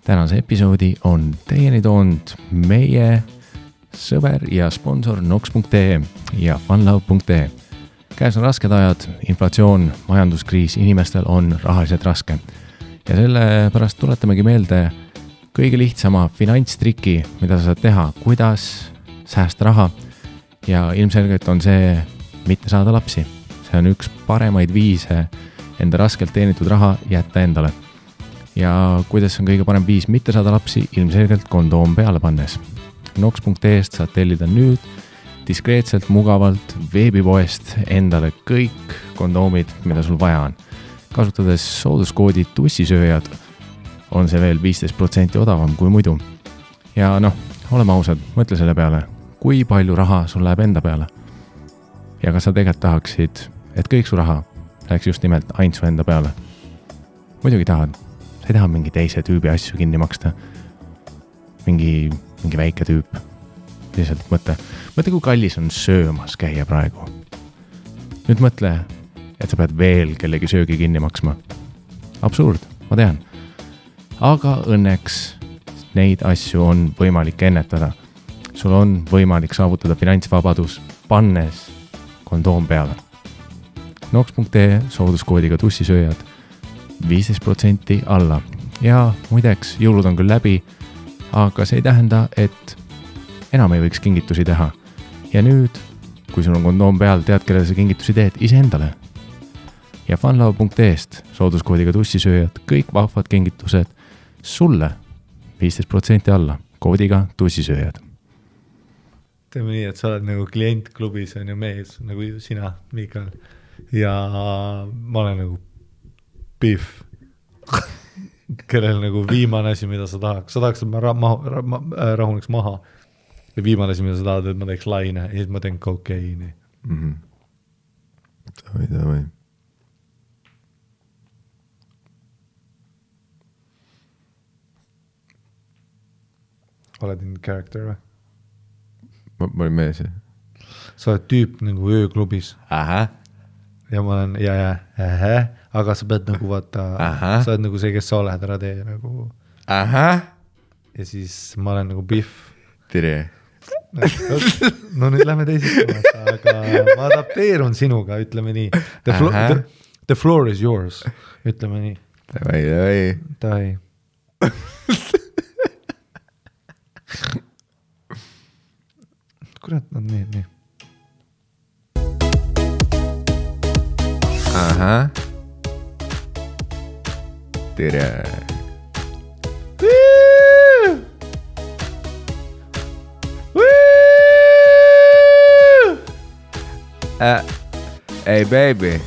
Tänase episoodi on teieni toonud meie sõber ja sponsor Nox.ee ja funlove.ee. Käes on rasked ajad, inflatsioon, majanduskriis, inimestel on rahaliselt raske. Ja sellepärast tuletamegi meelde kõige lihtsama finantstriki, mida sa saad teha, kuidas säästa raha. Ja ilmselgelt on see mitte saada lapsi. See on üks paremaid viise enda raskelt teenitud raha jätta endale. Ja kuidas on kõige parem viis mitte saada lapsi, ilmselgelt kondoom peale pannes. Nox.ee-st saad tellida nüüd diskreetselt, mugavalt veebipoest endale kõik kondoomid, mida sul vaja on. Kasutades sooduskoodi tussisööjad on see veel 15% odavam kui muidu. Ja oleme ausad, mõtle selle peale, kui palju raha sul läheb enda peale. Ja kas sa tegelikult tahaksid, et kõik su raha läheks just nimelt ainult su enda peale? Muidugi tahad. Sa ei taha mingi teise tüübi asju kinni maksta. Mingi väike tüüp. Lihtsalt mõtle, kui kallis on söömas käia praegu. Nüüd mõtle, et sa pead veel kellegi söögi kinni maksma. Absurd, ma tean. Aga õnneks neid asju on võimalik ennetada. Sul on võimalik saavutada finantsvabadus, pannes kondoom peale. Nox.ee sooduskoodiga tussisööjad 15% alla. Ja muideks, jõulud on küll läbi, aga see ei tähenda, et enam ei võiks kingitusi teha. Ja nüüd, kui sul on kondoom peal, tead, kellele sa kingitusi teed, iseendale. Ja funlove.ee-st sooduskoodiga tussisööjad, kõik vahvad kingitused sulle 15% alla, koodiga tussisööjad. Teeme nii, et sa oled nagu klientklubis on ju mees, nagu sina, Mikael. Ja ma olen nagu Biff, kellel nagu viimane asi, mida sa tahaks. Sa tahaks, et ma rahuneks maha. Ja viimane asi, mida sa tahad, et ma teeks laine. Ja siis ma teen kokeiini. Davai. Oled in character või? Ma olin mees. Sa oled tüüp nagu ööklubis. Ja ma olen, aga sa pead nagu vaata, sa oled nagu see, kes sa oled, ära tee nagu. Ja siis ma olen nagu Biff. Tere. No nüüd lähme teisest, aga ma adapteerun sinuga, ütleme nii. The floor is yours, ütleme nii. Davai. Kurat, nad nii. Tere. Hey baby.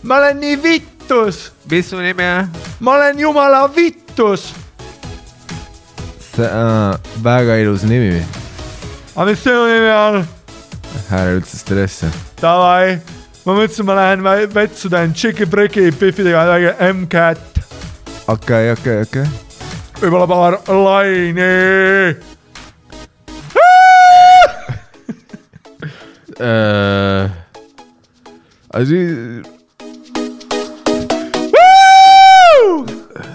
Ma olen nii vittus. Mis su nimi on? Ma olen jumala vittus. See on väga ilus nimi. Aga mis sinu nimi on? Ära üldse stressi. Davai. Ma mõtlesin, ma lähen vetsu teen tšiki-priki Biffidega M-Cat. Okei. Võib-olla paar laini.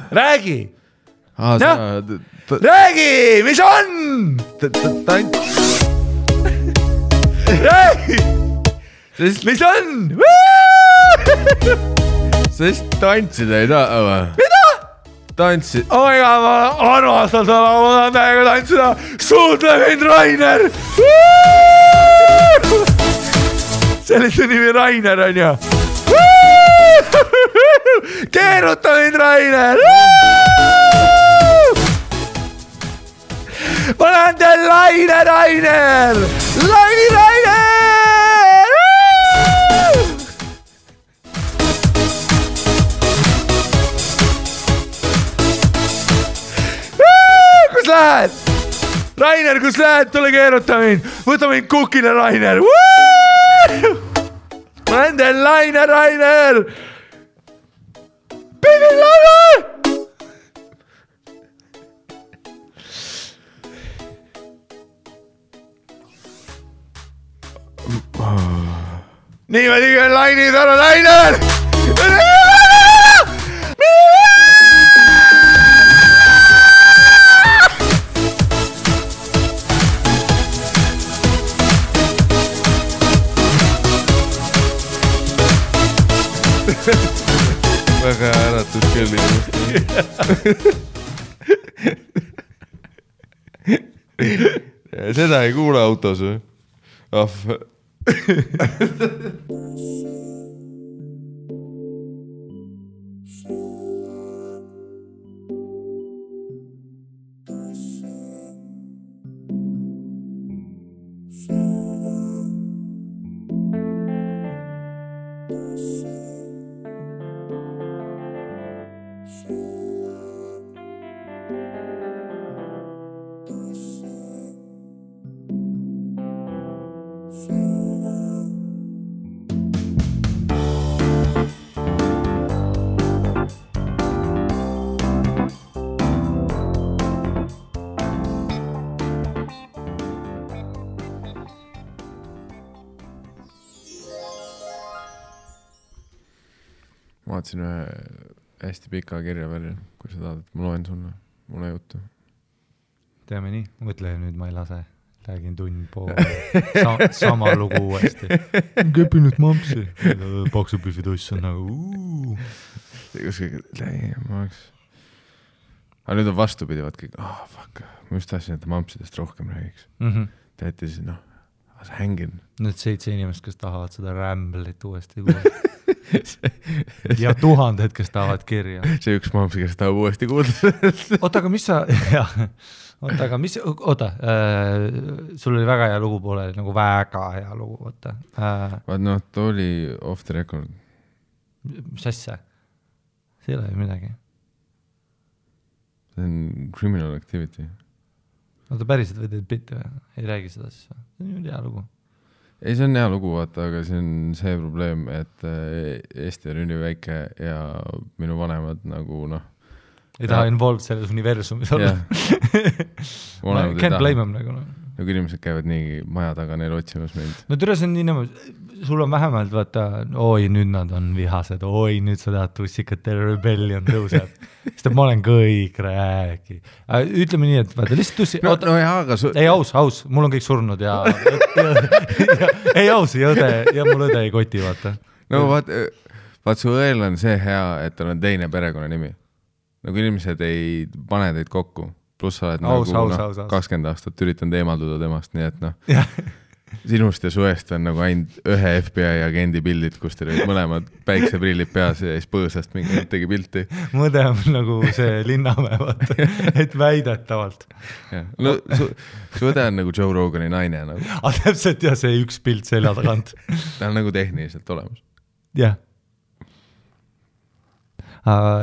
Räägi! Räägi! Mis on? Räägi! Mis on? Sa just tantsida ei taha või? Mida? Tantsid. Oiga, ma armastan seda, ma tahan täiega tantsida. Suudle mind, Rainer! Sellise nimi Rainer on ju. Keeruta mind, Rainer! Ma lähen teil laine, Rainer! Laini, Rainer! Kus lähed? Rainer, kus lähed? Tule keeruta mind. Võta mind kukile, Rainer. Ma lähen teil laine, Rainer! Pidi laine! niimoodi küll lainid on lained. Väga äratud küll seda ei kuule autos või? Vaatasin ühe hästi pika kirja välja, kui sa tahad, et ma loen sulle mulle juttu. Teame nii, mõtle nüüd ma ei lase, räägin tund pool, sama lugu uuesti. Kepinud mampsi, paksupühvid oss on nagu aga nüüd on vastupidi, vaat kõik, fuck, ma just tahtsin, et mampsidest rohkem räägiks. Teeti siis, sa hängin. Need 7 inimest, kes tahavad seda Ramblit uuesti kuulda. Ja 1000, kes tahavad kirja. See üks mampsi, kes tahab uuesti kuulda. Oota, aga mis sa... sul oli väga hea lugu poole, nagu väga hea lugu, võtta. Vaat ta oli off the record. Mis asja? See ei ole ju midagi. See on criminal activity. Oota, päriselt või teed bitti või? Ei räägi seda siis või? See on hea lugu. Ei, see on hea lugu, vaata, aga see on see probleem, et Eesti on üliväike ja minu vanemad nagu ei taha involved selles universumis olla. Can't blame them nagu. Nagu inimesed käivad nii maja taga neil otsimas meid. No türa see on nii niimoodi, sul on vähemalt vaata, oi nüüd nad on vihased, oi nüüd sa tahad tussikate rebellion tõuseb. Sest ma olen kõik räägi. Ütleme nii, et vaata lihtsalt tussi... Ei aus, mul on kõik surnud ja ei aus, ja mul õde ei koti, vaata. No vaat su õel on see hea, et tal on teine perekonna nimi. Nagu inimesed ei pane teid kokku, pluss sa oled aus. 20 aastat üritanud eemalduda temast, nii et sinust ja suest on nagu ainult ühe FBI agendi pildid, kus teil olid mõlemad päikseprillid peas ja siis põõsast mingi tegi pilti. Mõde on nagu see Linnamäe, vaata, et väidetavalt. No su õde on nagu Joe Rogani naine. Nagu. Täpselt ja see üks pilt selja tagant. Ta on nagu tehniliselt olemas. Jah.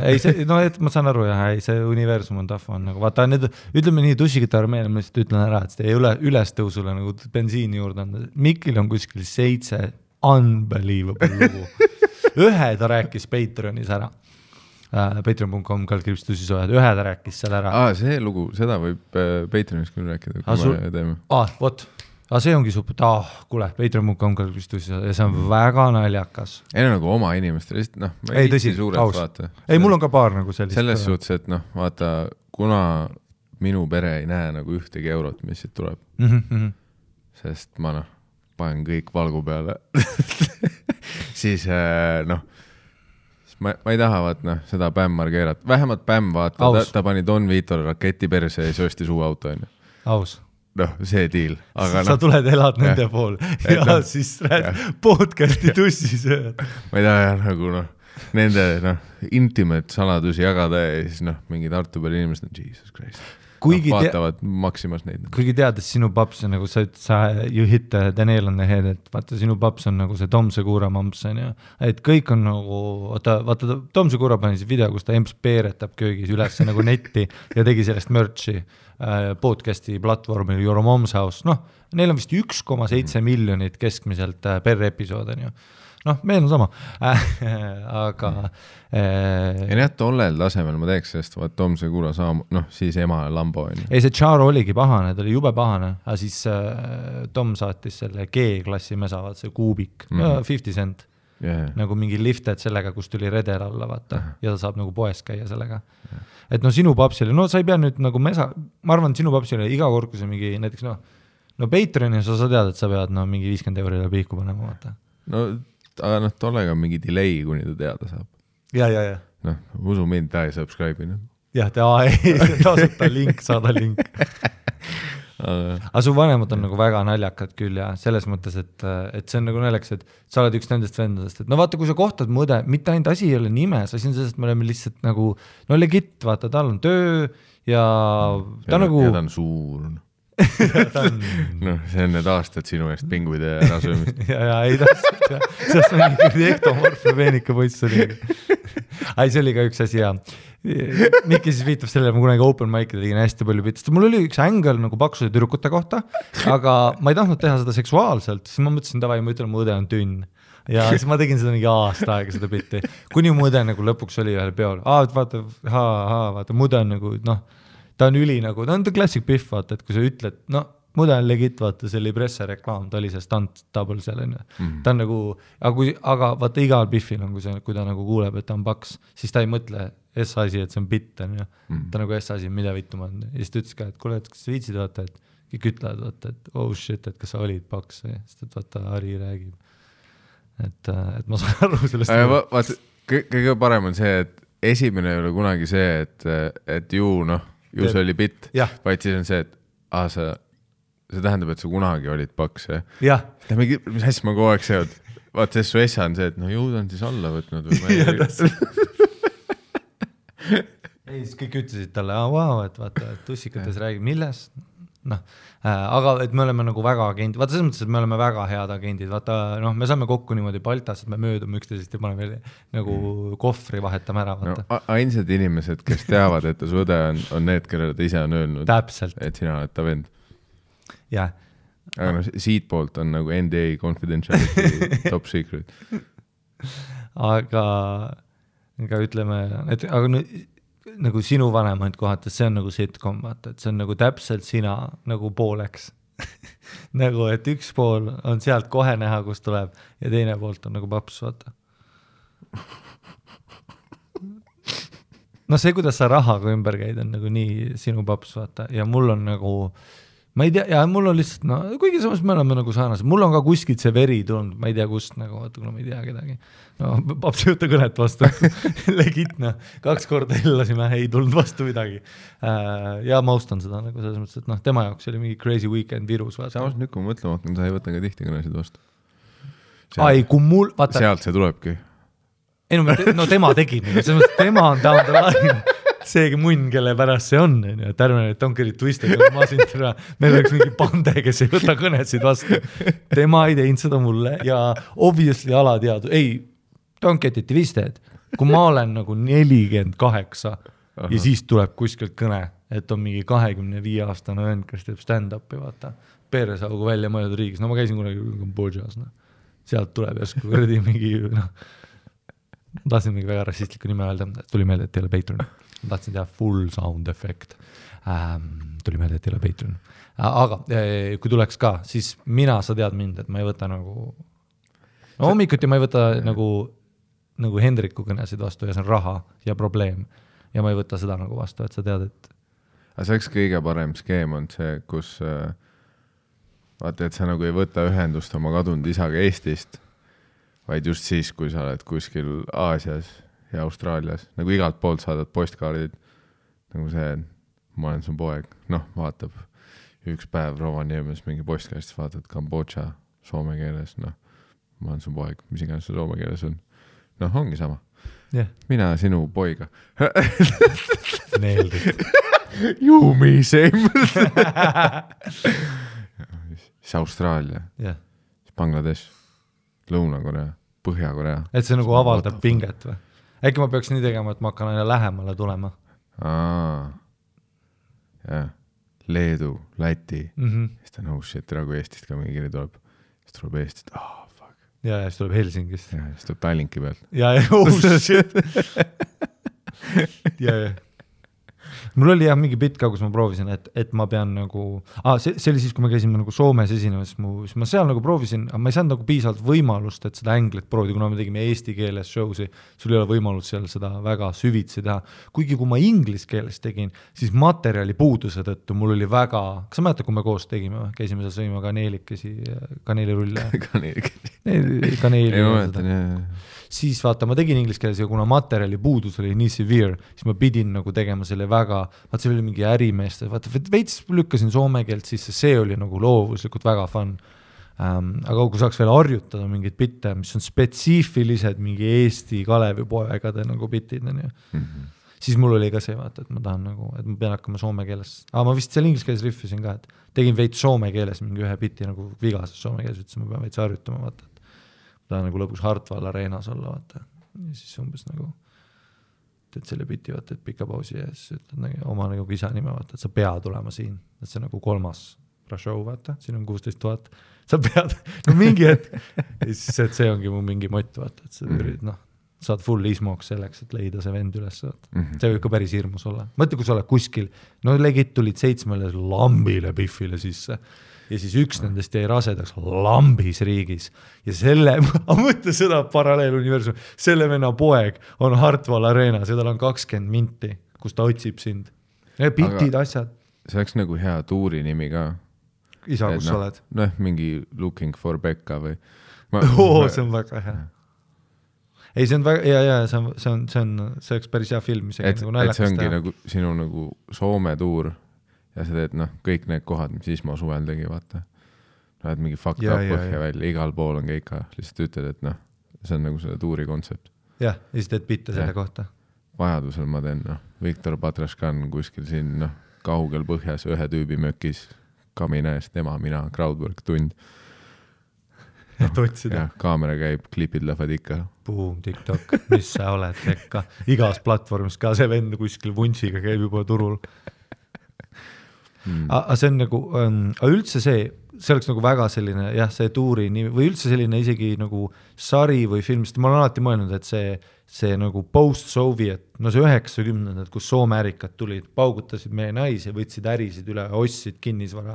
Ei see, et ma saan aru ei see universum on tahva on nagu, vaata need, ütleme nii tussikite armeel, ma lihtsalt ütlen ära, et see ei ole ülestõusule nagu bensiini juurde on, Mikil on kuskil 7 unbelievable lugu. Ühe ta rääkis Patreonis ära, patreon.com/tussisojad, ühe ta rääkis seal ära. See lugu, seda võib Patreonis küll rääkida, kui me teeme. Vot. Aga see ongi super, kuule, patreon.com/tussisojad ja see on väga naljakas. Ei nagu oma inimestel, ma ei tõsi, aus. Ei, mul on ka paar nagu sellist. Selles suhtes, et vaata, kuna minu pere ei näe nagu ühtegi eurot, mis siit tuleb, sest ma panen kõik valgu peale, siis ma ei taha seda Bämmar keerata. Vähemalt Bämm vaata, ta pani Don Vitole raketi perse ja söösti suu auto. Aus. See deal. Aga sa tuled elad nende pool ja siis rääd podcasti tussisööd. Ma ei taha nagu nende intimate saladusi jagada ja siis mingid Tartu peal inimesed on Jesus Christ. Vaatavad maksimas neid. Kuigi teades sinu paps on nagu sa you hit the nail on the head, et vaata sinu paps on nagu see Tom Segura mamps on ja et kõik on nagu, vaata Tom Segura pani see video, kus ta emps peeretab köögis üles nagu netti ja tegi sellest merchi. podcasti platvormil Your Mom's House, neil on vist 1,7 miljonit keskmiselt per episood, on ju. Meil on sama, aga ja nii, tollel tasemel ma teeks, sest vaat Tom Segura siis ema Lambo on. Ei, see Charo oligi pahane, ta oli jube pahane, aga siis Tom saatis selle G-klassi mesa, vaat see kuubik, 50 cent. Nagu mingi lifted sellega, kus tuli redel alla, vaata, ja ta saab nagu poes käia sellega. Et sinu papsile, sa ei pea nüüd nagu mesa, ma arvan, sinu papsile iga kord, kui see mingi näiteks, Patreonis sa tead, et sa pead mingi 50 eurile pihku panema, vaata. Aga tollega on mingi delay, kuni ta teada saab. Ja. Usu mind, ta ei subscribe. Jah, tasuta link, saada link. Aga su vanemad on nagu väga naljakad küll ja selles mõttes, et see on nagu naljakas, et sa oled üks nendest vendadest, et vaata, kui sa kohtad mõde, mitte ainult asi ei ole nimes, asi on sellest, et me oleme lihtsalt nagu, legit, vaata, tal on töö ja ta nagu... Ja ta on suur. See on need aastad sinu eest pinguide ära söömist. ja, ei täpselt, jah. Sest on mingi ektomorfne veenika poiss oli. See oli ka üks asi, ja Mikki siis viitab sellele, ma kunagi open mic'ida tegin hästi palju pitist. Mul oli üks ängel nagu paksuse tüdrukute kohta, aga ma ei tahtnud teha seda seksuaalselt, siis ma mõtlesin, davai, ma ütlen, mu õde on tünn. Ja siis ma tegin seda mingi aasta aega seda bitti. Kuni mu õde nagu lõpuks oli ühel peol. Vaata, mu õde on nagu, ta on üli nagu, ta on classic Biff, vaata, et kui sa ütled, mu õde on legit, vaata, see oli presse reklaam, ta oli see stunt double selline. Ta on nagu, aga vaata, igal Biffil on, kui ta nagu kuuleb, et ta on paks, siis ta ei mõtle S-asi, et see on bitt, on ju. Ta nagu S-asi, mida vittu ma on. Ja siis ta ütles ka, et kuule, et kas sa viitsid, vaata, et kõik ütlevad, vaata, et oh shit, et kas sa olid paks, sest et vaata, Ari räägib. Et ma saan aru sellest. Vaata, kõige parem on see, et esimene ei ole kunagi see, et ju see oli bitt, vaid siis on see, et see tähendab, et sa kunagi olid paks, jah? Mis hästi ma kogu aeg seod? Vaata, see su essa on see, et ju ta on siis alla võtnud või ma ei... Ei, siis kõik ütlesid talle, et vaata, et tussikates räägib, millest? Aga et me oleme nagu väga agendid, vaata selles mõttes, et me oleme väga head agendid, vaata, me saame kokku niimoodi Baltas, et me möödume üksteisest ja paneme nagu kohvri vahetame ära, vaata. Ainsad inimesed, kes teavad, et ta su õde on need, kellele ta ise on öelnud, täpselt. Et sina oled ta vend. Jah. Aga siit poolt on nagu NDA confidentiality top secret. Aga ütleme, et nagu sinu vanemaid kohates, see on nagu sitcom, vaata, et see on nagu täpselt sina nagu pooleks. Nagu, et üks pool on sealt kohe näha, kus tuleb ja teine poolt on nagu paps, vaata. See, kuidas sa rahaga ümber käid, on nagu nii sinu paps, vaata, ja mul on nagu ma ei tea, ja mul on lihtsalt, kuigi samas me oleme nagu saanased, mul on ka kuskilt see veri tulnud, ma ei tea kust, nagu vaata, kuna ma ei tea kedagi. Paps ei võtta kõnet vastu, legitna, 2 korda illasime, ei tulnud vastu midagi. Ja ma austan seda, nagu selles mõttes, et tema jaoks oli mingi crazy weekend virus. Samas nüüd, kui ma mõtlema hakkan, sa ei võta ka tihti kõnesid vastu. Kui mul, vaata. Sealt see tulebki. Ei, tema tegi, selles mõttes, tema on down the line. Seegi munn, kelle pärast see on, et ärme need Donkerid twisted, meil oleks mingi pande, kes ei võta kõnesid vastu. Tema ei teinud seda mulle ja obviously alateadu. Ei, Donketiti twisted, kui ma olen nagu 48 ja siis tuleb kuskilt kõne, et on mingi 25-aastane vend, kes teeb stand-upi, vaata, Peeresaugu välja mõeldud riigis. Ma käisin kunagi Kambodžas, sealt tuleb järsku kõrdi mingi, ma tahtsin mingi väga rassistliku nime öelda, tuli meelde, et ei ole Patreon. Ma tahtsin teha full sound effect. Tuli meelde, et ei ole Patreon. Aga kui tuleks ka, siis sa tead mind, et ma ei võta nagu... hommikuti ma ei võta nagu Hendriku kõnesid vastu ja see on raha ja probleem. Ja ma ei võta seda nagu vastu, et sa tead, et... Aga see oleks kõige parem skeem on see, kus vaata, et sa nagu ei võta ühendust oma kadunud isaga Eestist, vaid just siis, kui sa oled kuskil Aasias ja Austraalias, nagu igalt poolt saadad postkaardid, nagu see, ma olen su poeg, vaatab üks päev Rovaniemes mingi postkaardist, vaatad Kambodža soome keeles, ma olen su poeg, mis iganes see soome keeles on. Ongi sama. Yeah. Mina sinu poiga. Meeldib. You me same. siis Austraalia, yeah. Bangladesh, Lõuna-Korea, Põhja-Korea. Et see nagu avaldab pinget või? Äkki ma peaks nii tegema, et ma hakkan aina lähemale tulema. Jah. Leedu, Läti siis ta on shit, tere kui Eestist ka mingi kiri tuleb, siis tuleb Eestist, fuck. Ja siis tuleb Helsingist. Ja siis tuleb Tallinki pealt. Ja, shit. ja. Mul oli jah mingi bitt ka, kus ma proovisin, et ma pean nagu, see oli siis, kui me käisime nagu Soomes esinemas, siis ma seal nagu proovisin, aga ma ei saanud nagu piisavalt võimalust, et seda änglit proovida, kuna me tegime eesti keeles show'si, sul ei ole võimalus seal seda väga süvitsi teha. Kuigi kui ma inglis keeles tegin, siis materjali puuduse tõttu mul oli väga, kas sa mäletad, kui me koos tegime, käisime seal sõima kaneelirulle. Kaneeli. Siis vaata, ma tegin inglis keeles ja kuna materjali puudus oli nii severe, siis ma pidin nagu tegema selle väga, vaata see oli mingi ärimeeste, vaata veits lükkasin soome keelt sisse, see oli nagu loovuslikult väga fun. Aga kui saaks veel harjutada mingid bitte, mis on spetsiifilised mingi Eesti Kalevipoegade nagu bitid, siis mul oli ka see, vaata, et ma tahan nagu, et ma pean hakkama soome keeles. Ma vist seal inglis keeles riffisin ka, et tegin veits soome keeles mingi ühe bitti nagu vigases soome keeles, ütlesin, ma pean veits harjutama, vaata. Ta nagu lõpus Hartwall Areenas olla, vaata. Ja siis umbes nagu teed selle biti, vaata, et pika pausi ja siis ütled nagu, oma nagu isa nime, vaata, et sa pead tulema siin. Et see nagu 3. show, vaata, siin on 16 000. Sa pead, no mingi hetk. Ja siis et see ongi mu mingi mott, vaata, et sa ürid, saad full ismoks selleks, et leida see vend üles. See võib ka päris hirmus olla. Mõtle, kui sa oled kuskil, no legit tulid 7 lambile Biffile sisse. Ja siis üks nendest jäi rasedaks lambis riigis. Ja selle, ma mõtle seda paralleeluniversum, selle venna poeg on Hartwall Areenas ja tal on 20 minti, kus ta otsib sind. Ja bitid, asjad. See oleks nagu hea tuuri nimi ka. Isa, kus sa oled? Mingi Looking for Becca või... see on väga hea. Ei, see on väga, see oleks päris hea film. Et see ongi nagu sinu nagu Soome tuur. Ja sa teed, kõik need kohad, mis Ismo suvel tegi, vaata. Lähed mingi fucked up põhja välja, igal pool on keika. Lihtsalt ütled, et see on nagu selle tuuri kontsept. Jah, ja siis teed bitte selle kohta. Vajadusel ma teen, Viktor Patraškan kuskil siin, kaugel põhjas, ühe tüübi mökis, kamina eest, tema, mina, crowdwork, tund. Et otsida. Ja, kaamera käib, klipid lähevad ikka. Boom, TikTok, mis sa oled, rekka. Igas platvormis ka see vend kuskil vuntsiga käib juba turul. Aga see on nagu, üldse see oleks nagu väga selline, jah, see tuuri või üldse selline isegi nagu sari või film, sest ma olen alati mõelnud, et see nagu post-Soviet, no see 90-ndad, kus Soome ärikad tulid, paugutasid meie naisi, võtsid ärisid üle, ostsid kinnisvara.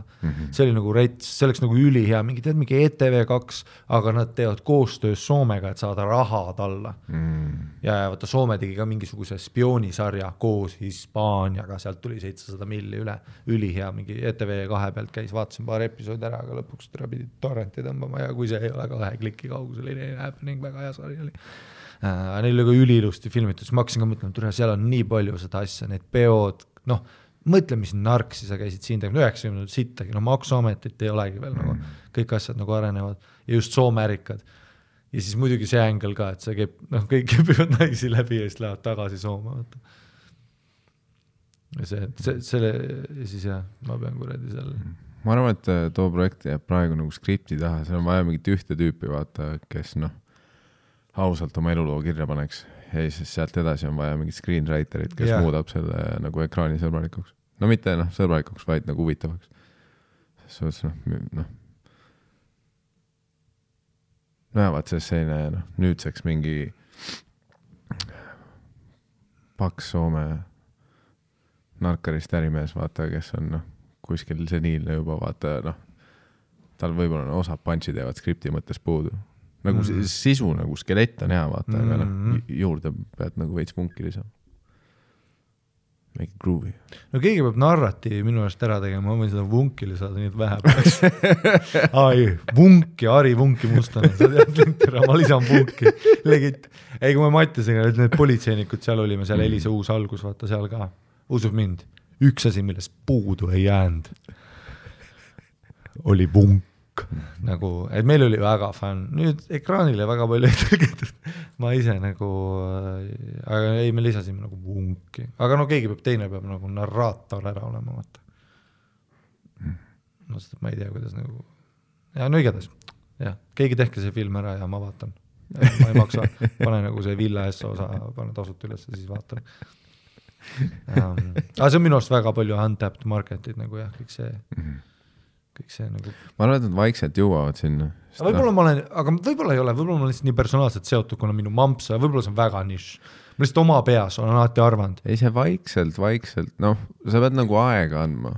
See oli nagu rets, see oleks nagu ülihea, mingi ETV2, aga nad teevad koostöös Soomega, et saada rahad alla. Ja vaata, Soome tegi ka mingisuguse spioonisarja koos Hispaaniaga, sealt tuli 700 milli üle, ülihea, mingi ETV2 pealt käis, vaatasin paar episoodi ära, aga lõpuks pidid torrenti tõmbama ja kui see ei ole 2 kliki kaugusel, ei happening, väga hea sari oli. Neil oli ka ülilusti filmitud, siis ma hakkasin ka mõtlema, et seal on nii palju seda asja, need peod, mõtle, mis narksi sa käisid siin tegema, 90 sittagi, maksuametit ei olegi veel, nagu, kõik asjad nagu arenevad ja just Soome ärikad. Ja siis muidugi see ängel ka, et see käib, kõik käivad naisi läbi ja siis lähevad tagasi Soome. Ja siis jah, ma pean kuradi seal. Ma arvan, et too projekt jääb praegu nagu skripti taha, seal on vaja mingit ühte tüüpi, vaata, kes ausalt oma eluloo kirja paneks ja siis sealt edasi on vaja mingit screenwriterit, kes muudab selle nagu ekraani sõbralikuks. No mitte sõbralikuks, vaid nagu huvitavaks. Vaat see selline nüüdseks mingi paks Soome narkarist ärimees, vaata, kes on kuskil seniilne juba, vaata, tal võib-olla osad punchi teevad skripti mõttes puudu. Nagu sisu, nagu skelett on hea, vaata, aga juurde pead nagu veits vunki lisama. Make it groovy. No keegi peab narratiivi minu eest ära tegema, ma võin seda vunki lisada, nii et vähe peaks. Vunki, Ari Vunki Mustane, sa tead, ma lisan vunki. Legit. Ei, kui me Mattisega, need politseinikud seal olime, seal Elisa uus algus, vaata seal ka. Usub mind, üks asi, millest puudu ei jäänud, oli vunk. Nagu, et meil oli väga fun. Nüüd ekraanile väga palju ei tõlgitud. Ma ise nagu, aga ei, me lisasime nagu vunki. Aga keegi teine peab nagu narraator ära olema, vaata. Ma ei tea, kuidas nagu... Ja igatahes. Ja, keegi tehke see film ära ja ma vaatan. Ma ei maksa. Pane nagu see Villa S osa, pane tasut üles ja siis vaatan. aga see on minu arust väga palju untapped market'id nagu jah, kõik see nagu ma arvan, et nad vaikselt jõuavad sinna. Võib-olla ma olen, aga võib-olla ei ole, võib-olla ma olen lihtsalt nii personaalselt seotud, kuna minu mamps, võib-olla see on väga nišš. Ma lihtsalt oma peas olen alati arvanud. Ei, see vaikselt, noh, sa pead nagu aega andma.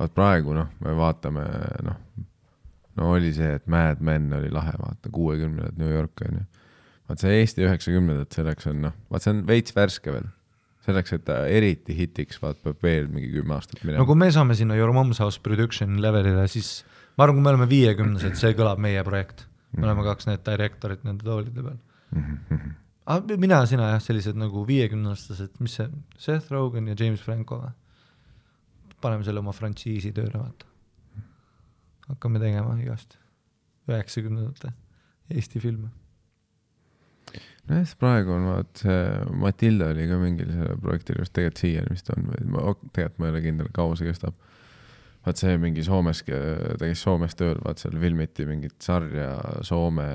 Vaat praegu, noh, me vaatame, no oli see, et Mad Men oli lahe, vaata, 60-ndad New York on ju. Vaat see Eesti 90-ndad, selleks on, noh, vaat see on veits värske veel. Selleks, et ta eriti hitiks, vaat peab veel mingi 10 aastat minema. No kui me saame sinna Your Mom's House Production levelile, siis ma arvan, kui me oleme 50-sed, see kõlab meie projekt. Me oleme 2 need directorit nende toolide peal. Mina sina jah, sellised nagu 50-aastased, mis see, Seth Rogen ja James Franco või? Paneme selle oma frantsiisi tööle, vaata. Hakkame tegema igast 90-ndate Eesti filme. No jah, praegu on vaat see Matilda oli ka mingil selle projektil, just tegelikult siiani vist on, tegelikult ma ei ole kindel, kaua see kestab. Vaat see mingi Soomes, tegis Soomes tööl, vaat seal filmiti mingit sarja Soome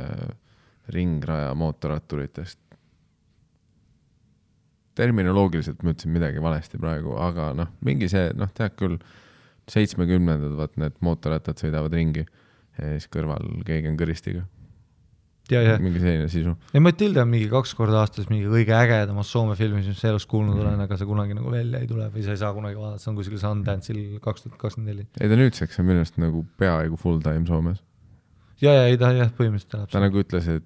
ringraja mootorratturitest. Terminoloogiliselt ma ütlesin midagi valesti praegu, aga noh, mingi see, noh, tead küll 70-ndad, vaat need mootorrattad sõidavad ringi ja siis kõrval keegi on kõristiga. Ja. Mingi selline sisu. Ja Matilda on mingi 2 korda aastas mingi kõige ägedamas Soome filmis, mis elus kuulnud olen, aga see kunagi nagu välja ei tule või sa ei saa kunagi vaadata, see on kuskil Sundance'il 2024. Ei ta nüüdseks on millest nagu peaaegu full time Soomes. Ja ei ta jah, põhimõtteliselt elab. Ta nagu ütles, et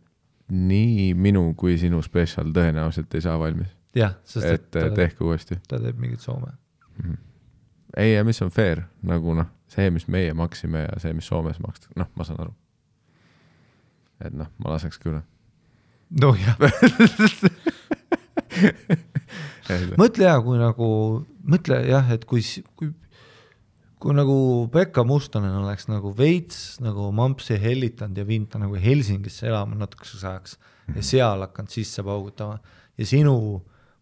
nii minu kui sinu special tõenäoliselt ei saa valmis. Jah, sest et tehke uuesti. Ta teeb mingit Soome. Ei, ja mis on fair, nagu noh, see, mis meie maksime ja see, mis Soomes maksta, noh, ma saan aru. Et noh, ma laseks küll. No jah. Mõtle jah, kui nagu, mõtle jah, et kui nagu Pekka Mustonen oleks nagu veits nagu mampsi hellitanud ja viinud ta nagu Helsingisse elama natukeseks ajaks ja seal hakanud sisse paugutama ja sinu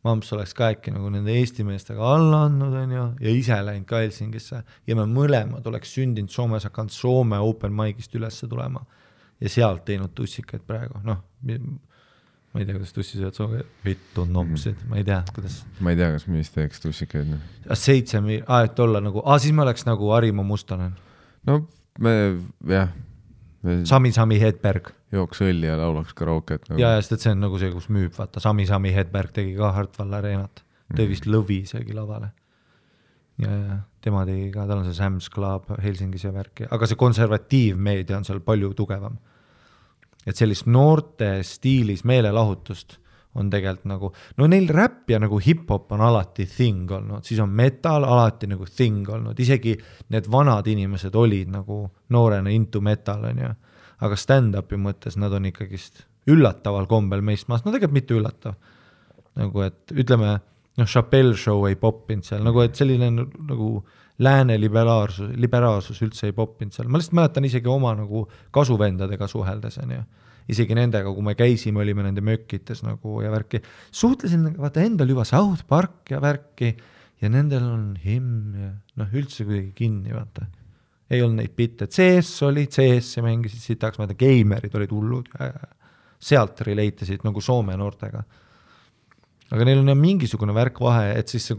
mamps oleks ka äkki nagu nende Eesti meestega alla andnud on ju, ja ise läinud ka Helsingisse ja me mõlemad oleks sündinud Soomes, hakanud Soome open mic'ist ülesse tulema ja sealt teinud tussikaid praegu, noh, ma ei tea, kuidas tussisööd Soome, vittu nopsid, ma ei tea, kuidas. Ma ei tea, kas mis teeks tussikaid. 7, et olla nagu, siis me oleks nagu Harimo Mustonen. No me, jah. Sami Hedberg. Jooks õlli ja laulaks karauket. Nagu. Ja, sest et see on nagu see, kus müüb, vaata, Sami Hedberg tegi ka Hartwall Areenat. Tõi vist lõvi isegi lavale. Ja tema tegi ka, tal on see Sam's Club Helsingis ja värki, aga see konservatiivmeedia on seal palju tugevam. Et sellist noorte stiilis meelelahutust on tegelikult nagu, no neil räpp ja nagu hip-hop on alati thing olnud, siis on metal alati nagu thing olnud, isegi need vanad inimesed olid nagu noorena into metal on ju, aga stand-upi mõttes nad on ikkagist üllataval kombel meist maast, no tegelikult mitte üllatav, nagu et ütleme, noh, Chappelle show ei poppinud seal, nagu et selline nagu lääne liberaalsus üldse ei poppinud seal. Ma lihtsalt mäletan isegi oma nagu kasuvendadega suheldes, on ju. Isegi nendega, kui me käisime, olime nende mökkites nagu ja värki. Suhtlesin, vaata, endal juba South Park ja värki ja nendel on him ja noh, üldse kuidagi kinni, vaata. Ei olnud neid bitte. CS mängisid sitaks, vaata, geimerid olid hullud ja sealt relate'isid nagu Soome noortega. Aga neil on mingisugune värk vahe, et siis see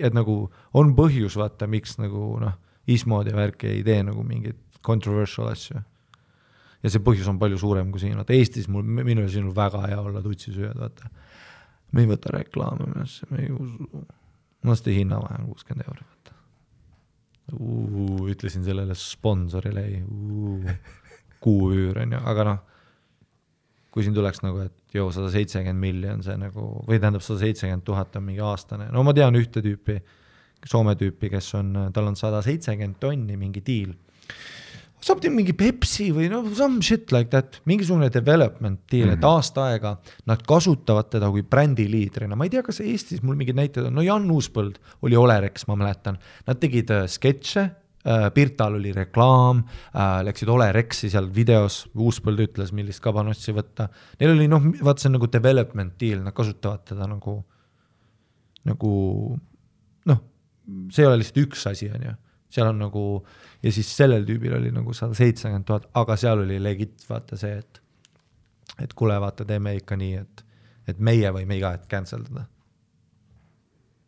et nagu on põhjus vaata, miks nagu noh, ismod ja värk ei tee nagu mingit controversial asju. Ja see põhjus on palju suurem kui siin. Vaata, Eestis minu ja sinul väga hea olla tutsisööjad, vaata. Me ei võta reklaame, me ei usu. Mõnesti hinna vahe on 60 €. Vaata. Ütlesin sellele sponsorile, kuuüür on ju, aga noh, kui siin tuleks nagu, et 170 miljon see nagu, või tähendab 170 000 on mingi aastane. No ma tean ühte tüüpi, Soome tüüpi, kes on, tal on 170 tonni mingi deal. Saab teha mingi Pepsi või no some shit like that, mingisugune development deal, et aasta aega nad kasutavad teda kui brändiliidrina. Ma ei tea, kas Eestis mul mingid näited on, no Jan Uuspõld oli Olerex, ma mäletan. Nad tegid sketše, Pirtal oli reklaam, läksid Olerexi seal videos, Uuspõld ütles, millist kabanossi võtta. Neil oli, noh, vaat see on nagu development deal, nad kasutavad teda nagu, noh, see ei ole lihtsalt üks asi, on ju. Seal on nagu, ja siis sellel tüübil oli nagu 170 000, aga seal oli legit, vaata see, et kuule, vaata, teeme ikka nii, et meie võime iga hetk canceldada.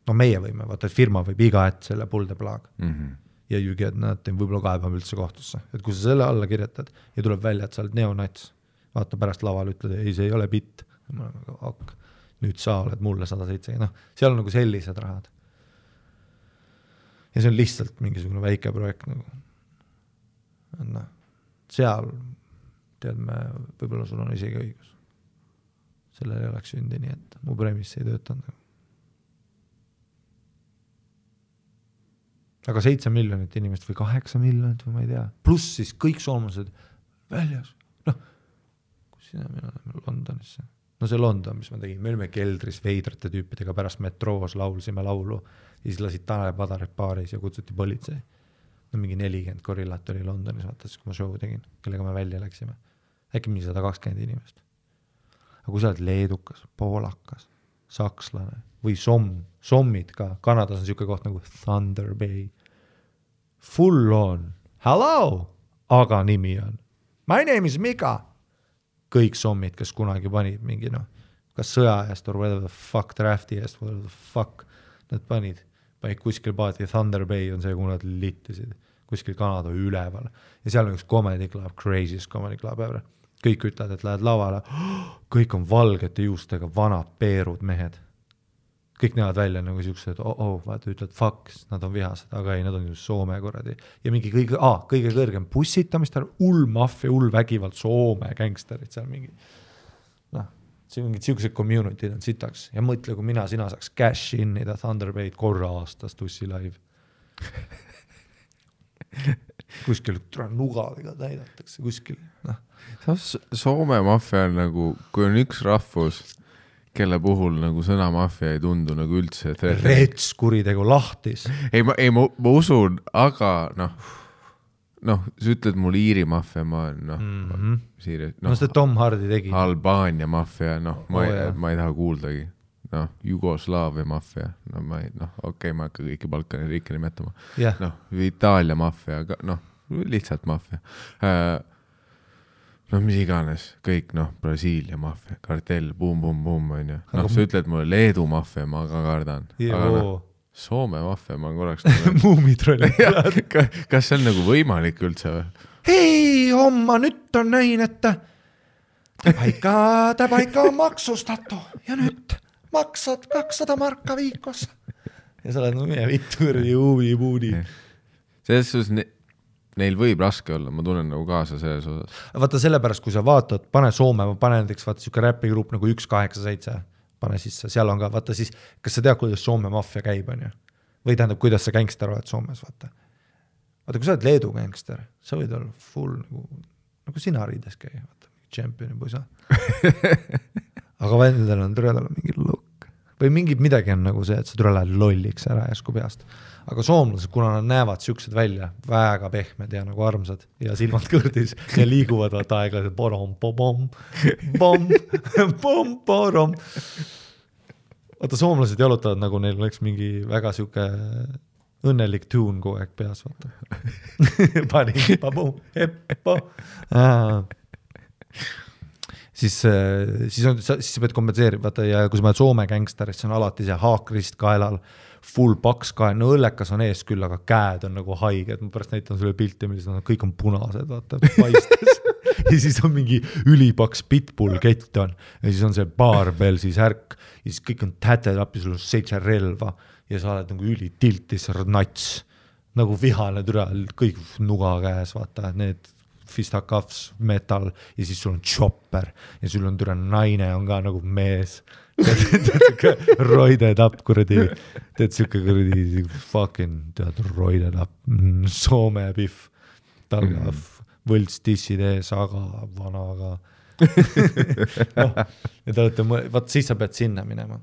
no meie võime, vaata, et firma võib iga hetk selle pull the plug. Ja you get nothing, võib-olla kaebab üldse kohtusse. Et kui sa selle alla kirjutad ja tuleb välja, et sa oled neonats, vaata pärast laval ütled, ei, see ei ole bitt. Ma olen nagu, ok, nüüd sa oled mulle 107. No, seal on nagu sellised rahad. Ja see on lihtsalt mingisugune väike projekt nagu. No, seal, tead me, võib-olla sul on isegi õigus. Sellel ei oleks sündi nii, et mu premis ei töötanud. Aga 7 miljonit inimest või 8 miljonit või ma ei tea. Pluss siis kõik soomlased väljas. Noh, kus sina me oleme Londonisse? No see London, mis ma tegin, me olime keldris veidrate tüüpidega pärast metroos laulsime laulu ja siis lasid Tanel Padaret baaris ja kutsuti politsei. No mingi 40 gorillat oli Londonis, vaatas, kui ma show tegin, kellega me välja läksime. Äkki mingi 120 inimest. Aga kui sa oled leedukas, poolakas, sakslane või sommid ka, Kanadas on siuke koht nagu Thunder Bay. Full on, hello, aga nimi on my name is Mika. Kõik sommid, kes kunagi panid mingi kas sõja eest or whatever the fuck, drafti eest, whatever the fuck nad panid kuskil paati, Thunder Bay on see, kui nad littisid kuskil Kanada üleval ja seal on üks comedy club, craziest comedy club ever. Kõik ütlevad, et lähed lavale, kõik on valgete juustega vanad peerud mehed. Kõik näevad välja nagu siuksed, vaata, ütled fuck, nad on vihased, aga ei, nad on ju Soome korradi. Ja mingi kõige kõrgem bussitamist, maffia, vägivald, Soome gangsterid seal mingi. See on mingid siuksed community on sitaks. Ja mõtle, kui sina saaks cash innida Thunder Bay'd korra aastas tussi live. Kuskil nugadega täidatakse, kuskil. Soome maffia on nagu, kui on üks rahvus, kelle puhul nagu sõna maffia ei tundu nagu üldse. Rets kuritegu lahtis. Ma usun, aga sa ütled mul Iiri maffia, ma seda Tom Hardy tegi. Albaania maffia, ma ei taha kuuldagi. Jugoslaavia maffia, ma hakka kõiki Balkani riike nimetama. Itaalia maffia, lihtsalt maffia. Mis iganes, kõik, Brasiilia maffia, kartell, bum, on ju. Sa ütled mulle Leedu maffia, ma ka kardan. Aga Soome maffia, ma korraks... Muumitrolli. Kas see on nagu võimalik üldse või? Hei, homma nüüd on näin, et ta paika on maksustatu ja nüüd maksad 200 marka viikos. Ja sa oled meie vitturdi huvi. Selles suhtes neil võib raske olla, ma tunnen nagu kaasa selles osas. Vaata sellepärast, kui sa vaatad, pane Soome, ma pane näiteks vaata siuke räpigrupp nagu 187, pane sisse, seal on ka, vaata siis, kas sa tead, kuidas Soome maffia käib, on ju? Või tähendab, kuidas sa gangster oled Soomes, vaata. Vaata, kui sa oled Leedu gangster, sa võid olla full nagu sina riides käi, vaata, championi puisa. Aga vendel on türel mingi look. Või midagi on nagu see, et sa türel lähed lolliks ära jäsku peast. Aga soomlased, kuna nad näevad siuksed välja, väga pehmed ja nagu armsad ja silmad kõrdis ja liiguvad vaata aeglaselt borom, borom. Vaata, soomlased jalutavad nagu neil oleks mingi väga siuke õnnelik tuun kogu aeg peas, vaata. Pani, babum, heppo. Siis sa pead kompenseerima, vaata, ja kui sa mõtled Soome gangsteris, see on alati see haakrist kaelal, full paks kael, õllekas on ees küll, aga käed on nagu haiged, ma pärast näitan sulle pilti, millised on, kõik on punased, vaata, paistes. Ja siis on mingi ülipaks pitbull kett on, ja siis on see barbell, siis ärk, ja siis kõik on täted appi, sul on 7 relva, ja sa oled nagu ülitiltis, nats, nagu vihane türa, kõik nuga käes, vaata, need fistaccuffs, metal, ja siis sul on chopper, ja sul on türa naine, on ka nagu mees, roided up, kuradi, teed siuke kuradi fucking, tead, roided up, Soome pihv, talga, võlts tissid ees, aga vanaga. Ja te olete, vaat siis sa pead sinna minema.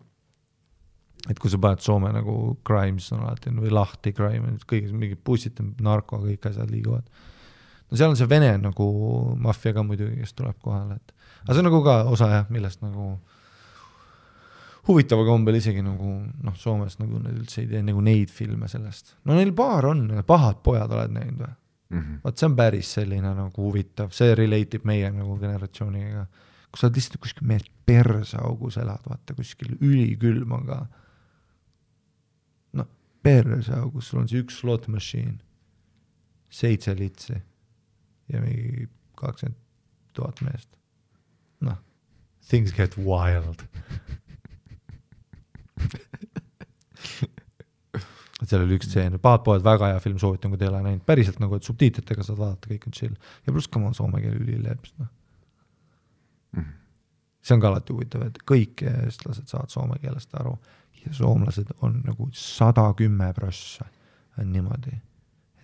Et kui sa paned Soome nagu crimes on alati, või lahti crime, kõik mingid bussid, narko, kõik asjad liiguvad. No seal on see Vene nagu maffia ka muidugi, kes tuleb kohale. Aga see on nagu ka osa, millest nagu huvitava kombel isegi nagu, Soomes nagu need üldse ei tee nagu neid filme sellest. No neil paar on, pahad pojad oled näinud või? Vaat see on päris selline nagu huvitav, see relateib meie nagu generatsiooniga. Kui sa oled lihtsalt kuskil mees persaugus elad, vaata kuskil ülikülm on ka. perse, kus sul on see üks slot machine, 7 litsi ja mingi 20,000 meest. Noh, things get wild. Seal oli üks tseen, Pahad poed väga hea film, soovitan, kui te ei ole näinud. Päriselt nagu, et subtiitritega saad vaadata, kõik on chill. Ja pluss ka ma soome keele ülileps. No. See on ka alati huvitav, et kõik eestlased saavad soome keelest aru ja soomlased on nagu 110% on niimoodi,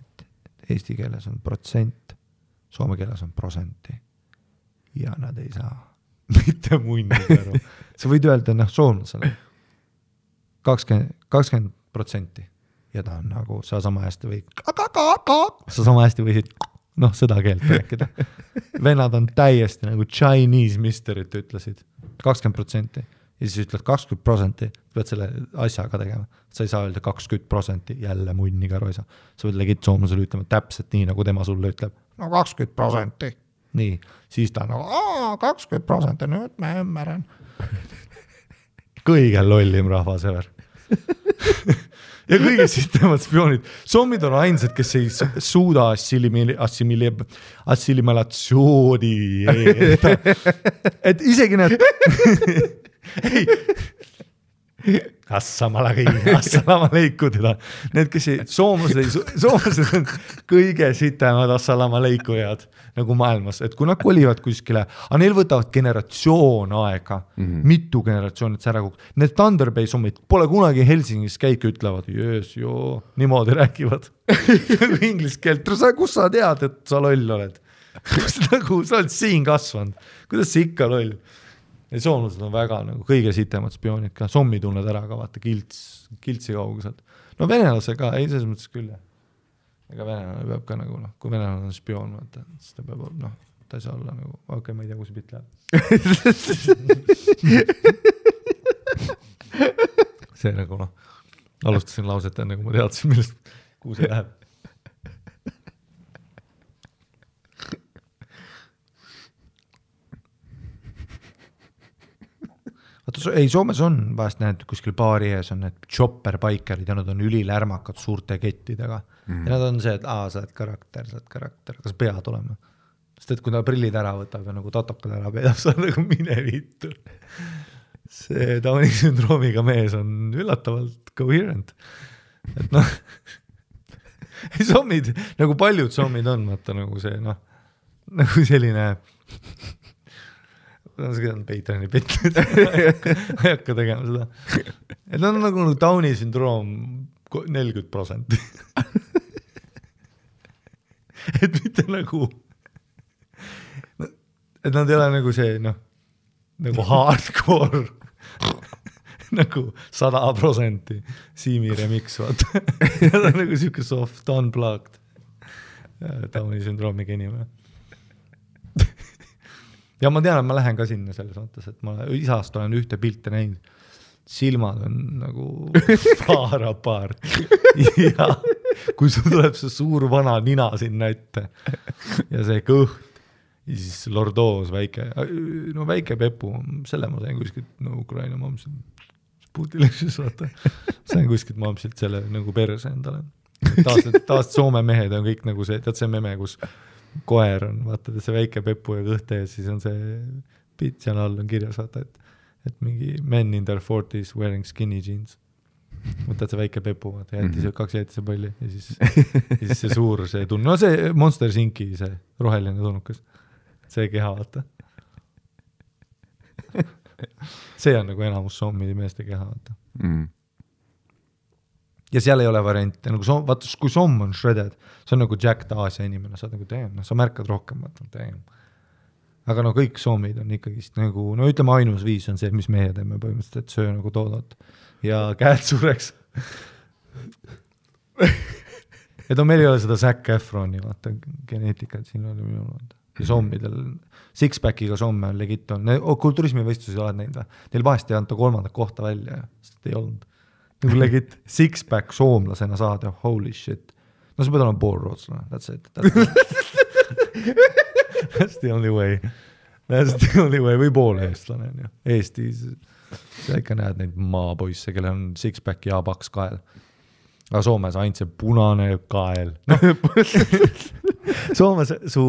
et eesti keeles on protsent, soome keeles on prosenti ja nad ei saa mitte munnid aru. Sa võid öelda, soomlasele 20% ja ta on nagu, sa sama hästi võid seda keelt rääkida. Vennad on täiesti nagu Chinese misterit ütlesid 20% ja siis ütled 20%, pead selle asjaga tegema. Sa ei saa öelda 20%, jälle munniga roisa. Sa võid legit soomlasele ütlema täpselt nii, nagu tema sulle ütleb. No 20%. Nii, siis ta on nagu 20%, nüüd ma ymmärän. Kõige lollim rahvas ever. Ja kõige sitemad spioonid. Sommid on ainsad, kes ei suuda assimilatsiooni. Et isegi need... Assalama leiku teda. Need, kes ei... Soomlased on kõige sitemad assalama leikujad nagu maailmas. Et kui nad kolivad kuskile, aga neil võtavad generatsioon aega, mitu generatsioonit see ära kukk. Need Thunder Bay sommid pole kunagi Helsingis käik ütlevad, niimoodi räägivad. Inglis keelt. Kus sa tead, et sa loll oled? Sa oled siin kasvanud. Kuidas see ikka loll? Ja soomlased on väga nagu kõige sitemad spioonid ka. Sommi tunned ära ka, vaata kiltsi kaugused. No venelase ka, ei selles mõttes küll. Ega venelane peab ka nagu, kui venelane on spioon, vaata, siis ta peab, ta ei saa olla nagu, okei, ma ei tea, kus see pilt läheb. See nagu, alustasin lauset enne, kui ma teadsin, kuhu see läheb. Ei, Soomes on vahest näed, kuskil baari ees on need chopper-bikerid ja nad on ülilärmakad suurte kettidega. Ja nad on see, et sa oled karakter, kas pead olema? Sest et kui ta prillid ära võtab ja nagu tatokad ära peedab, sa nagu mine vittu. See Downi sündroomiga mees on üllatavalt coherent. Et sommid, nagu paljud sommid on, vaata nagu see, nagu selline... See on Patreoni pitlid, ei hakka tegema seda. Et nad on nagu Downi sündroom 40%. Et mitte nagu, et nad ei ole nagu see, nagu hardcore, nagu 100% Siimi remix, vaata. Nad on nagu siuke soft, unplugged Downi sündroomiga inimene. Ja ma tean, et ma lähen ka sinna selles mõttes, et ma isast olen ühte pilte näinud. Silmad on nagu far apart. Ja kui sul tuleb see suur vana nina sinna ette ja see kõht ja siis lordoos väike Pepu, selle ma sain kuskilt Ukraina mamsilt Putilixis, vaata. Sain kuskilt mamsilt selle nagu perse endale. Taast Soome mehed on kõik nagu see, tead see meme, kus koer on, vaata, see väike Pepu ja kõhte ja siis on see pits ja all on kirjas, vaata, et mingi men in their 40s wearing skinny jeans. Võtad see väike Pepu, vaata, kaks jäetise palli ja siis see suur see tunne. No see Monster Inki, see roheline tunnukas. See keha, vaata. See on nagu enamus sommide meeste keha, vaata. Ja seal ei ole variante, nagu vaata, kui somm on shredded, see on nagu Jack Aasia inimene, sa oled nagu teem, sa märkad rohkem, vaata, teem. Aga kõik soomid on ikkagist nagu, ütleme ainus viis on see, mis meie teeme põhimõtteliselt, et söö nagu toodot ja käed sureks. Et meil ei ole seda Zac Efroni, vaata, geneetikat siin oli minul, vaata. Ja sommidel, six-packiga somme on legit on, kulturismivõistlusi oled näinud, neil vahest ei anta 3. kohta välja, sest ei olnud. Nagu legit six-pack soomlasena saada, holy shit. No sa pead olema pool rootslane, that's it. That's the only way. That's the only way, või pool eestlane. Eestis, sa ikka näed neid maapoisse, kelle on six-pack ja paks kael. aga Soomes ainult see punane kael. No. Soomes su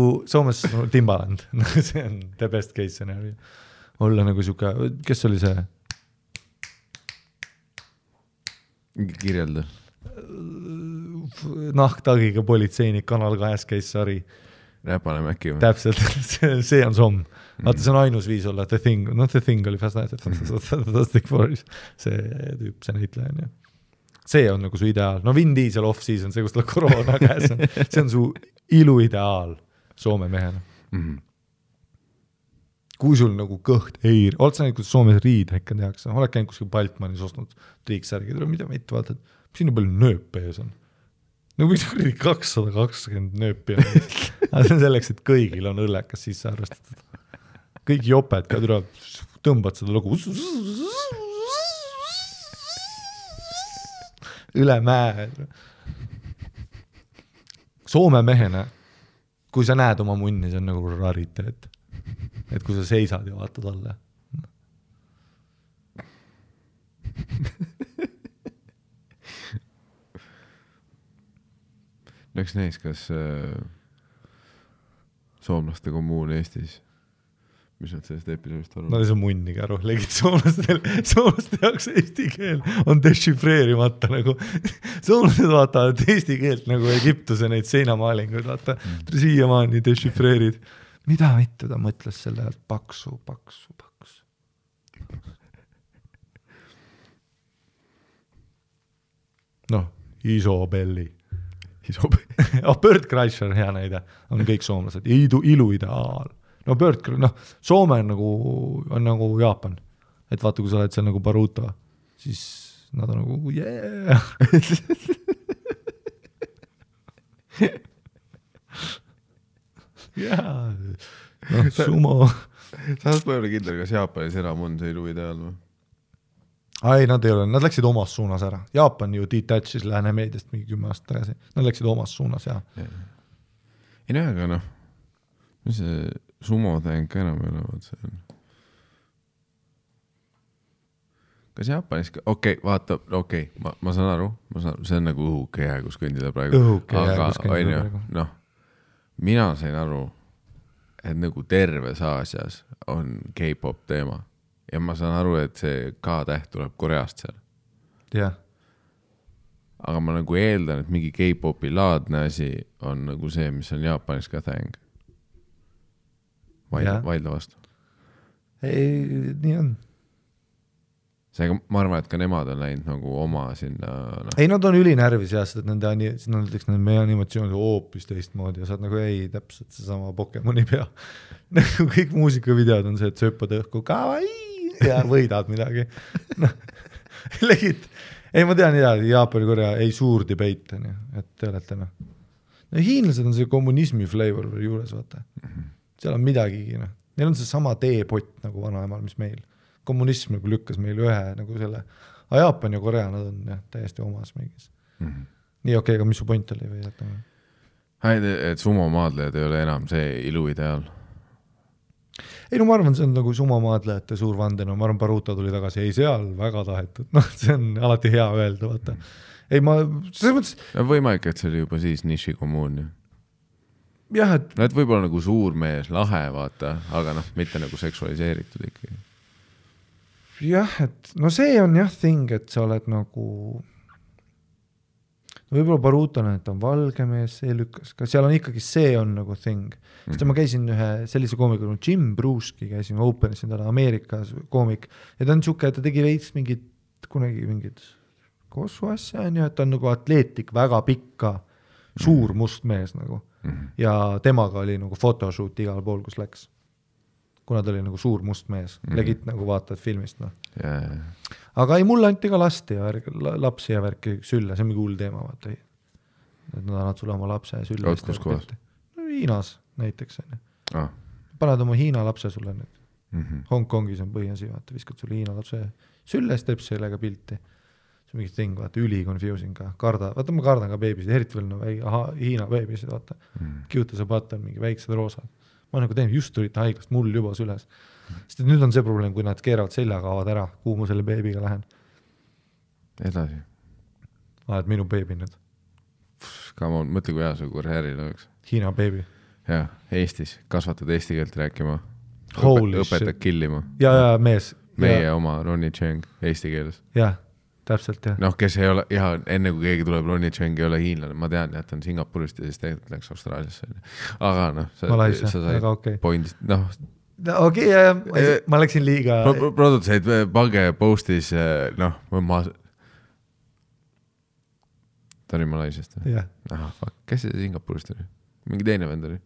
Timbaland. See on the best case scenario. Olla nagu siuke, kes oli see? Kirjelda. Nahktagiga politseinik Kanal 2 käis sari. Räpane Mäkki või? Täpselt, see on Somm. Vaata, see on ainus viis olla The Thing. No The Thing oli Fantastic Four. See tüüp, see näitleja on ju. See on nagu su ideaal. No Vin Diesel off-season, see kus tal koroona käes on. See on su iluideaal Soome mehena. Kui sul nagu kõht ei... Oled sa näinud, kuidas Soomes riidhekka tehakse? Oled käinud kuskil Baltmanis ostnud triiksärgi, mida mitte vaatad? Siin on palju nööpe ees on. Nagu miks 220 nööpi on. Aga see on selleks, et kõigil on õllekas sisse arvestatud. Kõik joped ka tõmbad seda lugu üle mäe. Soome mehena, kui sa näed oma munni, see on nagu rariteet. Et kui sa seisad ja vaatad alla. Läks näis, kas soomlaste kommuun Eestis, mis nad sellest episoodist arvavad? No see on munniga aru, legid soomlaste jaoks eesti keel on dešifreerimata nagu. Soomlased vaatavad eesti keelt nagu Egiptuse neid seinamaalinguid, vaata, siiamaani dešifreerid. Mida mitte ta mõtles selle ajalt? Paksu. Noh, Isobelli. Bird Kreischer, hea näide, on kõik soomlased. Iluideaal. No Bird, Soome on nagu Jaapan. Et vaata, kui sa oled seal nagu Baruto, siis nad on nagu yeah. Jaa, sumo. Saas ma ei ole kindel, kas Jaapanis enam on see iluideaal või? Ei, nad ei ole, nad läksid omas suunas ära. Jaapan ju detachis Lääne meediast mingi 10 aastat tagasi. Nad läksid omas suunas, jah. Ei näe, aga see sumo tähenk enam ei ole, see on. Kas Jaapanis, vaata, ma saan aru, see on nagu õhukehe, kus kõndida praegu. Noh, mina sain aru, et nagu terves Aasias on K-pop teema. Ja ma saan aru, et see K-täht tuleb Koreast seal. Jah. Aga ma nagu eeldan, et mingi K-popi laadne asi on nagu see, mis on Jaapanis ka täheng. Vaidla vastu. Ei, nii on. Seega ma arvan, et ka nemad on läinud nagu oma sinna... Ei, nad on ülinärvis jah, et nende meie animatsioonid hoopis teistmoodi ja saad nagu ei, täpselt see sama Pokemoni pea. Nagu kõik muusikavideod on see, et sööpad õhku kawaii ja võidad midagi. Legid. Ei, ma tean Jaapani, Korea ei suur debate, et te olete hiinlased on see kommunismi flavor juures, vaata. Seal on midagi, neil on see sama teepott nagu vanaemal, mis meil. Kommunism nagu lükkas meil ühe nagu selle, aga Jaapan ja Korea nad on täiesti omas mingis. Nii okei, aga mis su point oli või jätame? Et sumomaadlejad ei ole enam see iluideaal. Ei, no ma arvan, see on nagu sumomaadlejate suur vanden, ma arvan, Baruto tuli tagasi, ei seal väga tahetud, see on alati hea öelda, vaata. Ei, ma, selles mõttes... Võimalik, et see oli juba siis niši kommuun, jah, et... No, et võib-olla nagu suur mees, lahe, vaata, aga mitte nagu seksualiseeritud ikkagi. Jah, et no see on jah thing, et sa oled nagu võib-olla Baruton, et on valge mees, see lükkas, ka seal on ikkagi see on nagu thing. Sest ma käisin ühe sellise koomikul, Jim Bruski käisin Openis endale Ameerikas koomik ja ta on siuke, et ta tegi veits kunagi mingid kossu asja, et ta on nagu atleetik, väga pikka, suur must mees nagu ja temaga oli nagu photoshoot igal pool, kus läks. Kuna ta oli nagu suur must mees, legit nagu vaatad filmist. Aga ei, mulle anti ka lapsi ja värki sülle, see on mingi hull teema, vaata. Et nad annad sulle oma lapse sülle. Kus kohas? Hiinas näiteks. Paned oma Hiina lapse sulle nüüd. Hongkongis on põhiasi, vaata, viskad sulle Hiina lapse sülle, siis teeb sellega pilti. See on mingi thing, vaata, üli confusing ka. Vaata, ma kardan ka beebisid, eriti veel Hiina beebisid, vaata. Kiuta see patt on mingi väiksed roosad. Ma nagu teen, just tulite haiglast, mul juba süles. Sest nüüd on see probleem, kui nad keeravad seljaga avad ära, kuhu ma selle beebiga lähen. Edasi. oled minu beebi nüüd. Come on, mõtle kui hea see karjääril oleks. Hiina beebi. Jah, Eestis, kasvatad eesti keelt rääkima. Õpetad killima. Ja mees. Meie oma Ronnie Cheng eesti keeles. Jah, täpselt jah. Noh, kes ei ole, enne kui keegi tuleb, Ronnie Cheng ei ole hiinlane, ma tean, et on Singapurist ja siis tegelikult läks Austraaliasse. Aga noh, sa said pointist, noh. Okei, ma läksin liiga. Produtseid pange postis, noh, ta oli Malaisiast. Aha, fuck, kes see Singapurist oli? Mingi teine vend oli?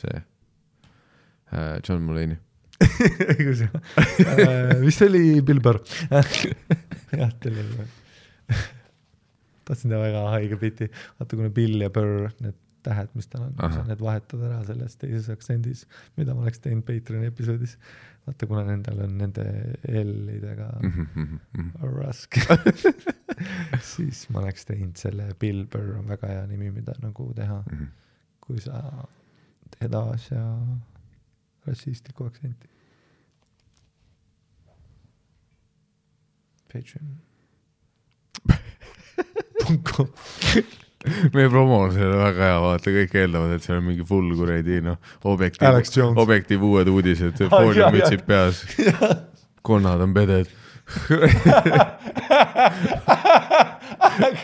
See John Mulaney. Vist oli Bill Burr. Jah, teil oli. Tahtsin ta väga haige piti. Vaata, kuna Bill ja Burr, need tähed, mis tal on, need vahetad ära selles teises aktsendis, mida ma oleks teinud Patreon episoodis. Vaata, kuna nendel on nende L-idega raske, siis ma oleks teinud selle Bill Burr on väga hea nimi, mida nagu teha, kui sa teed asja rassistliku aktsenti. Patreon. Meie promo on selle väga hea, vaata, kõik eeldavad, et see on mingi full kuredi, noh, objektiiv uued uudised, fooliumütsid peas, konnad on peded.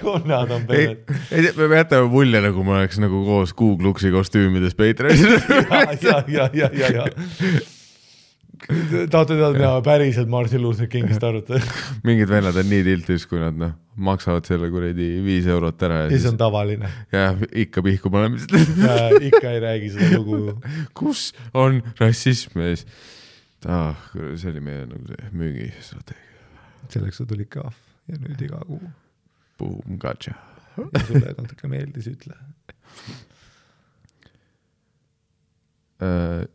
Konnad on peded. Me jätame mulje, nagu ma oleks nagu koos Googluksi kostüümides Patreonis. Ja. Tahate teada päriselt Martin Luther Kingist arvutada. Mingid vennad on nii tiltis, kui nad maksavad selle kuredi 5 eurot ära. Ja see on tavaline. Ja ikka pihku panemist. Ja ikka ei räägi seda lugu. Kus on rassism ees? See oli meie nagu see müügistrateegia. Selleks sa tuli kahv ja nüüd iga kuu. Boom, gotcha. Ja sulle natuke meeldis, ütle.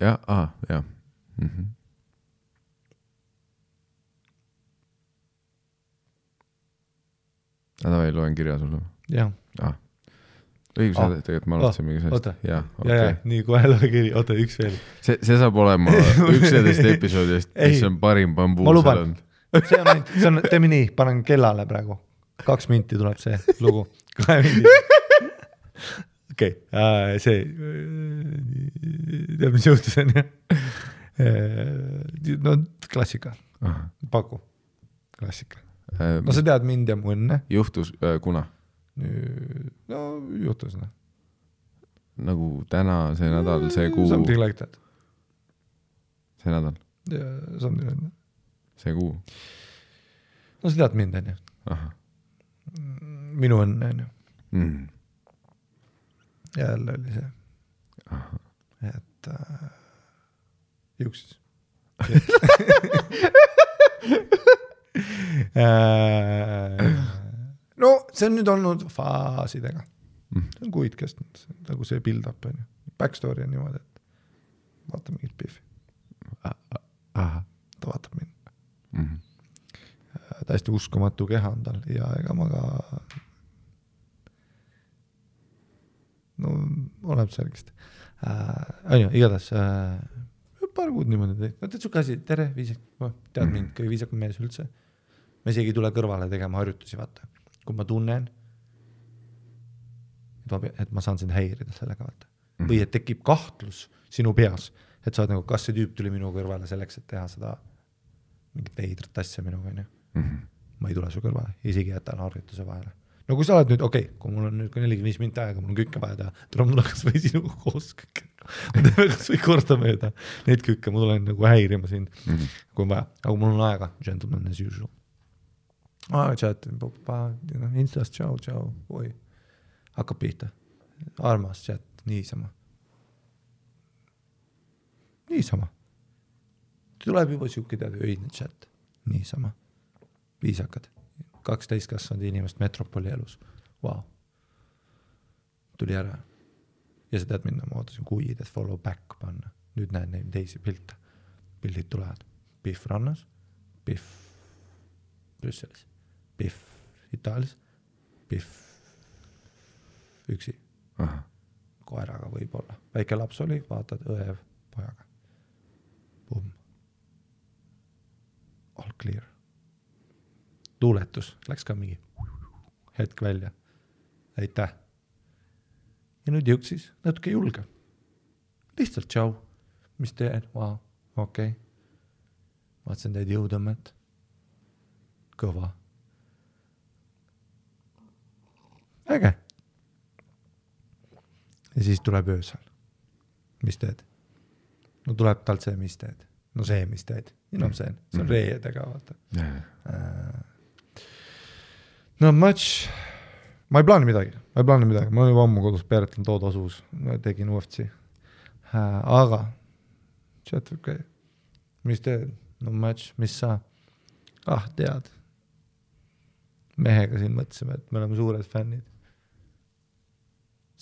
Ja. Davai, loen kirja sulle. Jah. Õigus, tegelikult ma alustasin mingi sellest. Ja, nii kohe loe kiri. Oota, üks veel. See saab olema 11 episoodist, mis on parim bambuu. Ma luban. See on, teeme nii, panen kellale praegu. 2 minti tuleb see lugu. 2 minti. Okei, see tead, mis juhtus on, no klassika. Paku. Klassika. No sa tead mind ja mu õnne. Juhtus, kuna? No juhtus, noh. Nagu täna, see nädal, see kuu. Something like that. See nädal? Something like that. See kuu? No sa tead mind, on ju. Minu õnne, on ju. Jälle oli see. Et juuksis. No see on nüüd olnud faasidega. See on kuid kestnud, nagu see build-up on ju. Backstory on niimoodi, et vaata mingit Biffi. Ta vaatab mind. Täiesti uskumatu keha on tal ja ega ma ka no oleb särgist. On ju, igatahes paar kuud niimoodi teed. No teed su käsi, tere, viisak, tead mind, kõige viisakam mees üldse. Ma isegi ei tule kõrvale tegema harjutusi, vaata. Kui ma tunnen, et ma saan sind häirida sellega, vaata. Või et tekib kahtlus sinu peas, et sa oled nagu, kas see tüüp tuli minu kõrvale selleks, et teha seda mingit veidrat asja minuga, on ju. Ma ei tule su kõrvale, isegi jätan harjutuse vahele. No kui sa oled nüüd, kui mul on nüüd 45 minti aega, mul on kükke vaja teha, tuleb mul kas või sinuga koos kükke. Ma teeme kas või korda mööda neid kükke, ma tulen nagu häirima sind, kui on vaja. Aga mul on aega, gentleman as usual. Chat, Instas, tšau, oi. Hakkab pihta. Armas chat, niisama. Tuleb juba siuke teada öidne chat. Niisama. Viisakad. 12 kasvanud inimest metropoli elus. Wow. Tuli ära. Ja sa tead minna, ma ootasin kuid, et follow back panna. Nüüd näen neid teisi pilte. Pildid tulevad. Biff rannas, Biff Brüsselis, Biff Itaalias, Biff üksi. Koeraga võib-olla. Väike laps oli, vaatad õev pojaga. Boom. All clear. Tuuletus. Läks ka mingi hetk välja. Aitäh. Ja nüüd jõudsis natuke julge. Lihtsalt tšau. Mis teen? Wow, okei. Vaatsin teid jõudõmmet. Kõva. Äge. Ja siis tuleb öösel. Mis teed? No tuleb talt see, mis teed. No see, mis teed. See on reedega, vaata. No match. Ma ei plaani midagi. Ma olen juba ammu kodus peeretlen tood asus. Tegin UFC. Aga chat, okay. Mis teed? No match, mis sa? Tead. Mehega siin mõtlesime, et me oleme suured fännid.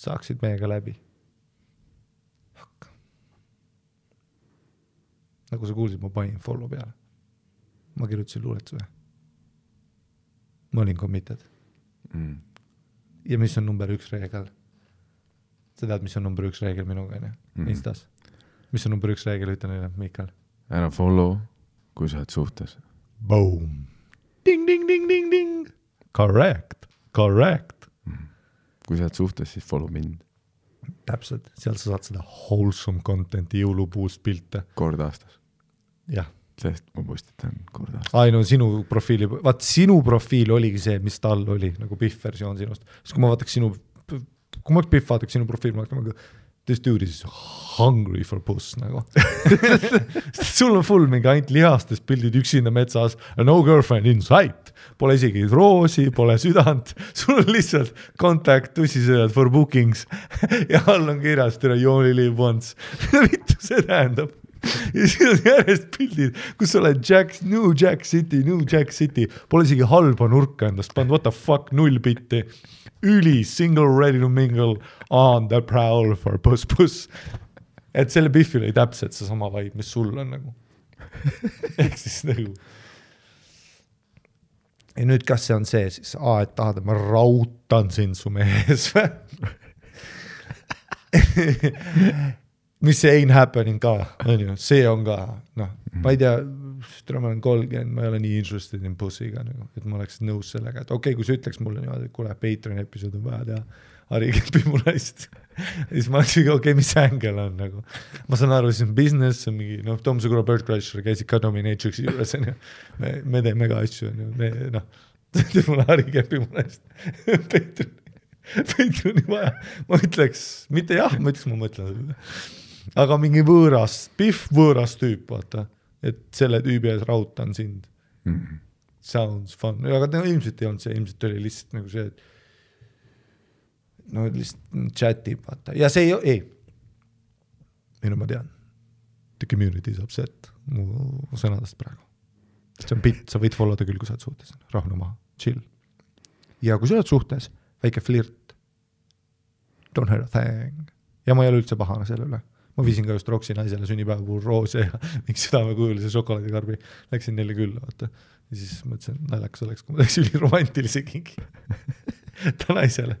Saaksid meiega läbi. Hakka. Nagu sa kuulsid, ma panin follow peale. Ma kirjutasin luuletuse. Ma olin committed. Ja mis on number 1 reegel? Sa tead, mis on number 1 reegel minuga, Instas? Mis on number 1 reegel, ütle neile, Mikael? Ära follow, kui sa oled suhtes. Boom! Ding, ding, ding, ding, ding! Correct! Kui sa oled suhtes, siis follow mind. Täpselt, seal sa saad seda wholesome contenti, jõulupuust pilte. Kord aastas. Jah. Sest ma postitan kord aastas. No sinu profiili, sinu profiil oligi see, mis tal oli, nagu Biff versioon sinust. Sest kui ma vaataks Biff vaataks sinu profiil, ma vaataks, this dude is hungry for puss, nagu. Sul on full mingi ainult lihastest pildid üksinda metsas, no girlfriend in sight. Pole isegi roosi, pole südant. Sul on lihtsalt contact, tussisööjad for bookings. Ja all on kirjas, you only live once. Vittu see tähendab. Ja siin on järjest pildid, kus sa oled New Jack City. Pole isegi halba nurka endast pand, what the fuck, 0 bitti. Üli, single, ready to mingle, on the prowl for puss. Et selle Biffil ei täpselt see sama vibe, mis sul on nagu. Ehk siis nagu. Ja nüüd kas see on see siis, et tahad, et ma rautan sind su mees või? Mis see ain't happening ka, see on ka, ma ei tea, ma olen 30, ma ei ole nii interested in pussiga, et ma oleks nõus sellega, et okei, kui sa ütleks mulle niimoodi, et kuule, Patreon episood on vaja teha, Harri kepi mu naist, siis ma oleksin okei, mis ängel on, nagu. Ma saan aru, siis on business, on mingi, Tom Segura Bird Crusher käisid ka Dominatrixi juures, me teeme ka asju, teeb mulle Harri kepi mu naist, Patreoni vaja, ma ütleks, mitte jah, ma mõtlen seda. Aga mingi Biff võõras tüüp, vaata, et selle tüübi ees rautan sind. Sounds fun. Aga ilmselt ei olnud see, ilmselt oli lihtsalt nagu see, et lihtsalt chatib, vaata. Ja see ei. Minu ma tean. The community is upset mu sõnadest praegu. See on bitt, sa võid followda küll, kui sa oled suhtes. Rahnu maha, chill. Ja kui sa oled suhtes, väike flirt. Don't hurt a thing. Ja ma ei ole üldse pahane selle üle. Ma viisin ka just Roksi naisele sünnipäeva puhul roose ja mingi südamekujulise šokolaadikarbi. Läksin neile külla, vaata. Ja siis mõtlesin, naljakas oleks, kui ma teeks üliromantilise kingi. Ta naisele.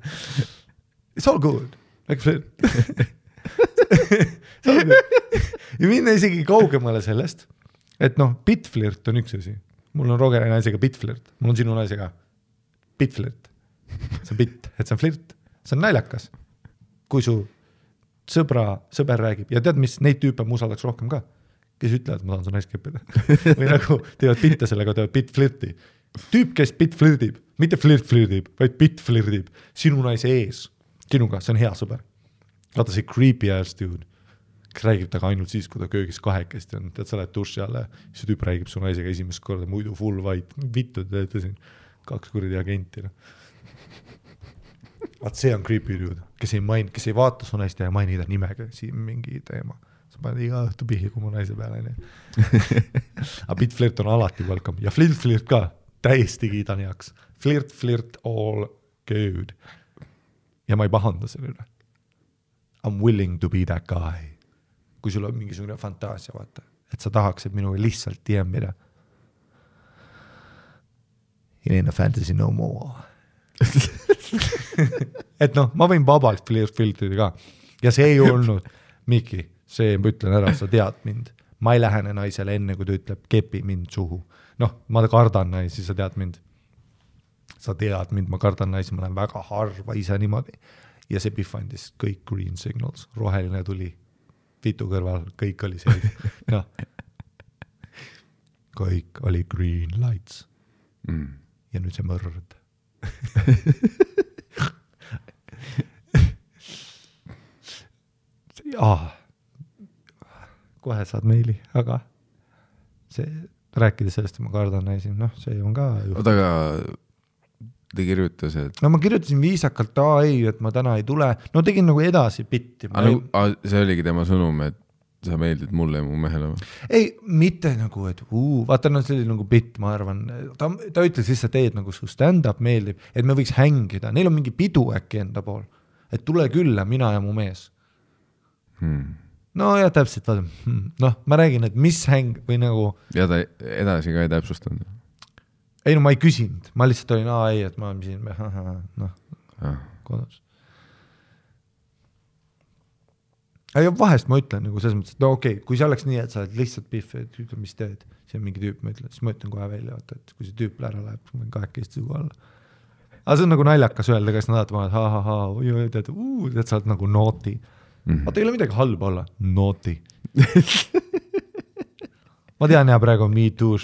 It's all good. Like flirt. Ja minna isegi kaugemale sellest, et bitflirt on üks asi. Mul on Rogeri naisega bitflirt. Mul on sinu naisega bitflirt. See on bit, et see on flirt. See on naljakas. Kui su sõber räägib. Ja tead, mis neid tüüpe ma usaldaks rohkem ka? Kes ütlevad, et ma tahan su naist keppida. Või nagu teevad bitte sellega, teevad bitflirti. Tüüp, kes bitflirdib, mitte flirtib, vaid bitflirdib. Sinu naise ees. Sinuga, see on hea sõber. Vaata see creepy ass dude. Kes räägib taga ainult siis, kui ta köögis kahekesti on. Tead, sa lähed duši alla. See tüüp räägib su naisega esimest korda, muidu full white. Vittu, te teete siin 2 kuradi agenti. Vaat see on creepy dude, kes ei vaata su naist ja maini ta nimega siin mingi teema. Sa paned iga õhtu pihi, kui mu naise peale. Aga bitflirt on alati welcome. Ja flirt ka, täiesti kiidan heaks. Flirt, all good. Ja ma ei pahanda selle üle. I'm willing to be that guy. Kui sul on mingisugune fantaasia, vaata, et sa tahaks, et minuga lihtsalt DM-ida. It ain't a fantasy no more. Et ma võin vabalt flirtida ka. Ja see ei olnud, Miki, see ma ütlen ära, sa tead mind. Ma ei lähene naisele enne, kui ta ütleb, kepi mind suhu. Ma kardan naisi, sa tead mind. sa tead mind, ma kardan naisi, ma lähen väga harva ise niimoodi. Ja see Biff andis kõik green signals, roheline tuli, vitu kõrval, kõik oli see. Noh, kõik oli green lights. Ja nüüd see mõrd. Kohe saad meili, aga see, rääkides sellest, ma kardan naisi, noh, see on ka oota, aga ta kirjutas, et no ma kirjutasin viisakalt, ei, et ma täna ei tule, no tegin nagu edasi bitti. See oligi tema sõnum, et sa meeldid mulle ja mu mehele või? Ei, mitte nagu, et vaata, no see oli nagu bitt, ma arvan, ta ütles lihtsalt, et nagu su stand-up meeldib, et me võiks hängida, neil on mingi pidu äkki enda pool, et tule külla, mina ja mu mees. No ja täpselt, vaata, noh, ma räägin, et mis häng või nagu ja ta edasi ka ei täpsustanud? Ei, no ma ei küsinud, ma lihtsalt olin, ei, et ma olen siin, noh, kodus. Ja vahest ma ütlen nagu selles mõttes, et no okei, kui see oleks nii, et sa oled lihtsalt Biff, et ütle, mis teed, see on mingi tüüp, ma ütlen, siis ma ütlen kohe välja, et kui see tüüp ära läheb, ma võin 2 sugu alla. Aga see on nagu naljakas öelda, kes nad vaatavad, tead, sa oled nagu naughty. Vaata, ei ole midagi halba olla. Naughty. Ma tean, ja praegu on me too,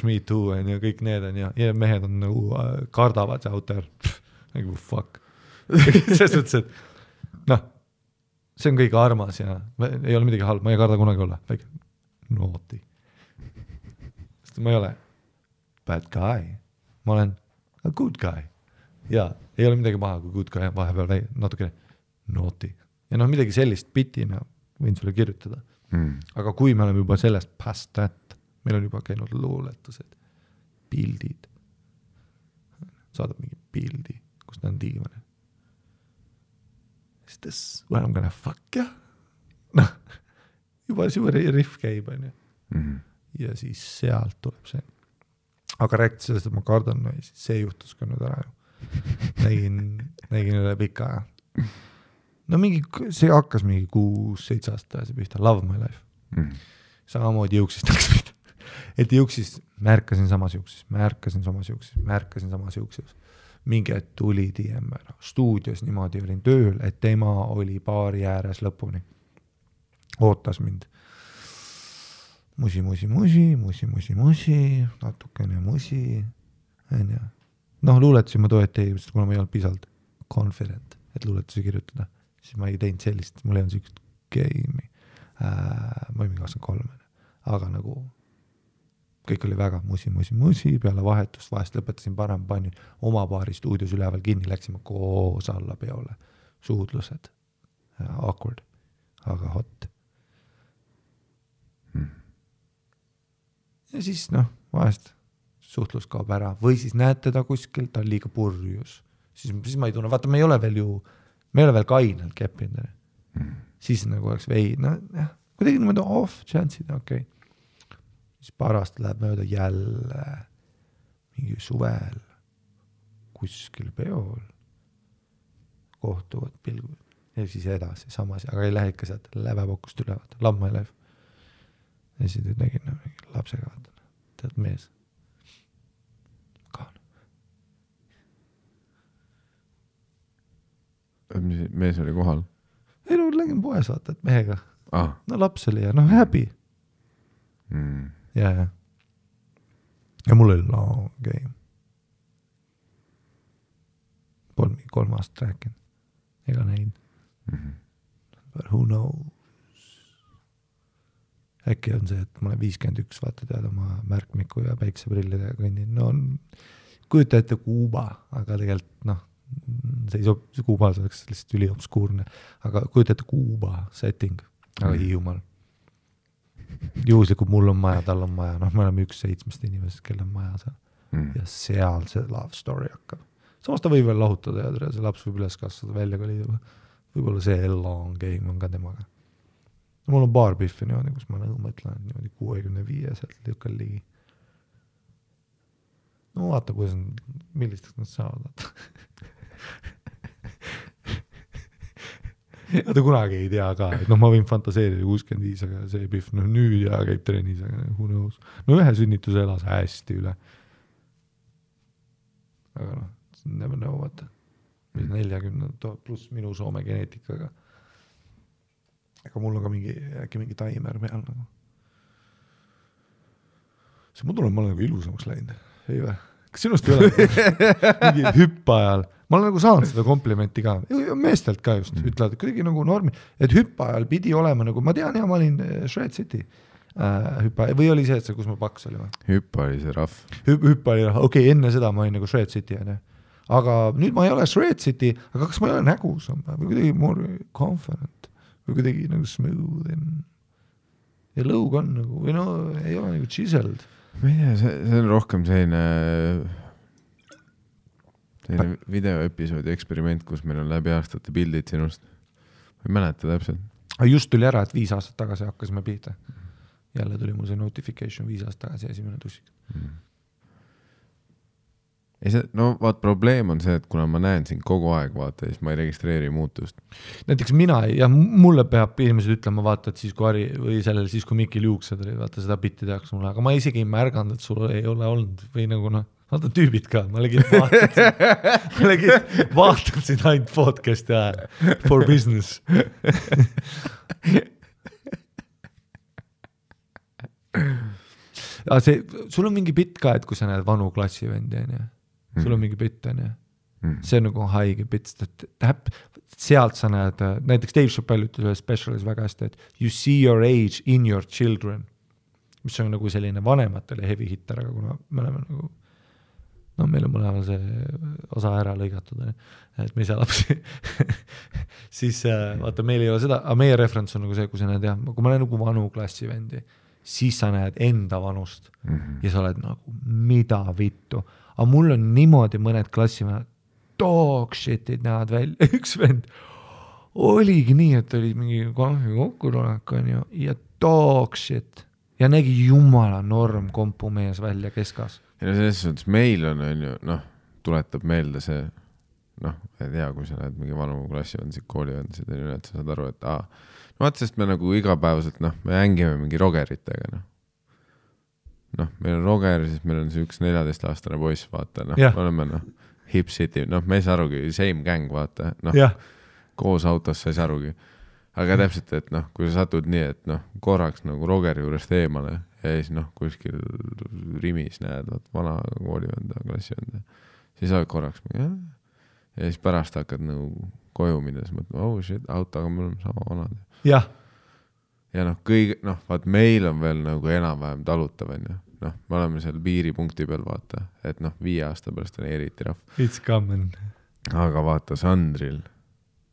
ja kõik need on ja mehed on nagu kardavad see out there. Nagu fuck. Selles mõttes, et noh, see on kõige armas ja ei ole midagi halba, ma ei karda kunagi olla. Naughty. Sest ma ei ole bad guy. Ma olen a good guy. Ja ei ole midagi maha, kui good guy on vahepeal natuke naughty. Ja noh, midagi sellist bitina võin sulle kirjutada. Aga kui me oleme juba sellest past that, meil on juba käinud luuletused, pildid, saadab mingi pildi, kus ta on diivane. Is this where I'm gonna fuck ya? Noh, juba riff käib, on ju. Ja siis sealt tuleb see. Aga rääkida sellest, et ma kardan, no, see juhtus ka nüüd ära ju. Nägin üle pika aja. No mingi, see hakkas mingi 6-7 aastat see pihta, Love My Life. Samamoodi jõuksist läks pihta. Et jõuksist märkasin samas jõuksis. Mingi et tuli DM ära. Stuudios niimoodi olin tööl, et tema oli baari ääres lõpuni. Ootas mind. Musi, natukene musi. Noh, luuletasin ma toeti, kuna ma ei olnud pisalt confident, et luuletusi kirjutada. Siis ma ei teinud sellist, mul ei olnud sükst game'i. Ma olin 23, aga nagu kõik oli väga musi, peale vahetust, vahest lõpetasin parem, panin oma baari stuudios üleval kinni, läksime koos alla peole. Suudlused, awkward, aga hot. Ja siis noh, vahest suhtlus kaob ära või siis näed teda kuskil, ta on liiga purjus. Siis ma ei tunne, vaata, me ei ole veel kainelt keppinud. Siis nagu oleks kuidagi niimoodi off chance'id, okei. Siis paar aastat läheb mööda jälle mingi suvel kuskil peol kohtuvad pilgud ja siis edasi samas, aga ei lähe ikka sealt lävepokust üle, vaata, Love My Life. Ja siis nägin mingi lapsega, vaata, tead mees. Mees oli kohal? Ei, no lägin poes, vaata, et mehega. No laps oli ja happy. Ja mul oli long game. Polnud 3 aastat rääkinud. Ega näinud. But who knows? Äkki on see, et ma olen 51, vaata tead oma märkmiku ja päikseprillidega kõnnin. No kujuta ette Kuuba, aga tegelikult see Kuubal oleks lihtsalt üliobskuurne, aga kujuta ette Kuuba setting, aga Hiiumaal. Juhuslikult mul on maja, tal on maja, me oleme 1-7 inimesest, kel on maja seal. Ja seal see love story hakkab. Samas ta võib veel lahutada ja see laps võib üles kasvada välja kolida. Võib-olla see long game on ka temaga. Mul on paar Biffi niimoodi, kus ma mõtlen niimoodi 65 sealt lükkal ligi. No vaata, millisteks nad saavad. Ta kunagi ei tea ka, et ma võin fantaseerida 65, aga see Biff nüüd ja käib trennis, aga who knows. No ühe sünnituse elas hästi üle. Aga never know, vaata. 40 pluss minu Soome geneetikaga. Aga mul on ka äkki mingi taimer peal nagu. See ma tunnen, ma olen nagu ilusamaks läinud. Ei või? Kas sinust ei ole mingi hüppaajal? Ma olen nagu saanud seda komplimenti ka. Meestelt ka just ütlevad, et kuidagi nagu normi. Et hüppaajal pidi olema nagu, ma tean, ma olin Shred City hüppaajal. Või oli see, et see, kus ma paks oli? Hüppa oli see rahv. Hüppa oli rahv. Okei, enne seda ma olin nagu Shred City. Aga nüüd ma ei ole Shred City, aga kas ma ei ole nägusam? Või kuidagi more confident? Või kuidagi nagu smooth? Ja lõug on nagu, või no ei ole nagu chiseled. Ma ei tea, see on rohkem selline videoepisoodi eksperiment, kus meil on läbi aastate pildid sinust. Ma ei mäleta täpselt. Just tuli ära, et 5 aastat tagasi hakkasime pihta. Jälle tuli mul see notification 5 aastat tagasi esimene tussik. No vaat probleem on see, et kuna ma näen sind kogu aeg, vaata, siis ma ei registreeri muutust. Näiteks mina ja mulle peab inimesed ütlema, vaata, et siis kui Ari või sellel, siis kui Mikil juuksed oli, vaata seda bitti tehaks mulle, aga ma isegi ei märganud, et sul ei ole olnud või nagu vaata tüübid ka, ma legid vaatasin ainult podcasti ajal for business. Sul on mingi bitt ka, et kui sa näed vanu klassivendi, sul on mingi bitt, see on nagu haige bitt, sealt sa näed, näiteks Dave Chappelle ütles ühes specialis väga hästi, et you see your age in your children, mis on nagu selline vanematele heavy hitter, aga kuna me oleme nagu meil on mõlemal see osa ära lõigatud, et me ei saa lapsi siis vaata, meil ei ole seda, aga meie referents on nagu see, kui sa näed, kui ma näen nagu vanu klassivendi, siis sa näed enda vanust ja sa oled nagu, mida vittu. Aga mul on niimoodi mõned klassimehed, dog shit'id näevad välja. Üks vend oligi nii, et oli mingi konfi kokkutulek ja dog shit ja nägi jumala norm kompumees välja keskas. Ja selles suhtes meil on ju, tuletab meelde see, ei tea, kui sa näed mingi vanu klassivendsid, koolivendsid, et sa saad aru, et vaat sest me nagu igapäevaselt, me hängime mingi rogeritega, meil on roger, siis meil on see üks 14-aastane poiss, vaata, oleme Hip City, me ei saa arugi, same gang, vaata, koos autos sa ei saa arugi. Aga täpselt, et kui sa satud nii, et korraks nagu rogeri juurest eemale ja siis kuskil rimis näed, vana koolivenda, klassivenda, siis oled korraks ja siis pärast hakkad nagu koju minna, siis mõtled, oh shit, autoga me oleme sama vanad. Ja vaat meil on veel nagu enam-vähem talutav, me oleme seal piiripunkti peal, vaata, et 5 aasta pärast on eriti rahv. It's coming. Aga vaata Sandril,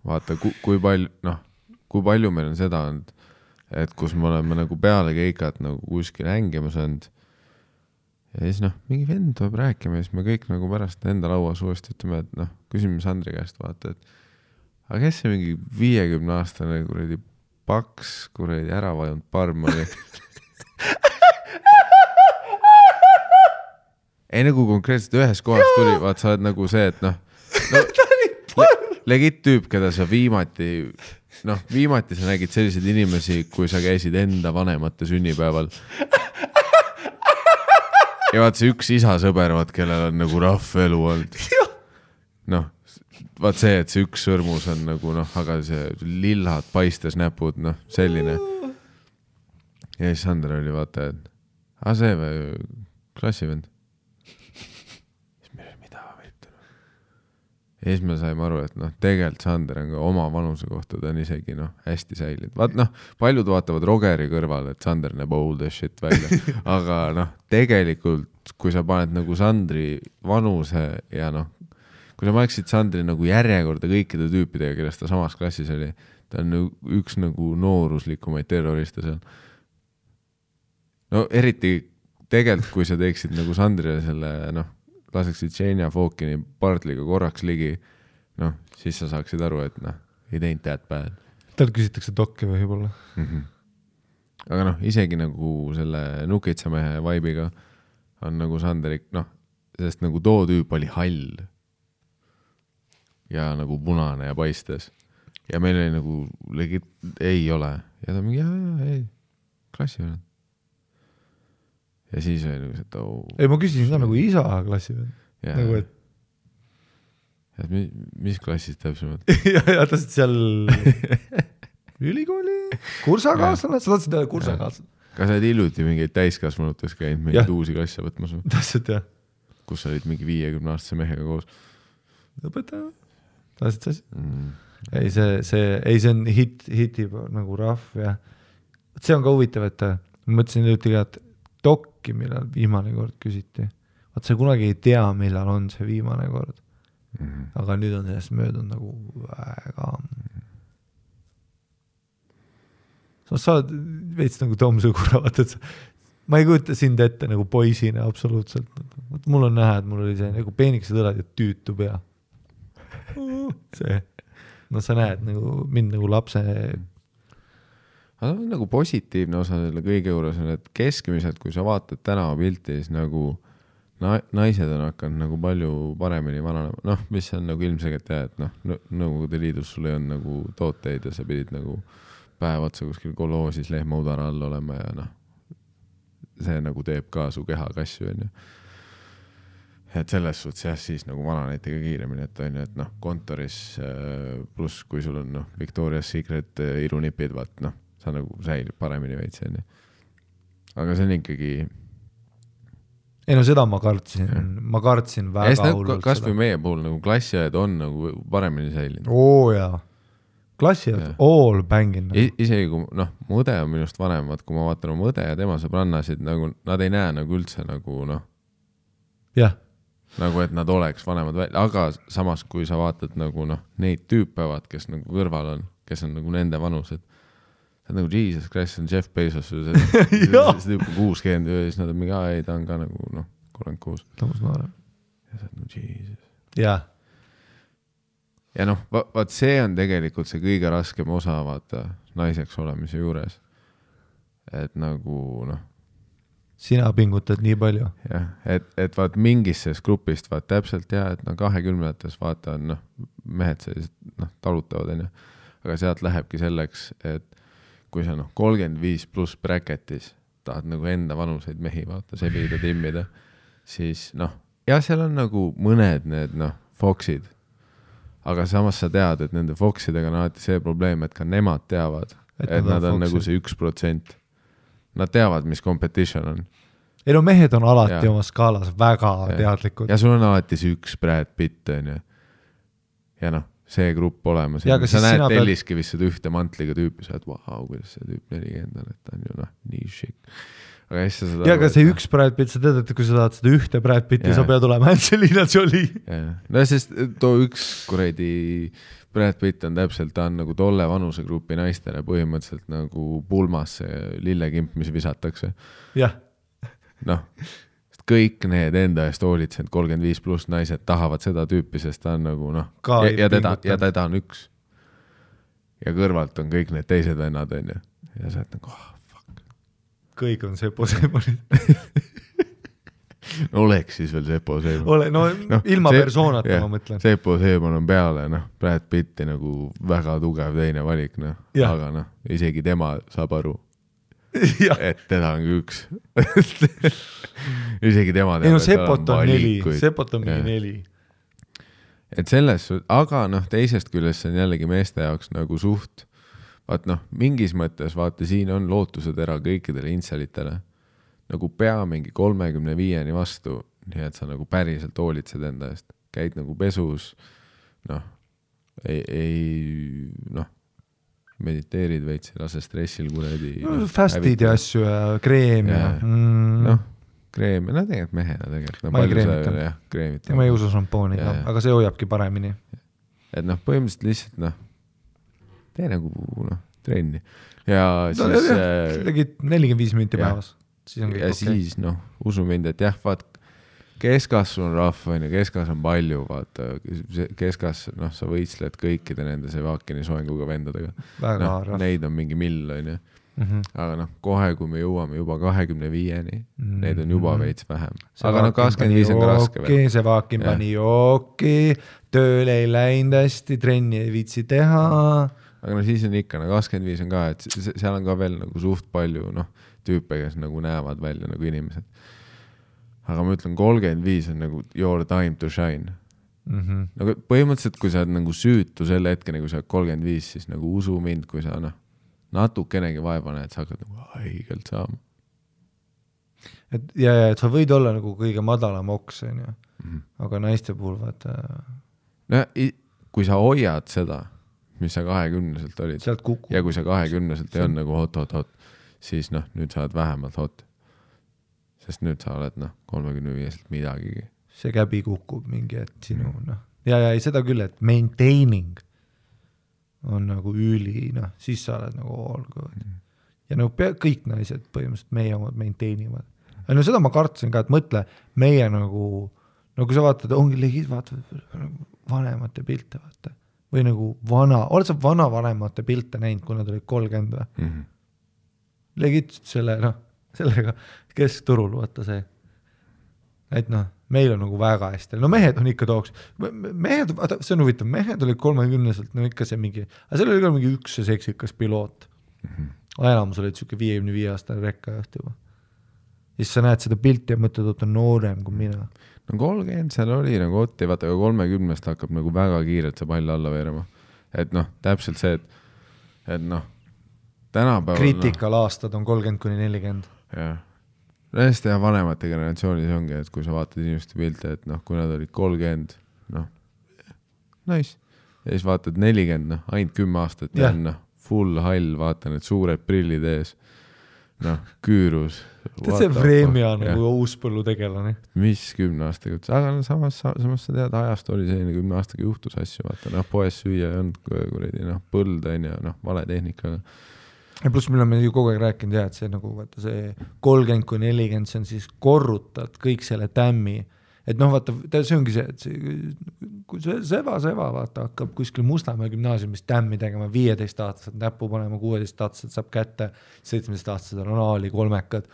vaata kui palju meil on seda olnud, et kus me oleme nagu peale keikat nagu kuskil hängima saanud ja siis mingi vend tuleb rääkima ja siis me kõik nagu pärast enda lauas uuesti ütleme, et küsime Sandri käest, vaata, et aga kes see mingi 50-aastane kuradi paks, kuradi ära vajunud parm oli. Ei nagu konkreetselt ühes kohas tuli, vaat sa oled nagu see, et legit tüüp, keda sa viimati sa nägid selliseid inimesi, kui sa käisid enda vanemate sünnipäeval. Ja vaat see üks isasõber, kellel on nagu rahv elu olnud. Vaat see, et see üks sõrmus on nagu, aga see lillad paistes näpud, selline. Ja siis Sander oli vaata, et see või klassivend. Siis meil oli mida võitu. Ja siis me saime aru, et tegelikult Sander on ka oma vanuse kohta, ta on isegi hästi säilinud. Vaat paljud vaatavad rogeri kõrval, et Sander näeb old as shit välja. Aga tegelikult, kui sa paned nagu Sandri vanuse ja kui sa paneksid Sandri nagu järjekorda kõikide tüüpidega, kellest ta samas klassis oli, ta on üks nagu nooruslikumaid terroriste seal. Eriti tegelikult, kui sa teeksid nagu Sandrile selle, laseksid Xenia Fokini Bartliga korraks ligi, siis sa saaksid aru, et ei teinud that bad. Tal küsitakse dokke või võib-olla. Aga isegi nagu selle nukitsamehe vaibiga on nagu Sanderik, sest nagu too tüüp oli hall ja nagu punane ja paistes. Ja meil oli nagu legit, ei ole. Ja ta mingi, ei, klassi veel. Ja siis oli nagu see, et ei, ma küsisin ka nagu isa klassi veel. Yeah. Nagu, et et mis klassis täpsemalt? ja tahtsid seal ülikooli kursakaaslane, sa tahtsid teha kursakaaslane. Kas sa oled hiljuti mingeid täiskasvanutes käinud mingeid uusi klasse võtmas? Tahtsid jah. Kus sa olid mingi 50-aastase mehega koos? Õpetaja? Tahtsid sa asi? Ei, see on hitib nagu rahv ja see on ka huvitav, et ma mõtlesin hiljuti ka, et dokki, millal viimane kord küsiti. Vaat sa kunagi ei tea, millal on see viimane kord. Aga nüüd on sellest möödunud nagu väga... Sa oled veits nagu Tom Sõgura, vaata, et ma ei kujuta sind ette nagu poisina absoluutselt. Mul on näha, et mul oli see nagu peenikesed õlad ja tüütu pea. See... No sa näed nagu mind nagu lapse... Aga nagu positiivne osa selle kõige juures on, et keskmiselt, kui sa vaatad tänava pilti, siis nagu naised on hakanud nagu palju paremini vananema. Noh, mis on nagu ilmselgelt jah, et Nõukogude Liidus sul ei on nagu tooteid ja sa pidid nagu päev otsa kuskil koloosis lehmaudara all olema ja see nagu teeb ka su keha kasju, on ju. Et selles suhtes jah, siis nagu vananeti ka kiiremini, et on ju, et kontoris pluss kui sul on Victoria's Secret irunipid, vaat sa nagu säilib paremini veits, on ju. Aga see on ikkagi... Ei no seda ma kartsin väga hullult. Kas või meie puhul nagu klassiajad on nagu paremini säilinud? Oo jaa. Klassiajad all bangin. Isegi kui mõde on minust vanemad, kui ma vaatan oma mõde ja tema sõbrannasid, nagu nad ei näe nagu üldse nagu jah. Nagu, et nad oleks vanemad välja, aga samas, kui sa vaatad nagu neid tüüpevad, kes nagu kõrval on, kes on nagu nende vanused, see on nagu Jesus Christ, on Jeff Bezos, see tüüp on 60 ja siis nad on mingi, ei, ta on ka nagu 36. Tõmus noorem. Ja see on nagu Jesus. Jah. Ja vaat see on tegelikult see kõige raskem osa, vaata, naiseks olemise juures. Et nagu, sina pingutad nii palju. Jah, et vaat mingis grupist vaat täpselt jah, et 20-ndates vaata on mehed sellised talutavad, on ju. Aga sealt lähebki selleks, et kui sa 35 pluss bracketis tahad nagu enda vanuseid mehi vaata, sebida, timmida, siis ja seal on nagu mõned need foksid, aga samas sa tead, et nende foksidega on alati see probleem, et ka nemad teavad, et nad on nagu see 1%. Nad teavad, mis competition on. Ei no mehed on alati oma skaalas väga teadlikud. Ja sul on alati see üks Brad Pitt, on ju. Ja see grupp olemas. Ja sa näed Telliskivist seda ühte mantliga tüüpi, sa oled, vau, kuidas see tüüp 40 on, et ta on ju nii šik. Ja aga see üks Brad Pitt, sa tead, et kui sa tahad seda ühte Brad Pitti, sa pead olema Angelina Jolie. No sest too üks kuredi Brad Pitt on täpselt, ta on nagu tolle vanusegrupi naistele põhimõtteliselt nagu pulmas see lillekimp, mis visatakse. Jah. Kõik need enda eest hoolitsenud 35 pluss naised tahavad seda tüüpi, sest ta on nagu ja teda on üks. Ja kõrvalt on kõik need teised vennad, on ju. Ja sa oled nagu, fuck. Kõik on Sepo Seemonid. Oleks siis veel Sepo Seemon. Ilma persoonata ma mõtlen. Sepo Seemon on peale, Brad Pitti nagu väga tugev teine valik, aga isegi tema saab aru, et teda on üks. Isegi tema teab, et ta on valikuid. Sepot on mingi 4. Et selles, aga teisest küljest see on jällegi meeste jaoks nagu suht, vaat mingis mõttes vaata, siin on lootused ära kõikidele inselitele. Nagu pea mingi 35-ni vastu, nii et sa nagu päriselt hoolitsed enda eest. Käid nagu pesus, mediteerid veits, lase stressil kuredi. Fastid ja asju ja kreem ja. Kreem, tegelikult mehena tegelikult. Ma ei kreemita. Ma ei usu šampooni, aga see hoiabki paremini. Et põhimõtteliselt lihtsalt, tee nagu trenni. Ja siis... Tegid 45 minti päevas. Ja siis, usu mind, et jah, vaat, keskasv on rahv, keskas on palju, vaata, keskas, sa võitsled kõikide nende Sevakini soenguga vendadega. Neid on mingi mill, on ju. Aga kohe, kui me jõuame juba 25-ni, neid on juba veits vähem. Aga 25 on ka raske veel. Sevakin pani jooki, tööl ei läinud hästi, trenni ei viitsi teha. Aga siis on ikka, 25 on ka, et seal on ka veel nagu suht palju, tüüpe, kes nagu näevad välja nagu inimesed. Aga ma ütlen, 35 on nagu your time to shine. Nagu põhimõtteliselt, kui sa oled nagu süütu selle hetkeni, kui sa oled 35, siis nagu usu mind, kui sa natukenegi vaeva näed, sa hakkad nagu haigelt saama. Et sa võid olla nagu kõige madalam oks, aga naiste puhul vaata... No, kui sa hoiad seda, mis sa 20-selt olid, ja kui sa 20-selt ei on nagu hot, siis nüüd sa oled vähemalt hot. Sest nüüd sa oled 35-selt midagigi. See käbi kukub mingi, et sinu, ja seda küll, et maintaining on nagu üli, siis sa oled nagu all good. Ja kõik naised põhimõtteliselt meie omad maintainivad. No seda ma kartsin ka, et mõtle, meie nagu kui sa vaatad, ongi legid, vaatad vanemate pilte, vaata. Või nagu oled sa vanavanemate pilte näinud, kui nad olid 30 või? Legid sellega, keskturul, vaata see. Et meil on nagu väga hästi. No mehed on ikka tooks. Mehed, vaata, see on huvitav, mehed olid 30-selt, ikka see mingi, aga seal oli ka mingi üks seksikas piloot. Enamus olid siuke 55 aastane rekkajuht juba. Siis sa näed seda pilti ja mõtled, et on noorem kui mina. No 30 seal oli nagu otti, vaata, aga 30-st hakkab nagu väga kiirelt see pall alla veerema. Et täpselt see, et tänapäeval... Kriitikal aastad on 30-40. Jah. Hästi ja vanemate generatsioonis ongi, et kui sa vaatad inimeste pilte, et kui nad olid 30, nice. Ja siis vaatad 40, ainult 10 aastat ja full hall, vaata need suured prillid ees. Küürus. See Vremja nagu uuspõllu tegelane. Mis 10 aastaga? Aga samas sa tead, ajast oli selline 10 aastaga juhtus asju, vaata, poes süüa ei olnud kuredi, põld on ja vale tehnikaga. Ja pluss meil on ju kogu aeg rääkinud, et see nagu, vaata, see 30-40, see on siis korrutad kõik selle tämmi. Et vaata, see ongi see, et kui see seva, vaata, hakkab kuskil Mustamäe gümnaasiumis tämmi tegema 15-aastased näppu panema, 16-aastased saab kätte, 17-aastased on anaali, kolmekad.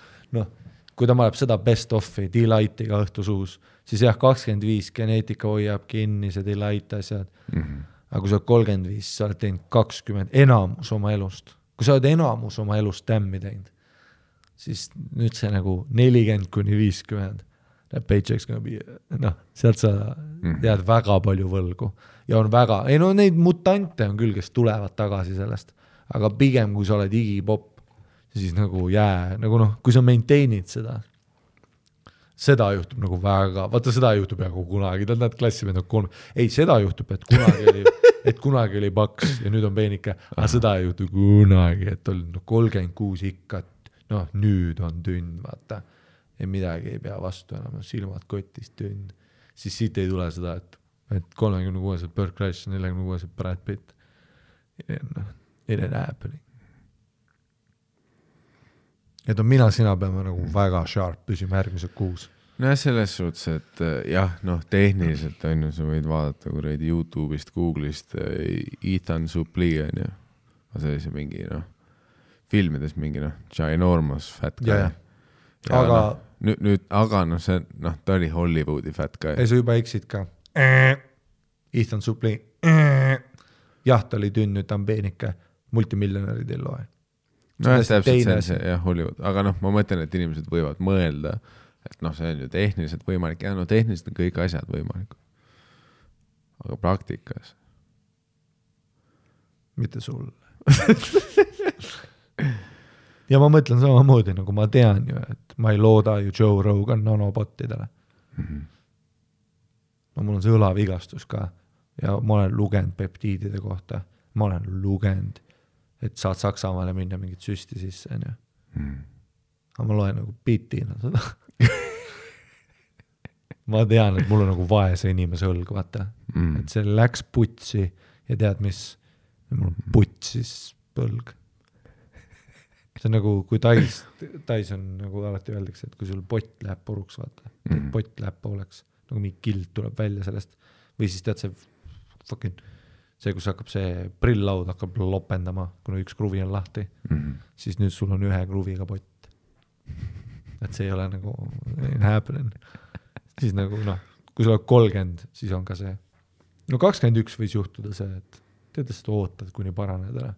Kui ta maleb seda best offi, delightiga õhtusuus, siis 25 geneetika hoiab kinni, see delight asjad. Aga kui sa oled 35, sa oled teinud 20, enamus oma elust. Kui sa oled enamus oma elust tämmi teinud, siis nüüd see nagu 40-50 paychecks gonna be, sealt sa tead väga palju võlgu ja on väga, neid mutante on küll, kes tulevad tagasi sellest, aga pigem kui sa oled igipop, siis nagu kui sa maintainid seda juhtub nagu väga, vaata seda juhtub nagu kunagi, nad klassimehed on 3, ei seda juhtub, et kunagi oli paks ja nüüd on peenike, aga seda ei juhtu kunagi, et oli 36 ikka, nüüd on tünn, vaata. Ja midagi ei pea vastu enam, silmad kotist tünn. Siis siit ei tule seda, et 36-sed Burt Kreischer, 46-sed Brad Pitt. It ain't happening. Et sina peame nagu väga sharp püsima järgmised 6. No selles suhtes, et tehniliselt on ju, sa võid vaadata kuradi YouTube'ist, Google'ist Ethan Suplee on ju. See oli see mingi, filmides mingi, ginormous fat guy. Ja. Aga aga see, ta oli Hollywoodi fat guy. Ei, sa juba eksid ka. Ethan Suplee. Jah, ta oli tünn, nüüd ta on peenike. Multimiljonärid ei loe. Täpselt see, Hollywood. Aga ma mõtlen, et inimesed võivad mõelda, et see on ju tehniliselt võimalik. Ja tehniliselt on kõik asjad võimalikud. Aga praktikas. Mitte sul. Ja ma mõtlen samamoodi, nagu ma tean ju, et ma ei looda ju Joe Rogan nanobottidele. Mul on see õlavigastus ka ja ma olen lugenud peptiidide kohta. Ma olen lugenud, et saad Saksamaale minna mingit süsti sisse. Aga ma loen nagu bitina seda. Ma tean, et mul on nagu vaese inimese õlg, vaata. Et see läks putsi ja tead mis, mul on putsis põlg. See on nagu, kui tais on nagu alati öeldakse, et kui sul pott läheb puruks, vaata, pott läheb pooleks, nagu mingi kild tuleb välja sellest, või siis tead see, kus hakkab see prill-laud hakkab lopendama, kuna üks kruvi on lahti, siis nüüd sul on ühe kruviga pott. Et see ei ole nagu happening. Siis nagu, kui sul on 30, siis on ka see. 21 võis juhtuda see, et tead, seda ootad, kuni paraned ära.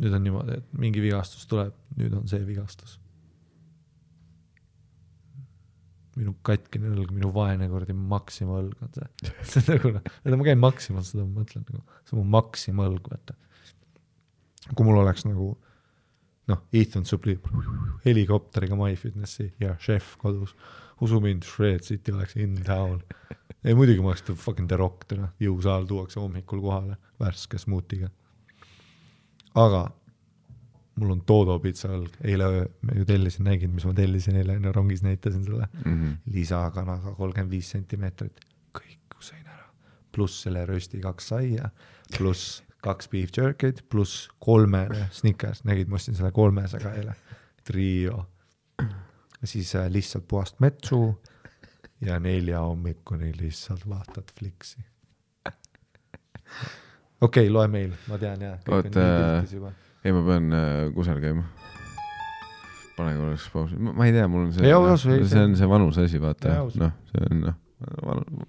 Nüüd on niimoodi, et mingi vigastus tuleb, nüüd on see vigastus. minu katkine õlg, minu vaene kordi Maxima õlg on see. See on nagu, ma käin Maxima, seda ma mõtlen nagu, see on mu Maxima õlg, vaata. Kui mul oleks nagu, Ethan Suplee helikopteriga MyFitnessi ja chef kodus, usu mind, Shred City oleks in town. Ei, muidugi ma oleks fucking The Rock, jõusaal tuuakse hommikul kohale värske smuutiga. Aga mul on Todo pizza õlg, eile me ju tellisin, nägin, mis ma tellisin eile, rongis näitasin selle lisakanaga 35 sentimeetrit, kõik sõin ära, pluss selle rösti 2 saia, pluss 2 beef jerky'd, pluss 3 Snickers, nägid, ma ostin selle 300 eile, trio, siis lihtsalt puhast metsu ja 4 hommikuni lihtsalt vaatad fliksi. Okei, loe meil, ma tean jah, kõik on nii piltis juba. Ei, ma pean kusel käima. Pane korraks pausi. Ma ei tea, mul on see, see on see vanus asi, vaata. See on,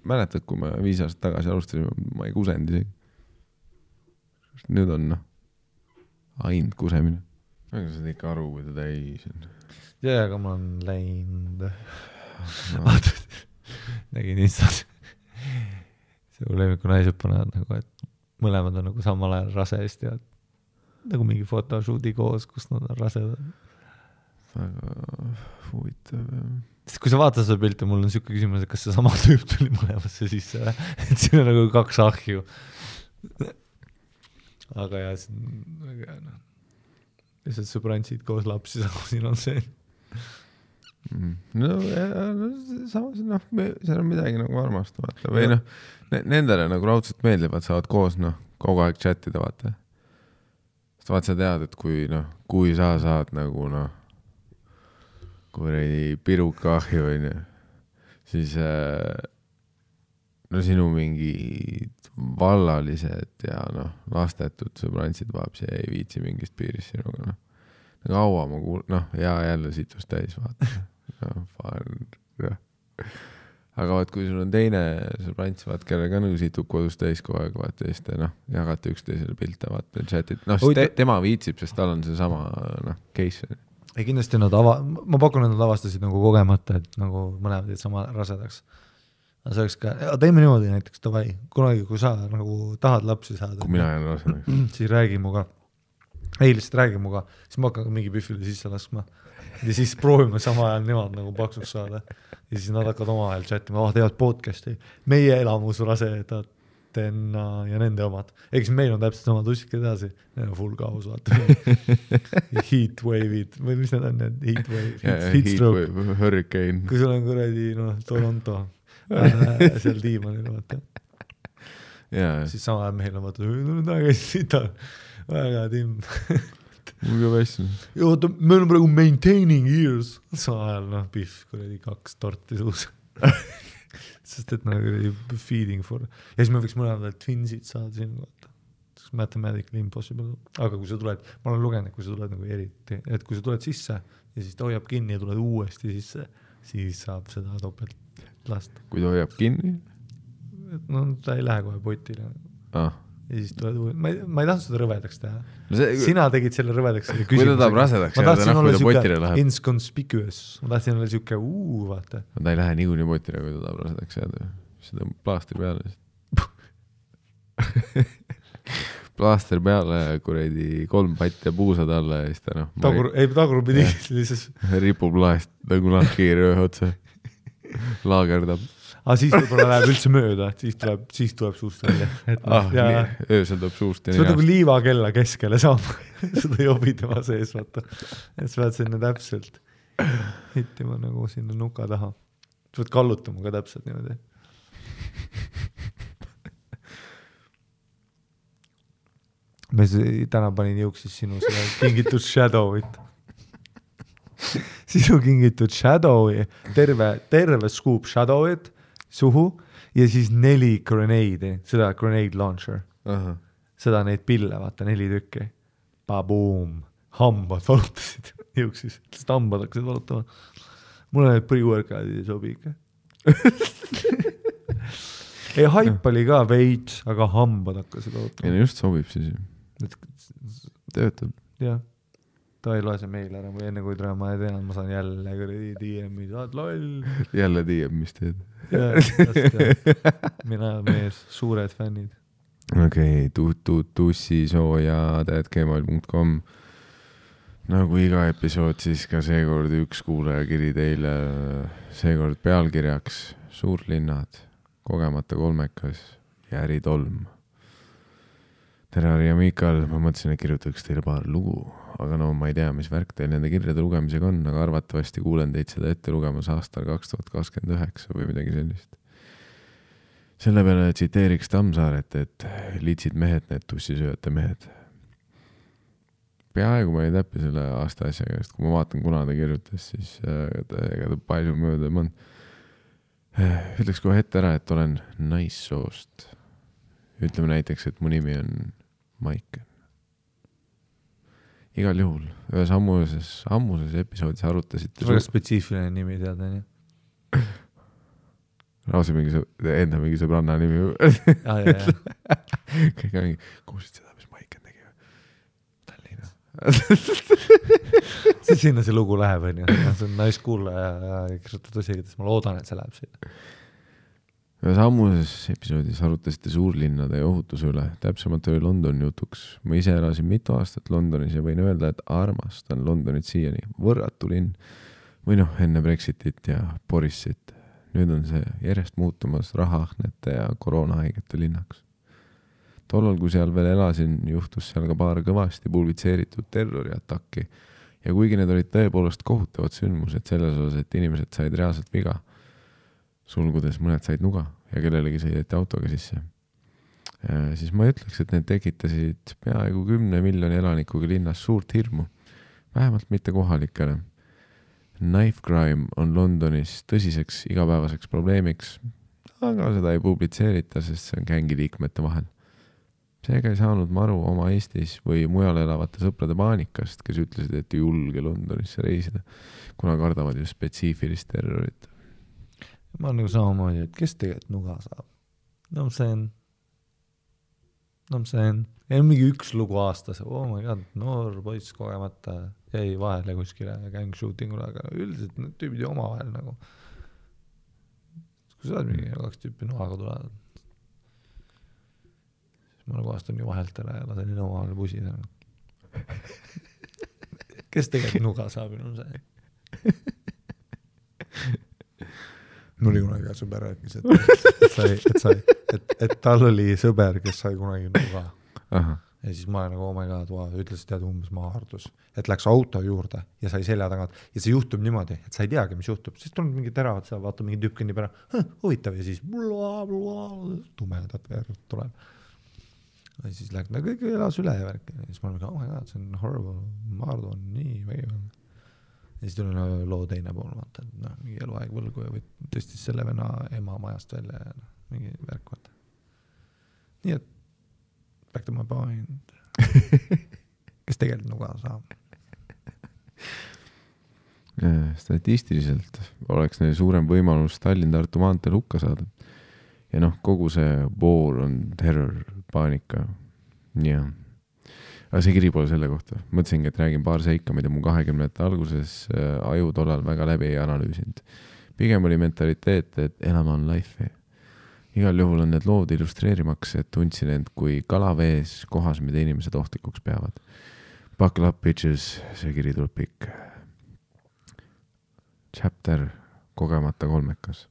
mäletad, kui me 5 aastat tagasi alustasime, ma ei kusenud isegi. Nüüd on, ainult kusemine. Aga sa teed ikka aru, kui ta täis on. Ja, aga ma olen läinud. Nägin Instas. See lemiku naised panevad nagu, et mõlemad on nagu samal ajal raseist ja nagu mingi photoshooti koos, kus nad on rasedad. Väga huvitav. Sest kui sa vaatad seda pilti, mul on siuke küsimus, et kas see sama tüüp tuli mõlemasse sisse, et siin on nagu 2 ahju. Aga jah, see on väga hea. Lihtsalt sõbrantsid koos lapsi, siin on see. No samas, seal on midagi nagu armast, vaata. Või nendele nagu raudselt meeldivad, saavad koos kogu aeg chatida, vaata. Sest vaat sa tead, et kui sa saad nagu kui piruka ahju, siis sinu mingi vallalised ja lastetud sõbrantsid vaapsi ei viitsi mingist piirist sinuga. Kaua ma ja jälle situs täis, vaata. Aga vaat, kui sul on teine sõbrants, vaat, kellega situb kodus täis kogu aeg, vaata, ja siis jagate üksteisele pilte, vaata, chatit. Tema viitsib, sest tal on see sama case. Ei, kindlasti ma pakun, et nad avastasid nagu kogemata, et nagu mõlemad sama rasedaks. Aga see oleks ka, teeme niimoodi näiteks, tavai, kunagi, kui sa nagu tahad lapsi saada. Kui mina jään rasedaks. Siis räägi muga. Ei, lihtsalt räägi muga. Siis ma hakkan mingi pühvile sisse laskma. Ja siis proovime sama ajal nemad nagu paksuks saada. Ja siis nad hakkavad oma ajal chatima, teevad podcasti. Meie elamus rasedatena ja nende omad. Eks meil on täpselt sama tussik edasi. Need on full kaos, vaata. Heatwave'id. Või mis need on need? Heatstroke. Hurricane. Kui sul on kuradi, Toronto. Seal diimanil, vaata. Siis sama ajal meil on vaata, väga timm. Mul ka vässin. Oota, me oleme praegu maintaining years. Sama ajal, pihv, kuradi 2 torti suus. Sest et feeding for. Ja siis me võiks mõlemad twinsid saada siin, vaata. Mathematically impossible. Aga kui sa tuled, ma olen lugenud, kui sa tuled nagu eriti, et kui sa tuled sisse ja siis ta hoiab kinni ja tuled uuesti sisse, siis saab seda topelt lasta. Kui ta hoiab kinni? Ta ei lähe kohe potile. Ja siis tuled uuesti. Ma ei tahtnud seda rõvedaks teha. Sina tegid selle rõvedaks. Kui ta tahab rasedaks jääda, kui ta potile läheb. Inconspicuous. Ma tahtsin olla siuke vaata. Ta ei lähe niikuinii potile, kui ta tahab rasedaks jääda. Siis ta on plaastri peale. Plaastri peale, kuredi 3 patt ja puusad alla ja siis ta tagurpidi ripub laest nagu lahkiiri ühe otsa. Laagerdab. Aga siis võib-olla läheb üldse mööda, siis tuleb suust välja. Öösel tuleb suust. See on nagu liivakella keskele saab seda jobi tema sees, vaata. Et sa pead sinna täpselt hittima nagu sinna nuka taha. Sa pead kallutama ka täpselt niimoodi. Me täna panin jõuksis sinu kingitud Shadowit. Sinu kingitud Shadowi, terve scoop Shadowit suhu ja siis 4 grenade'i, seda grenade launcher. Seda neid pille, vaata, 4 tükki. Baboom. Hambad valutasid jõuksis. Sest hambad hakkasid valutama. Mulle need pre-workoutid ei sobi ikka. Ei, haip oli ka veits, aga hambad hakkasid valutama. Ja just sobib siis. Töötab. Jah. ta ei loe see meil ära või enne kui täna ma ei tea, ma saan jälle DM-i, saad loll. Jälle DM, mis teed? Mina mees, suured fännid. Okei, tussisooja@gmail.com. Nagu iga episood, siis ka seekord üks kuulajakiri teile, seekord pealkirjaks Suurlinnad, kogemata kolmekas ja äritolm. Tere, Harri ja Miikal, ma mõtlesin, et kirjutaks teile paar lugu, aga no ma ei tea, mis värk teil nende kirjade lugemisega on, aga arvatavasti kuulen teid seda ette lugemas aastal 2029 või midagi sellist. Selle peale tsiteeriks Tammsaaret, et liitsid mehed, need tussisööjate mehed. Peaaegu ma ei täppi selle aasta asjaga, sest kui ma vaatan, kuna ta kirjutas, siis ega ta palju mööda ei mõnd. Ütleks kohe ette ära, et olen naissoost. Ütleme näiteks, et mu nimi on Maiken. Igal juhul, ühes ammuses episoodis arutasite... Väga spetsiifiline nimi teada, nii? Rausi enda mingi sõbranna nimi. Kõik on mingi, kuulsid seda, mis Maiken tegi? Tallinna. Sinna see lugu läheb, on ju. See on naiskuullaja ja kirjutab tõsiga, ma loodan, et see läheb sinna. Ühes ammuses episoodis arutasite suurlinnade ja ohutuse üle, täpsemalt oli London jutuks. Ma ise elasin mitu aastat Londonis ja võin öelda, et armastan Londonit siiani. Võrratu linn. Või noh, enne Brexitit ja Borisit. Nüüd on see järjest muutumas rahaahnete ja koroonahaigete linnaks. Tollal, kui seal veel elasin, juhtus seal ka paar kõvasti pulvitseeritud terroriatakki. Ja kuigi need olid tõepoolest kohutavad sündmused selles osas, et inimesed said reaalselt viga, sulgudes mõned said nuga ja kellelegi sõideti autoga sisse. Siis ma ütleks, et need tekitasid peaaegu 10 miljoni elanikuga linnas suurt hirmu. Vähemalt mitte kohalikele. Knife crime on Londonis tõsiseks igapäevaseks probleemiks, aga seda ei publitseerita, sest see on gängiliikmete vahel. Seega ei saanud ma aru oma Eestis või mujal elavate sõprade paanikast, kes ütlesid, et ei julge Londonisse reisida, kuna kardavad ju spetsiifilist terrorit. Ma olen nagu samamoodi, et kes tegelikult nuga saab? No see on mingi üks lugu aastas, oh my god, noor poiss kogemata jäi vahele kuskile gang shootingule, aga üldiselt need tüübid ju oma vahel nagu. Kui sa oled mingi 2 tüüpi nuhaga tulevad, siis ma nagu vastan ju vahelt ära ja lasen oma vahel pusida. Kes tegelikult nuga saab, on see? Mul oli kunagi sõber rääkis, et tal oli sõber, kes sai kunagi nuga. Aha. Ja siis ma nagu, oh my god, ütles, tead umbes maardus, et läks auto juurde ja sai selja tagant. Ja see juhtub niimoodi, et sa ei teagi, mis juhtub. Siis tuleb mingi teravad, sa vaata mingi tüüp kõnnib ära, huvitav ja siis tumedat verd tuleb. Ja siis läks, kõik elas üle ja värk. Ja siis ma olen, oh my god, see on horrible, maardu on nii vägival. Ja siis tuli loo teine pool, vaata, et mingi eluaeg võlgu ja tõstis selle venna ema majast välja ja mingi värk, vaata. Nii et back to my point. Kes tegelikult nuga saab? Statistiliselt oleks neil suurem võimalus Tallinn-Tartu maanteel hukka saada. Ja noh, kogu see boor on terror, paanika. Ja. Aga see kiri pole selle kohta. Mõtlesingi, et räägin paar seika, mida mu 20. alguses aju tollal väga läbi ei analüüsinud. Pigem oli mentaliteet, et elama on life. Igal juhul on need lood illustreerimaks, et tundsin end kui kalavees kohas, mida inimesed ohtlikuks peavad. Buckle up, bitches, see kiri tuleb pikk. Chapter, kogemata kolmekas.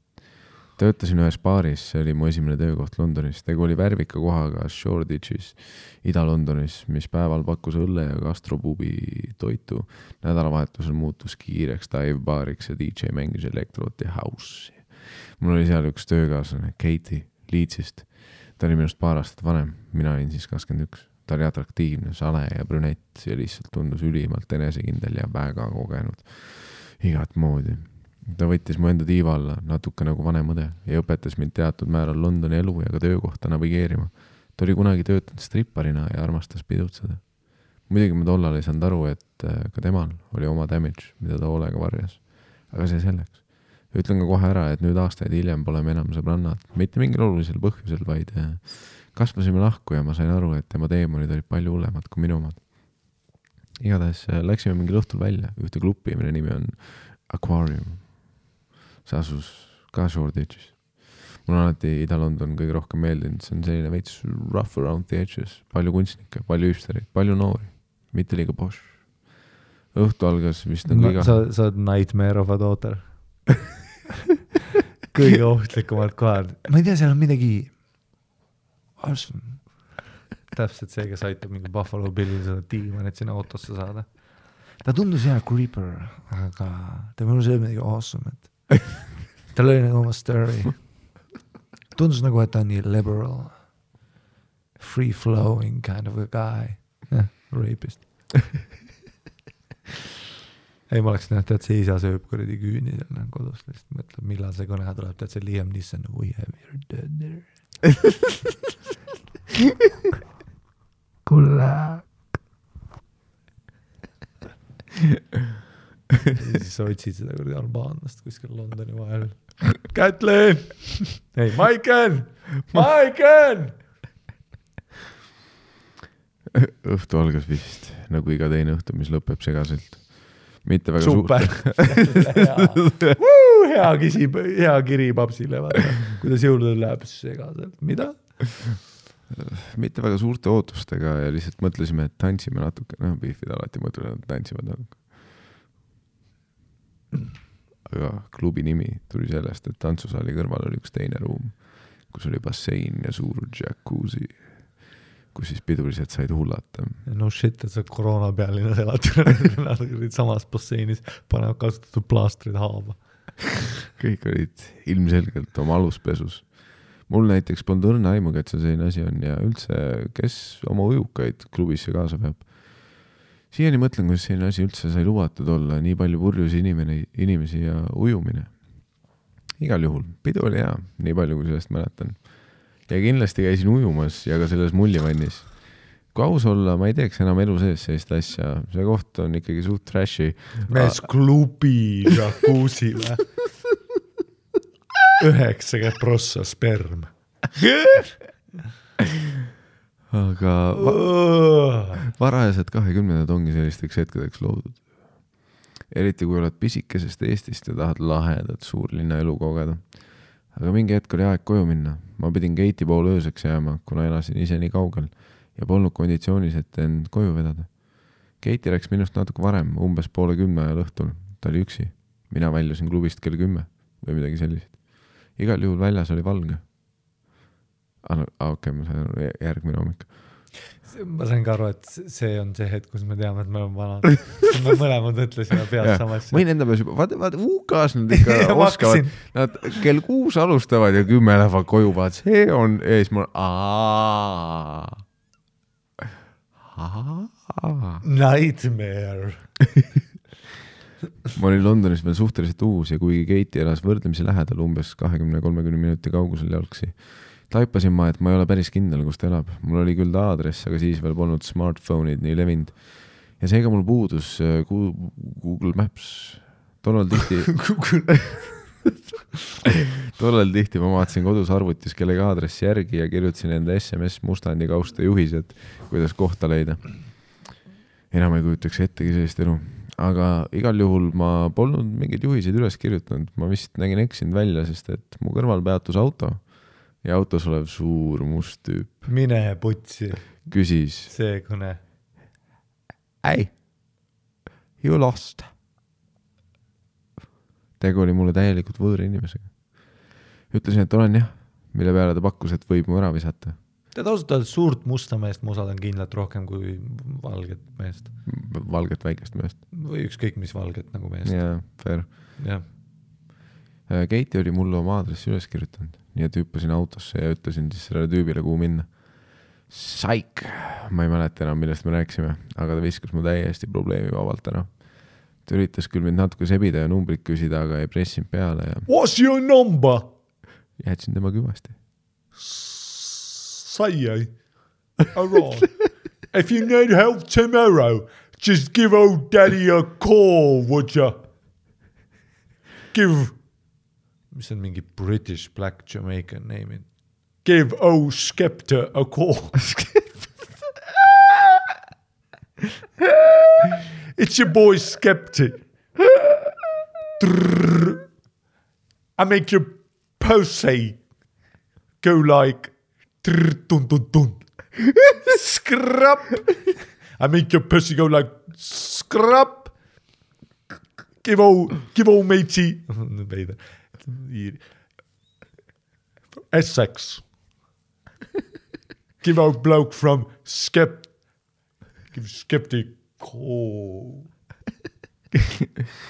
Töötasin ühes baaris, see oli mu esimene töökoht Londonis. Tegu oli värvika kohaga Shoreditchis, Ida-Londonis, mis päeval pakkus õlle ja gastropubi toitu. Nädalavahetusel muutus kiireks dive-baariks ja DJ mängis elektrot ja house'i. Mul oli seal üks töökaaslane, Katie Leedsist. Ta oli minust paar aastat vanem, mina olin siis 21. Ta oli atraktiivne, sale ja brünett ja lihtsalt tundus ülimalt enesekindel ja väga kogenud. Igat moodi. Ta võttis mu enda tiiva alla, natuke nagu vanem õde ja õpetas mind teatud määral Londoni elu ja ka töökohta navigeerima. Ta oli kunagi töötanud stripparina ja armastas pidutseda. Muidugi ma tollal ei saanud aru, et ka temal oli oma damage, mida ta hoolega varjas. Aga see selleks. Ütlen ka kohe ära, et nüüd aastaid hiljem pole me enam sõbrannad. Mitte mingil olulisel põhjusel, vaid kasvasime lahku ja ma sain aru, et tema teemonid olid palju hullemad kui minu omad. igatahes läksime mingil õhtul välja ühte klubi, mille nimi on Aquarium. See asus ka Shoreditchis. Mul on alati Ida-London kõige rohkem meeldinud, see on selline veits rough around the edges, palju kunstnikke, palju hüpsterid, palju noori, mitte liiga posh. Õhtu algas vist on kõige... Sa oled nightmare of a daughter. Kõige ohtlikumad kohad. Ma ei tea, seal on midagi täpselt see, kes aitab mingi Buffalo Billil seda tiima, et sinna autosse saada. Ta tundus hea creeper, aga ta mõnus oli midagi awesome, et tal oli nagu oma story. Tundus nagu, et ta on nii liberal, free-flowing kind of a guy. Rapist. Ei, ma oleks näht, et see isa sööb kuradi küüni seal kodus, lihtsalt mõtleb, millal see kõne tuleb, tead see Liam Neeson, we have your dead there. Kulla. Ja siis sa otsid seda kuradi albaanlast kuskil Londoni vahel. Kätlin! Ei, Maiken! Õhtu algas vist, nagu iga teine õhtu, mis lõpeb segaselt. Mitte väga super. Hea kiri papsile, vaata. Kuidas jõuludel läheb segaselt. Mida? Mitte väga suurte ootustega ja lihtsalt mõtlesime, et tantsime natuke. Beefid alati mõtlevad, et tantsivad natuke. Aga klubi nimi tuli sellest, et tantsusaali kõrval oli üks teine ruum, kus oli bassein ja suur jacuzzi, kus siis pidulised said hullata. No shit, et sa koroona pealina elad samas basseinis, panevad kasutatud plaastrid haava. Kõik olid ilmselgelt oma aluspesus. Mul näiteks polnud õrna aimuga, et see selline asi on ja üldse, kes oma ujukaid klubisse kaasa peab. Siiani mõtlen, kuidas selline asi üldse sai lubatud olla, nii palju purjus inimesi ja ujumine. Igal juhul, pidu oli hea, nii palju kui sellest mäletan. Ja kindlasti käisin ujumas ja ka selles mullivannis. Kui aus olla, ma ei teeks enam elu sees sellist asja. See koht on ikkagi suht trashi. Mees klubi jacuzile. 90% sperm. Aga varajased 20 ongi sellisteks hetkedeks loodud. Eriti kui oled pisikesest Eestist ja tahad lahedat suurlinna elu kogeda. Aga mingi hetk oli aeg koju minna. Ma pidin Keiti poole ööseks jääma, kuna elasin ise nii kaugel ja polnud konditsioonis, et end koju vedada. Keiti läks minust natuke varem, umbes 9:30 ajal õhtul. Ta oli üksi. Mina väljusin klubist kell 10 või midagi sellist. Igal juhul väljas oli valge. Okei, ma sain järgmine hommik. Ma sain ka aru, et see on see hetk, kus me teame, et me oleme vanad. Me mõlemad mõtlesime pead samas. Mõin enda peas juba, vaata UK-s nad ikka oskavad. Nad kell 6 alustavad ja 10 lähevad koju, vaat see on ees. Nightmare. Ma olin Londonis veel suhteliselt uus ja kuigi Keiti elas võrdlemisi lähedal umbes 20-30 minuti kaugusel jalgsi, taipasin ma, et ma ei ole päris kindel, kus ta elab. Mul oli küll ta aadress, aga siis veel polnud smartphone'id nii levinud. Ja seega mul puudus Google Maps. Tollal tihti ma vaatasin kodus arvutis kellegi aadressi järgi ja kirjutasin enda SMS Mustandi kausta juhised, kuidas kohta leida. Enam ei kujutaks ettegi sellist elu. Aga igal juhul ma polnud mingeid juhiseid üles kirjutanud. Ma vist nägin eksinud välja, sest et mu kõrval peatus auto ja autos olev suur must tüüp. Mine putsi. Küsis. See kõne. Hey, you lost. Tegu oli mulle täielikult võõra inimesega. Ütlesin, et olen jah, mille peale ta pakkus, et võib mu ära visata. Te tausutad suurt musta meest, ma usaldan kindlalt rohkem kui valget meest. Valget väikest meest. Või ükskõik mis valget nagu meest. Jaa, fair. Ja. Keiti oli mulle oma aadressi üles kirjutanud, nii et hüppasin autosse ja ütlesin siis sellele tüübile, kuhu minna. Saik! Ma ei mäleta enam, millest me rääkisime, aga ta viskas mu täiesti probleemi vabalt ära. Ta üritas küll mind natuke sebida ja numbrit küsida, aga ei pressinud peale. Ja... What's your number? Jätsin tema küvasti. Say, alright. If you need help tomorrow, just give old daddy a call, would you? Give, mis on mingi British Black Jamaican name. Give old Skepta a call. It's your boy Skeptic. I make your pussy go like dun dun dun. Scrap. I make your pussy go like scrap. Give old matey. Essex. Give old bloke from Skeptic. Oh.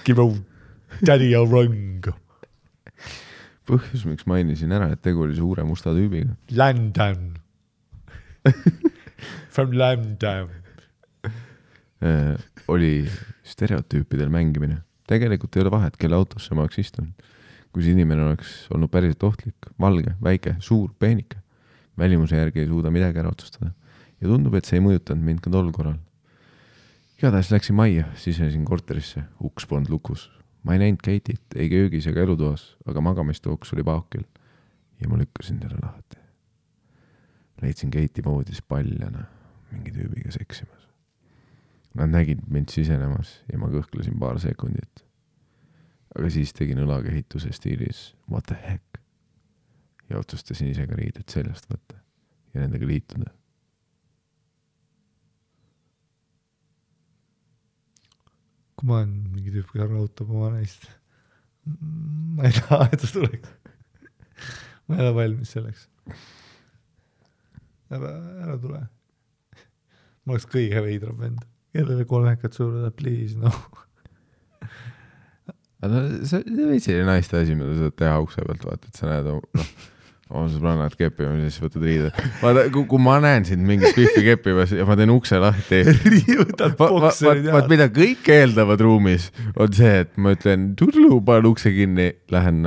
Give old daddy a rung. Põhjus, miks mainisin ära, et tegu oli suure musta tüübiga. London. From London. Oli stereotüüpidel mängimine. Tegelikult ei ole vahet, kelle autosse ma oleks istunud. Kui see inimene oleks olnud päriselt ohtlik, valge, väike, suur, peenike. Välimuse järgi ei suuda midagi ära otsustada. Ja tundub, et see ei mõjutanud mind ka tol korral. Igatahes läksin majja, sisenesin korterisse, uks polnud lukus. Ma ei näinud Keitit, ei köögis ega elutoas, aga magamistuks oli paukil. Ja ma lükkasin selle lahti. Leidsin Keiti voodis paljana, mingi tüübiga seksimas. Nad nägid mind sisenemas ja ma kõhklesin paar sekundit. Aga siis tegin õlakehituse stiilis what the heck ja otsustasin ise ka riided seljast võtta ja nendega liituda. Kui ma olen mingi tüüp, kes rautab oma naist, ma ei taha, et ta tuleks. Ma ei ole valmis selleks. Ära tule. Ma oleks kõige veidram vend. Kellele kolmekad suurde, please, no. Aga see võid selline naiste asi, mida sa teha ukse pealt, vaata, et sa näed oma sõbrannad keppimas ja siis võtad riide. Vaata, kui ma näen sind mingit pihvi keppimas ja ma teen ukse lahti. Riivutad bokserid ja. Vaat mida kõik eeldavad ruumis on see, et ma ütlen, tudlu, panen ukse kinni, lähen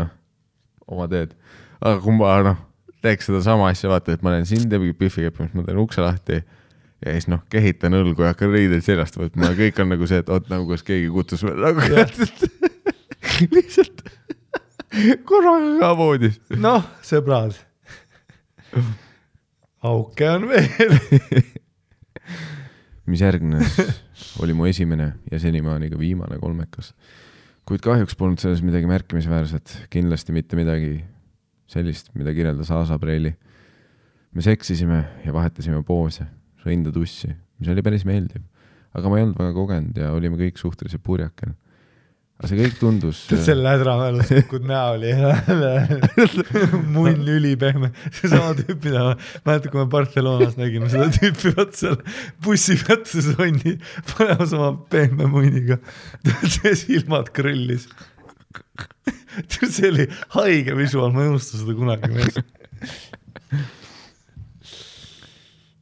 oma teed. Aga kui ma teeks seda sama asja, vaata, et ma näen sind ja pihvi keppimas, ma teen ukse lahti ja siis kehitan õlgu ja hakkan riideid seljast võtma ja kõik on nagu see, et oot nagu kas keegi kutsus nagu lihtsalt korraga ka voodis. Noh, sõbrad. Auke on veel. Mis järgnes oli mu esimene ja senimaani ka viimane kolmekas. Kuid kahjuks polnud selles midagi märkimisväärset, kindlasti mitte midagi sellist, mida kirjeldas Aasa Preili. Me seksisime ja vahetasime poose. Sõinda tussi, mis oli päris meeldiv. Aga ma ei olnud väga kogenud ja olime kõik suhteliselt purjakel. Aga see kõik tundus... Selle hädramälus kukud näo oli munn ülipehme. See sama tüüp, mida ma mäletan, kui me Barcelonas nägime seda tüüpi vaat seal bussi peatus onni panemas oma pehme munniga. See silmad krõllis. See oli haige visuaal, ma ei unusta seda kunagi mees.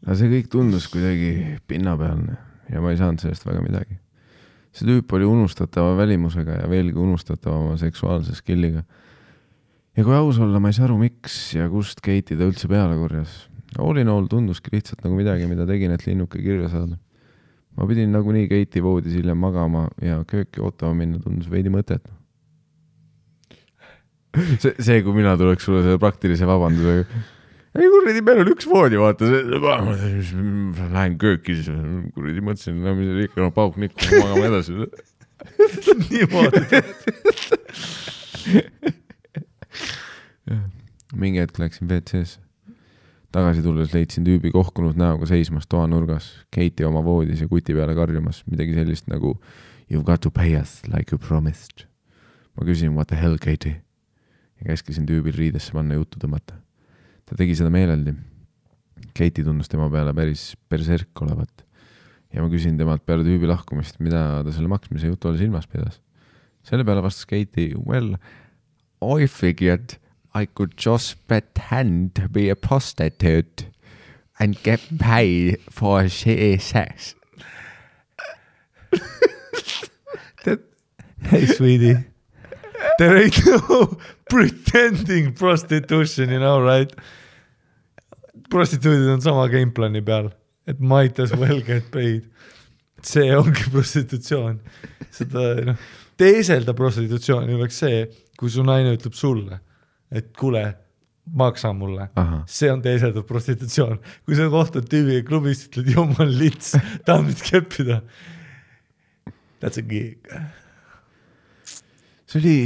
Aga see kõik tundus kuidagi pinnapealne ja ma ei saanud sellest väga midagi. See tüüp oli unustatava välimusega ja veelgi unustatava seksuaalse skilliga. Ja kui aus olla, ma ei saa aru, miks ja kust Keiti ta üldse peale korjas. All in all tunduski lihtsalt nagu midagi, mida tegin, et linnuke kirja saada. Ma pidin nagunii Keiti voodis hiljem magama ja kööki ootama minna tundus veidi mõtet. See, kui mina tuleks sulle selle praktilise vabandusega. Ei kurridi, meil on üks voodi, vaata. Lähen kööki, siis kurridi mõtlesin, mis oli ikka pauk nikku, magama edasi. Niimoodi. Mingi hetk läksin WC-sse. Tagasi tulles leidsin tüübi kohkunud näoga seismas toanurgas, Keiti oma voodis ja kuti peale karjumas, midagi sellist nagu you've got to pay us like you promised. Ma küsin, what the hell, Keiti? Ja käskisin tüübil riidesse panna juttu tõmmata. Ta tegi seda meeleldi. Keiti tundus tema peale päris perserk olevat. Ja ma küsin temalt peale tüübi lahkumist, mida ta selle maksmise jutu oli silmas pidas. Selle peale vastas Keiti, well, I figured I could just pretend to be a prostitute and get paid for shitty sex. Hey, sweetie. There ain't no pretending prostitution, you know, right? Prostituudid on sama gameplani peal, et might as well get paid. See ongi prostitutsioon. Seda, teeselda prostitutsiooni oleks see, kui su naine ütleb sulle, et kuule, maksa mulle. Aha. See on teeseldav prostitutsioon. Kui sa kohtad tüübiga klubist, ütled, jumal lits, tahad mind keppida. That's a gig. See oli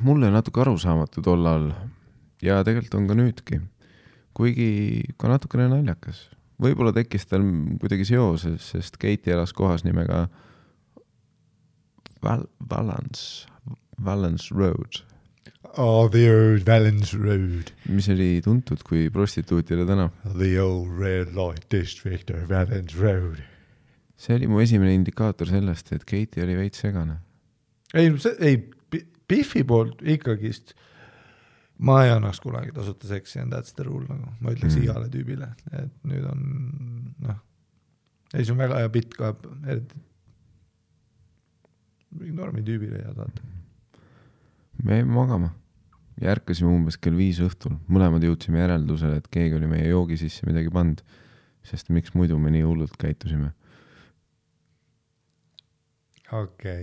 mulle natuke arusaamatu tollal ja tegelikult on ka nüüdki, kuigi ka natukene naljakas. Võib-olla tekkis tal kuidagi seoses, sest Katie elas kohas nimega Valence Road. Oh, the old Valence Road. Mis oli tuntud kui prostituutide tänav. The old red light district of Valence Road. See oli mu esimene indikaator sellest, et Katie oli veits segane. Ei, Biffi poolt ikkagist ma ei annaks kunagi tasuta seksi and that's the rule, nagu ma ütleks igale tüübile, et nüüd on ei, see on väga hea bitt ka normi tüübile ja saata. Me jäime magama ja ärkasime umbes kell 5 õhtul. Mõlemad jõudsime järeldusele, et keegi oli meie joogi sisse midagi pand, sest miks muidu me nii hullult käitusime. Okei.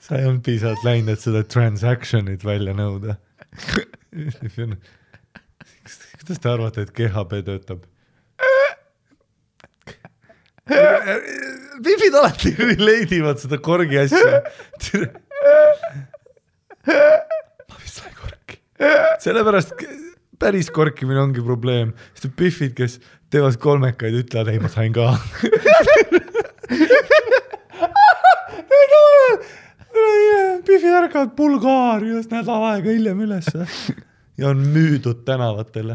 Sa ei olnud piisavalt läinud, et seda transactionit välja nõuda. Kuidas te arvate, et GHB töötab? Pipid alati leidivad seda korgi asja. Ma vist sain korki. Sellepärast päris korkimine ongi probleem. Sest Pifid, kes teevad kolmekaid, ütlevad, ei, ma sain ka. Pifid ärkavad Bulgaarias nädal aega hiljem üles ja on müüdud tänavatele.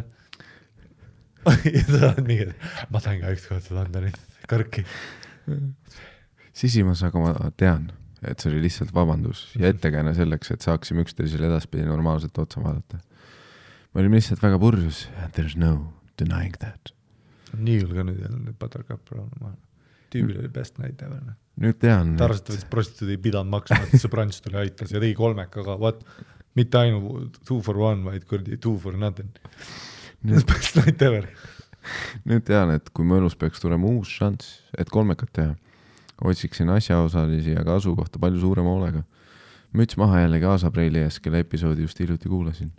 Ja sa oled mingi, ma sain ka ükskord seda anda nüüd kõrki. Sisimas, aga ma tean, et see oli lihtsalt vabandus ja ettekääne selleks, et saaksime üksteisele edaspidi normaalselt otsa vaadata. Me olime lihtsalt väga purjus and there's no denying that. Nii ka nüüd jälle Buttercup Brown. Tüübil oli best night ever. Nüüd tean. Ta arvast, et prostituudi ei pidanud maksma, et see branch tuli aitas ja tegi kolmekaga, mitte ainu 2 for 1, vaid 2 for nothing. Best night ever. Nüüd tean, et kui mu elus peaks tulema uus šants, et kolmekat teha, otsiksin asjaosalisi ja ka asukohta palju suurema hoolega. Müts maha jällegi Aasapreili ees, kelle episoodi just hiljuti kuulasin.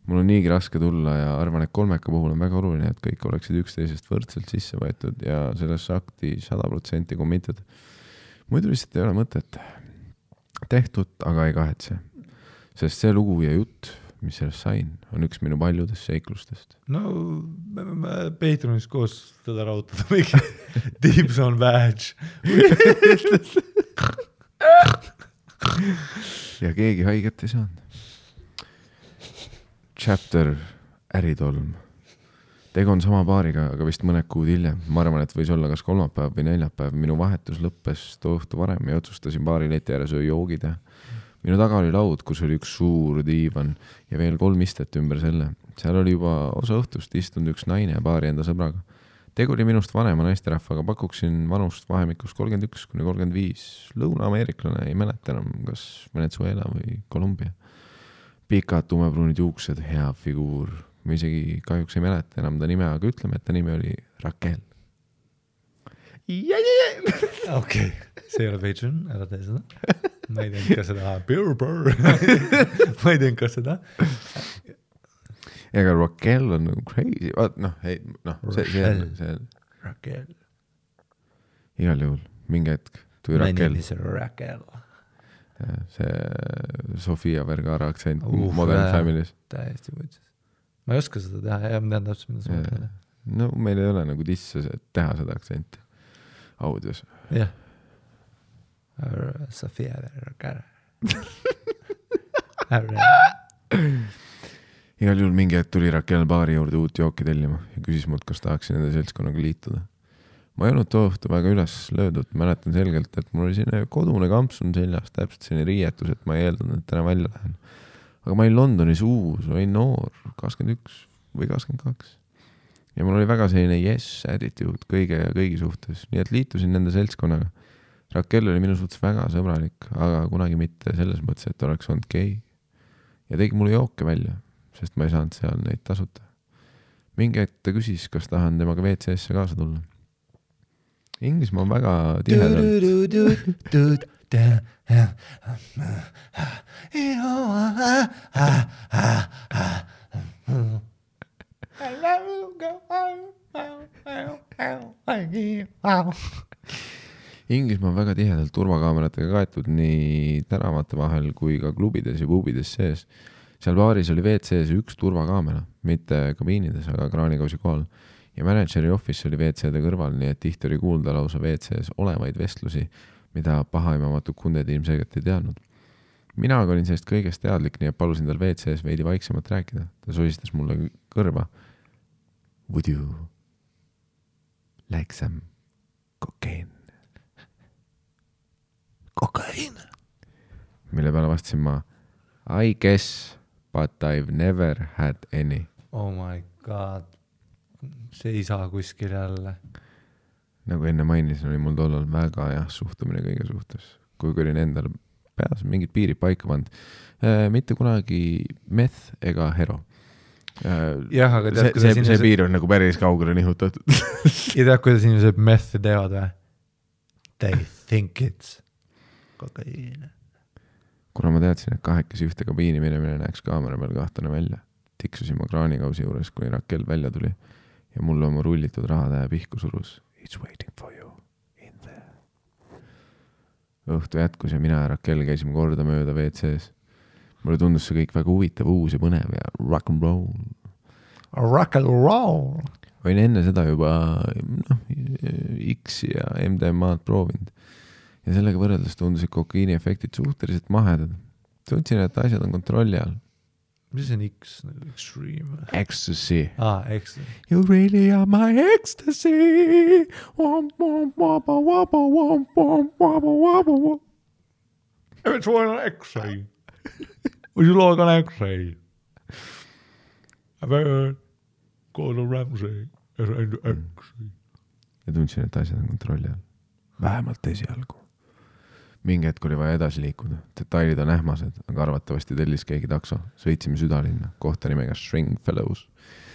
Mul on niigi raske tulla ja arvan, et kolmeka puhul on väga oluline, et kõik oleksid üksteisest võrdselt sisse võetud ja sellesse akti 100% committed. Muidu lihtsalt ei ole mõtet. Tehtud, aga ei kahetse. Sest see lugu ja jutt, mis sellest sain, on üks minu paljudest seiklustest. No, me Patreonis koos teda rautada mingi tips on badge. Ja keegi haiget ei saanud. Chapter äritolm. Tegu on sama paariga, aga vist mõned kuud hiljem. Ma arvan, et võis olla kas kolmapäev või neljapäev. Minu vahetus lõppes too õhtu varem ja otsustasin baari leti ääres joogi teha. Minu taga oli laud, kus oli üks suur diivan ja veel 3 istet ümber selle. Seal oli juba osa õhtust istunud üks naine ja baari enda sõbraga. Tegu oli minust vanema naisterahvaga, pakuksin vanust vahemikus 31–35. Lõuna-ameeriklane, ei mäleta enam, kas Venezuela või Kolumbia. Pikad tumepruunid juuksed, hea figuur. Ma isegi kahjuks ei mäleta enam ta nime, aga ütleme, et ta nimi oli Raquel. Okei, see ei ole Patreon, ära tee seda. Ma ei teinud ka seda. Ma ei teinud ka seda. Ega Raquel on nagu crazy. See Raquel. Igal juhul, mingi hetk tuli Raquel. My name is Raquel. See Sofia Vergara aktsent Modern Families. Täiesti võitses. Ma ei oska seda teha, ja ma tean täpselt, mida sa mõtled. No meil ei ole nagu tisse teha seda aktsenti audios. Jah. Sofia Vergara. Igal juhul mingi hetk tuli Raquel baari juurde uut jooki tellima ja küsis mult, kas tahaksin nende seltskonnaga liituda. Ma ei olnud too õhtu väga üles löödud, mäletan selgelt, et mul oli selline kodune kampsun seljas, täpselt selline riietus, et ma ei eeldanud, et täna välja lähen. Aga ma olin Londonis uus, olin noor, 21 või 22. Ja mul oli väga selline yes attitude kõigi suhtes, nii et liitusin nende seltskonnaga. Raquel oli minu suhtes väga sõbralik, aga kunagi mitte selles mõttes, et oleks olnud gei. Ja tegi mulle jooke välja, sest ma ei saanud seal neid tasuta. Mingi hetk ta küsis, kas tahan temaga WC-sse kaasa tulla. Inglismaa on väga tihedalt. Inglismaa on väga tihedalt turvakaameratega kaetud nii tänavate vahel kui ka klubides ja pubides sees. Seal baaris oli WC-s üks turvakaamera, mitte kabiinides, aga kraanikausi kohal. Ja manageri office oli WC-de kõrval, nii et tihti oli kuulda lausa WC-s olevaid vestlusi, mida pahaimamatud kunded ilmselgelt ei teadnud. Mina olin sellest kõigest teadlik, nii et palusin tal WC-s veidi vaiksemalt rääkida. Ta soistas mulle kõrva. Would you like some cocaine? Kokain. Mille peale vastasin ma, I guess, but I've never had any. Oh my god. See ei saa kuskil jälle. Nagu enne mainisin, oli mul tollal väga suhtumine kõige suhtes. Kui olin endal peas mingid piirid paika pand. Mitte kunagi meth ega hero. Jah, aga tead, see piir on nagu päris kaugele nihutatud. Ja tead, kuidas inimesed meth'i teevad või? They think it's kokaiin. Kuna ma teadsin, et kahekesi ühte kabiini minemine näeks kaamera peal kahtane välja, tiksusin ma kraanikausi juures, kui Rakel välja tuli ja mulle oma rullitud rahatähe pihku surus. It's waiting for you in there. Õhtu jätkus ja mina ja Rakel käisime korda mööda WC-s. Mulle tundus see kõik väga huvitav, uus ja põnev ja rock and roll. Rock and roll. Võin enne seda juba X ja MDMA-d proovinud. Ja sellega võrreldes tundusid kokaiini efektid suhteliselt mahedad. Tundsin, et asjad on kontrolli all. Mis on X? Extreme? Ecstasy. Ecstasy. You really are my ecstasy. Every one on X-ray. Would you like an X-ray? I've heard Gordon Ramsay is into X-ray. Ja tundsin, et asjad on kontrolli all. Vähemalt esialgu. Mingi hetk oli vaja edasi liikuda. Detailid on ähmased, aga arvatavasti tellis keegi takso. Sõitsime südalinna, kohta nimega Stringfellows.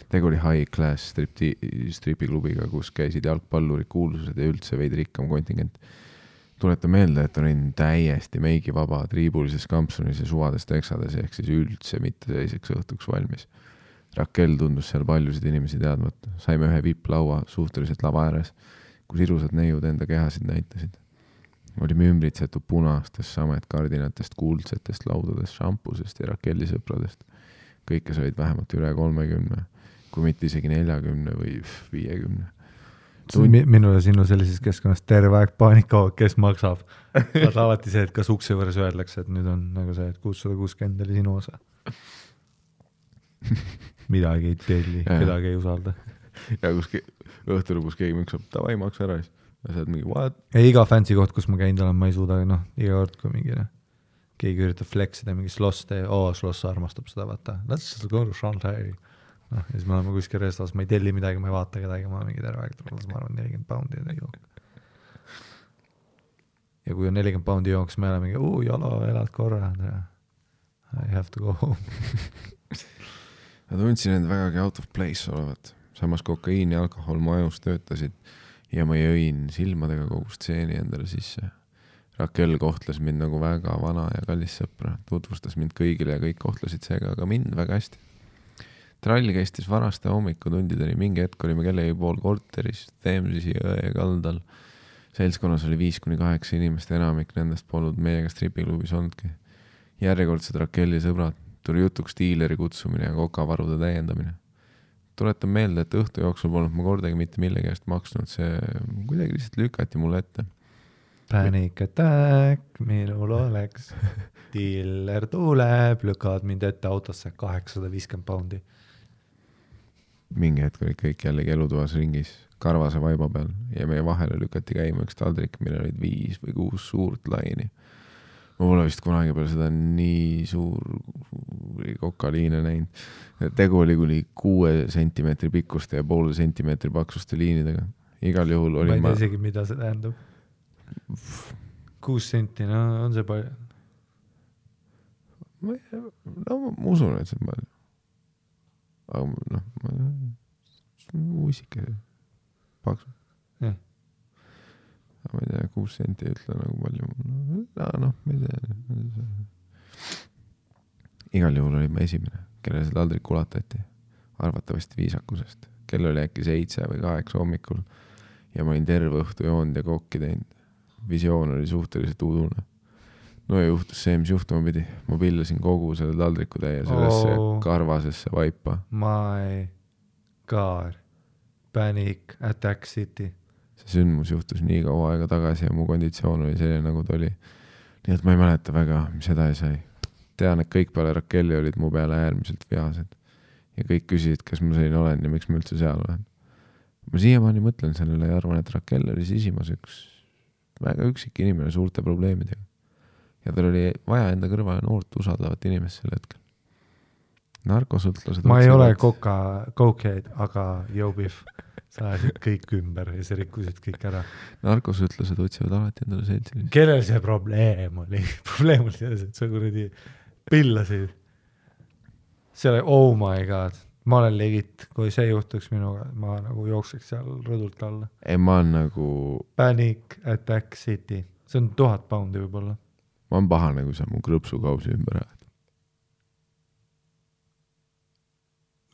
Tegu oli high class stripiklubiga, kus käisid jalgpallurid, kuulsused ja üldse veidi rikkam kontingent. Tuleta meelde, et olin täiesti meigi vaba, triibulises kampsunis ja suvades teksades, ehk siis üldse mitte selliseks õhtuks valmis. Rakel tundus seal paljusid inimesi teadmat. Saime ühe VIP-laua suhteliselt lava ääres, kus irusad neiud enda kehasid näitasid. Olime ümbritsetud punastest, samet kardinatest, kuldsetest laudadest, šampusest ja Rakeli sõpradest. Kõik, kes olid vähemalt üle 30, kui mitte isegi 40 või 50. Minule sinu sellises keskkonnas terve aeg paanika, kes maksab. Vaat alati see, et kas ukse võrres öeldakse, et nüüd on nagu see, et 660 oli sinu osa. Midagi ei telli, kedagi ei usalda. Ja kus õhtul lõpus keegi maksab, tavai maksa ära. Ja saad mingi, what? Ja iga fancy koht, kus ma käinud olen, ma ei suuda, iga kord, kui mingi keegi üritab flexida mingi sloss sloss armastab seda, vaata. Let's go to Shanghai. Ja siis me oleme kuskil restas, ma ei telli midagi, ma ei vaata kedagi, ma mingi terve aeg tulles, ma arvan 40 poundi ja jook. Ja kui on 40 poundi jooks, me oleme mingi, jalo, elad korra. I have to go home. Ma tundsin end vägagi out of place olevat. Samas kokaiin ja alkohol mu ajus töötasid ja ma jõin silmadega kogu stseeni endale sisse. Rakel kohtles mind nagu väga vana ja kallis sõpra. Tutvustas mind kõigile ja kõik kohtlesid seega aga mind väga hästi. Trall käistis varaste hommikutundideni, mingi hetk olime kellegi pool korteris, Themsisi jõe kaldal. Seltskonnas oli 5-8 inimest, enamik nendest polnud meiega stripiklubis olnudki. Järjekordsed Rakeli sõbrad, tuli jutuks diileri kutsumine ja kokavarude täiendamine. Tuletan meelde, et õhtu jooksul polnud ma kordagi mitte millegi eest maksnud, see kuidagi lihtsalt lükati mulle ette. Panic attack, minul oleks. Dealer tuleb, lükavad mind ette autosse 850 poundi. Mingi hetk oli kõik jällegi elutoas ringis, karvase vaiba peal ja meie vahele lükati käima üks taldrik, mille olid 5 või 6 suurt laini. Ma pole vist kunagi peale seda nii suur kokaliine näinud. Tegu oli kuni 6 sentimeetri pikkuste ja 0,5 sentimeetri paksuste liinidega. Igal juhul oli ma ei tea isegi, mida see tähendab. 6 senti, on see palju? Ma usun, et see on palju. Aga uisike paksu. Jah. Ma ei tea, 6 senti ei ütle nagu palju. Ma ei tea. Igal juhul oli ma esimene, kellele see taldrik ulatati. Arvatavasti viisakusest. Kell oli äkki 7 või 8 hommikul ja ma olin terve õhtu joonud ja kokki teinud. visioon oli suhteliselt udune. No ja juhtus see, mis juhtuma pidi. Ma pillasin kogu selle taldriku täie sellesse karvasesse vaipa. My God. Panic, Attack City. See sündmus juhtus nii kaua aega tagasi ja mu konditsioon oli selline, nagu ta oli. Nii et ma ei mäleta väga, mis seda ei sai. Tean, et kõik peale Rakelli olid mu peale äärmiselt vihased. Ja kõik küsisid, kas ma selline olen ja miks ma üldse seal olen. Ma siiamaani mõtlen sellele ja arvan, et Rakel oli sisimas üks väga üksik inimene suurte probleemidega. Ja tal oli vaja enda kõrvale noort usaldavat inimest sel hetkel. Narkosõltlased... Ma ei ole cokehead, aga Jobif, sa ajasid kõik ümber ja sa rikkusid kõik ära. Narkosõltlased otsivad alati endale seltsilisi. Kellel see probleem oli? Probleem oli selles, et sa kuradi pillasid. See oli, oh my god. Ma olen legit, kui see juhtuks minuga, ma nagu jookseks seal rõdult alla. Ei, ma on nagu... Panic, Attack City. See on 1000 poundi võib-olla. Ma on pahane, kui sa mu krõpsukausi ümber ajad.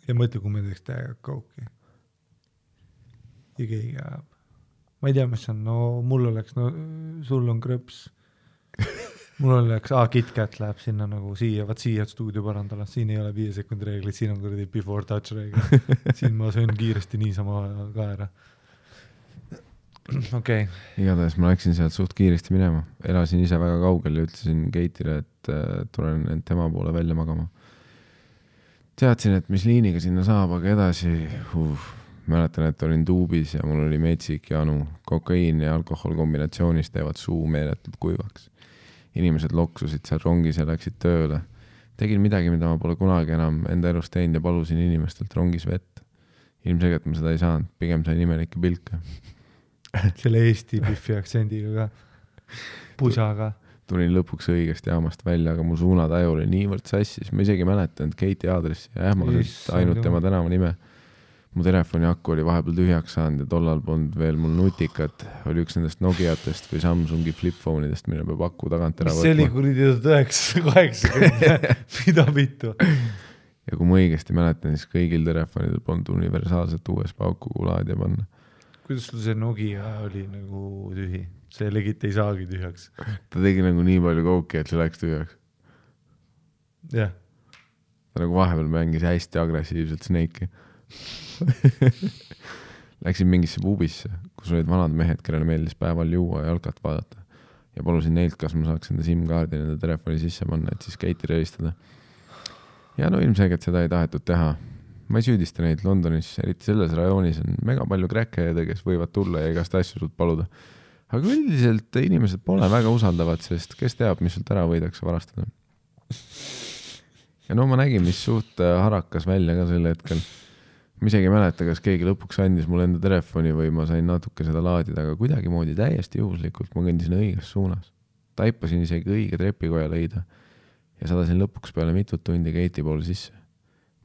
Ja mõtle, kui me teeks täiega kauki. Ja keegi ajab. Ma ei tea, mis on. No mul oleks, no sul on krõps. Mul oleks, KitKat läheb sinna nagu siia, vaat siia stuudio parandala. Siin ei ole 5 sekundi reeglid, siin on kuradi before touch reeglid. Siin ma söön kiiresti niisama ka ära. Okay. Igatahes ma läksin sealt suht kiiresti minema. Elasin ise väga kaugel ja ütlesin Keitile, et tulen end tema poole välja magama. Teadsin, et mis liiniga sinna saab, aga edasi mäletan, et olin tuubis ja mul oli metsik janu. Kokaiin ja alkohol kombinatsioonis teevad suu meeletult kuivaks. Inimesed loksusid seal rongis ja läksid tööle. Tegin midagi, mida ma pole kunagi enam enda elus teinud ja palusin inimestelt rongis vett. Ilmselgelt ma seda ei saanud, pigem sain imelikke pilke. Selle Eesti Biffi aktsendiga ka. Pusaga. Tulin lõpuks õigest jaamast välja, aga mu suunataju oli niivõrd sassis. Ma isegi mäletan, et Keiti aadressi ja ähmaselt ainult tema tänava nime. Mu telefoni akku oli vahepeal tühjaks saanud ja tollal polnud veel mul nutikat. Oli üks nendest Nokiatest või Samsungi flipfoneidest, mille peab aku tagant ära võtma. See oli kuridi 980. Mida vittu? Ja kui ma õigesti mäletan, siis kõigil telefonidel polnud universaalset USB auku laadija panna. Kuidas sul see Nokia oli nagu tühi? See legit ei saagi tühjaks. Ta tegi nagu nii palju kouki, et see läks tühjaks. Jah. Ta nagu vahepeal mängis hästi agressiivselt Snake'i. Läksin mingisse pubisse, kus olid vanad mehed, kellele meeldis päeval juua ja jalkat vaadata. Ja palusin neilt, kas ma saaks enda SIM-kaardi nende telefoni sisse panna, et siis Keiti reistada. Ja no ilmselgelt seda ei tahetud teha. Ma ei süüdista neid Londonis, eriti selles rajoonis on mega palju kräkkeede, kes võivad tulla ja igast asju sult paluda. Aga üldiselt inimesed pole väga usaldavad, sest kes teab, mis sult ära võidakse varastada. Ja no ma nägin, mis suht harakas välja ka sel hetkel. Ma isegi mäleta, kas keegi lõpuks andis mulle enda telefoni või ma sain natuke seda laadida, aga kuidagi moodi täiesti juhuslikult ma kõndisin õiges suunas. Taipasin isegi õige trepikoja leida ja sadasin lõpuks peale mitut tundi Keiti poole sisse.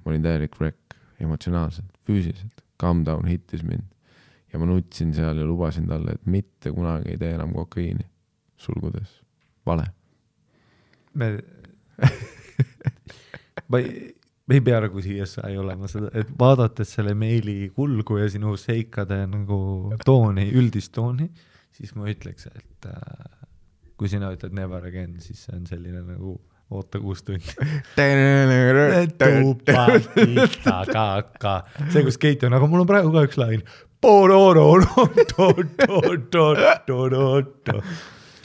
Ma olin täielik wreck, emotsionaalselt, füüsiliselt. Calm down hittis mind. Ja ma nutsin seal ja lubasin talle, et mitte kunagi ei tee enam kokaiini. Sulgudes. Vale. Me ei pea nagu siia ei olema seda, et vaadates selle meili kulgu ja sinu seikade nagu tooni, üldist tooni, siis ma ütleks, et kui sina ütled never again, siis see on selline nagu oota 6 tundi. See, kus Keiti on, aga mul on praegu ka üks lain.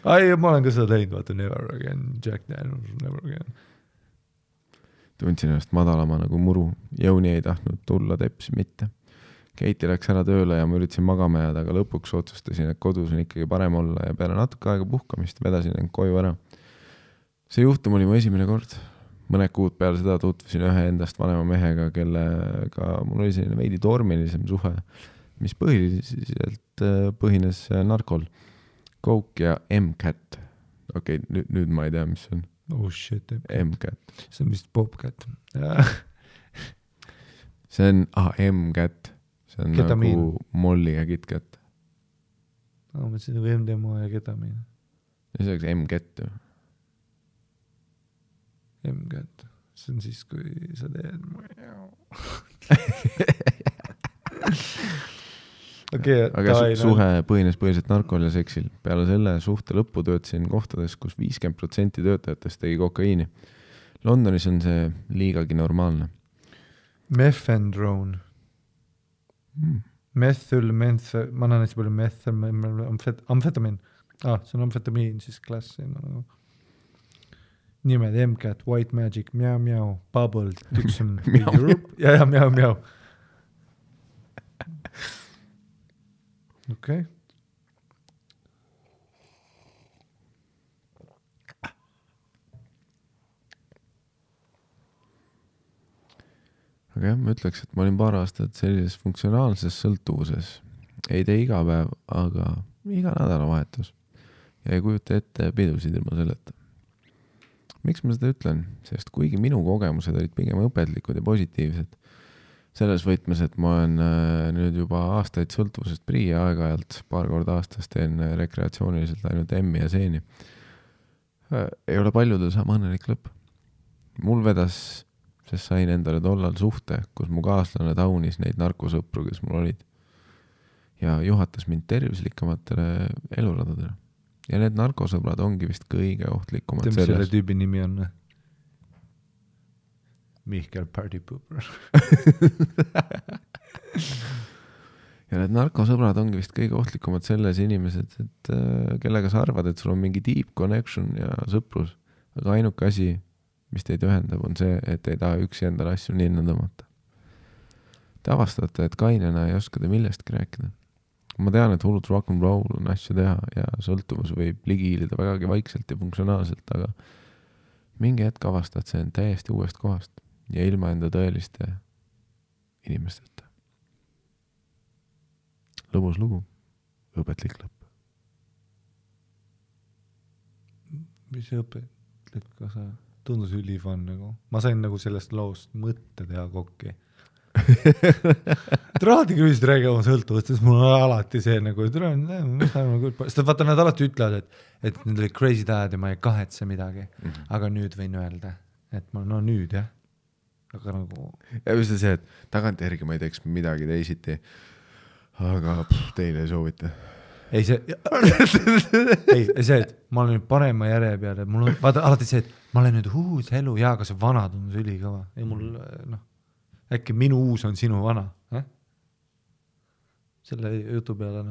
Ai, ma olen ka seda teinud, vaata, never again, Jack Daniels, never again. Tundsin ennast madalama nagu muru. Jõuni ei tahtnud tulla teps mitte. Keiti läks ära tööle ja ma üritasin magama jääda, aga lõpuks otsustasin, et kodus on ikkagi parem olla ja peale natuke aega puhkamist vedasin end koju ära. See juhtum oli mu esimene kord. Mõned kuud peale seda tutvusin ühe endast vanema mehega, kellega mul oli selline veidi tormilisem suhe, mis põhiliselt põhines narkol. Coke ja M-Cat. Okei, nüüd ma ei tea, mis see on. Oh shit. M-Cat. See on vist Popcat. See on M-Cat. See on ketamiin. Nagu molliga KitKat. Ma mõtlesin nagu MDMA ja ketamiin. Ja see oleks M-Cat ju. M-Cat. See on siis, kui sa teed... aga suhe põhines põhiliselt narkol ja seksil. Peale selle suhte lõppu töötasin kohtades, kus 50% töötajatest tegi kokaiini. Londonis on see liigagi normaalne. Methadone. Ma annan hästi palju amfetamin. See on amfetamiin, siis klassi. Nimed MCAT, White Magic, Miau, Bubble, Dixon, Europe. Ja, Miau. Okei. Aga jah, ma ütleks, et ma olin paar aastat sellises funktsionaalses sõltuvuses. Ei tee iga päev, aga iga nädalavahetus. Ja ei kujuta ette pidusid ilma selleta. Miks ma seda ütlen? Sest kuigi minu kogemused olid pigem õpetlikud ja positiivsed, selles võtmes, et ma olen nüüd juba aastaid sõltuvusest prii ja aeg-ajalt paar korda aastas teen rekreatsiooniliselt ainult emmi ja seeni. Ei ole paljudel sama õnnelik lõpp. Mul vedas, sest sain endale tollal suhte, kus mu kaaslane taunis neid narkosõpru, kes mul olid. Ja juhatas mind tervislikamatele eluradadele. Ja need narkosõbrad ongi vist kõige ohtlikumad selles. Selle tüübi nimi on Mihkel Party Pooper. Ja need narkosõbrad ongi vist kõige ohtlikumad selles inimesed, et kellega sa arvad, et sul on mingi deep connection ja sõprus. Aga ainuke asi, mis teid ühendab, on see, et ei taha üksi endale asju ninna tõmmata. Te avastate, et kainena ei oska te millestki rääkida. Ma tean, et hullud rock'n'roll on asju teha ja sõltuvus võib ligiilida vägagi vaikselt ja funktsionaalselt, aga mingi hetk avastad see on täiesti uuest kohast ja ilma enda tõeliste inimesteta. Lõbus lugu, õpetlik lõpp. Mis õpetlik, kas sa tundus ülifan nagu? Ma sain nagu sellest loost mõtte teha kokki. Alati küll räägi oma sõltuvust, sest mul on alati see nagu, sest vaata, nad alati ütlevad, et need oli crazy dad ja ma ei kahetse midagi, aga nüüd võin öelda, et ma nüüd jah, aga nagu ja just see, et tagantjärgi ma ei teeks midagi teisiti, aga teile ei soovita ei see, et ma olen nüüd parema järje peale, mul on vaata alati see, et ma olen nüüd uus elu ja aga see vana tundus ülikõva ja mul äkki minu uus on sinu vana, selle jutu peale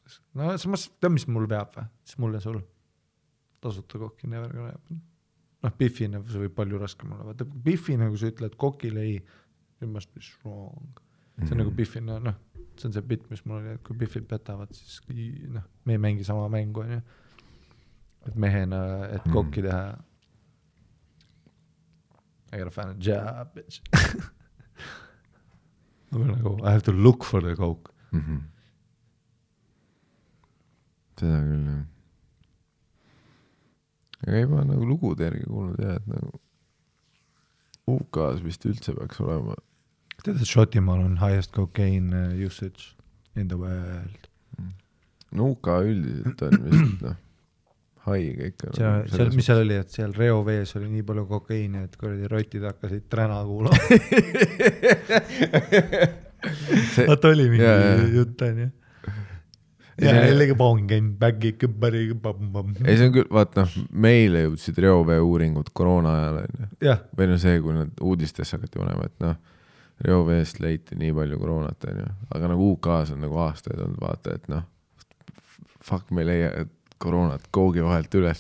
see tead, mis mul veab või? Siis mul ja sul tasuta kokki never gonna happen. Biffine see võib palju raskem olla. Vaata, Biffine, kui sa ütled kokile ei, you must be strong. See on nagu Biffine, see on see bit, mis mul oli, et kui Biffid petavad, siis me ei mängi sama mängu, et mehena, et kokki teha. I gotta find a job, bitch. Nagu, I have to look for the coke. Seda küll, jah. Aga ei ma nagu lugude järgi kuulnud, jah, et nagu UK-s vist üldse peaks olema. Tead, et Šotimaal on highest cocaine usage in the world. No UK üldiselt on vist, haige ikka. Mis seal oli, et seal reovees oli nii palju kokaiini, et kuradi rotid hakkasid träna kuulama. Vaata oli mingi jutt on, ja jällegi pongin, baggi, kõbbari, bam. Ei, see on küll, vaata, meile jõudsid reovee uuringud koroona ajal, või see, kui nad uudistesse hakati panema, et reoveest leiti nii palju koroonat, aga nagu UK-s on nagu aastaid olnud, vaata, et fuck, me leia koroonat koogi vahelt üles.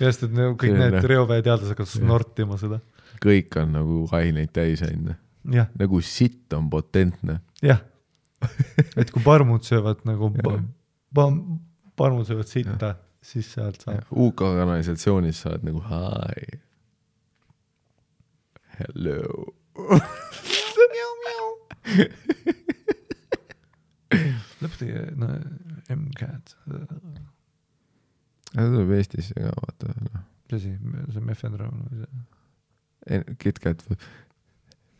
Just, et kõik need reovee teadlased hakkas snortima seda. Kõik on nagu aineid täis ainult. Nagu sitt on potentne. Jah, et kui parmud söövad nagu parmud söövad sitta, siis sealt saab. UK kanalisatsioonis saad nagu hi. Hello. Lõpetagi, MCAT. See tuleb Eestisse ka, vaata. See mefedrone. KitKat.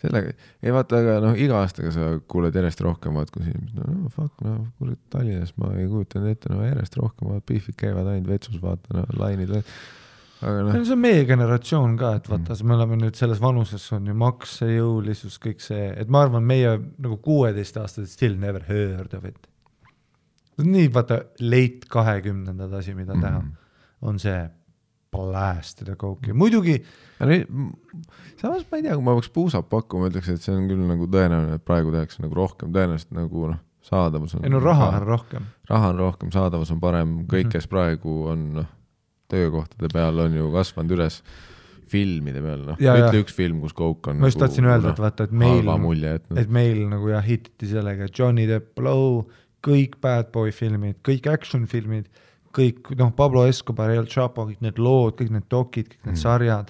Sellega, ei vaata, aga iga aastaga sa kuuled järjest rohkem, vaat kus inimesed, fuck, kuule Tallinnas ma ei kujutanud ette, järjest rohkem, Biffid käivad ainult vetsus, vaata, lainid. aga see on meie generatsioon ka, et vaata, me oleme nüüd selles vanuses, on ju maksejõulisus, kõik see, et ma arvan, meie nagu 16-aastased still never heard of it. Nii vaata late 20-ndad asi, mida teha, on see blästida kooki. Muidugi samas ma ei tea, kui ma peaks puusap pakkuma, ütleks, et see on küll nagu tõenäoline, et praegu tehakse nagu rohkem, tõenäoliselt nagu saadavus on... raha on rohkem. Raha on rohkem, saadavus on parem, kõik, kes praegu on töökohtade peal, on ju kasvanud üles filmide peal, ütle üks film, kus kook on ma just tahtsin öelda, et vaata, et meil nagu hititi sellega Johnny Depp, Blow, kõik Bad Boy filmid, kõik action filmid, kõik, Pablo Escobar, El Chapo, kõik need lood, kõik need dokid, kõik need sarjad.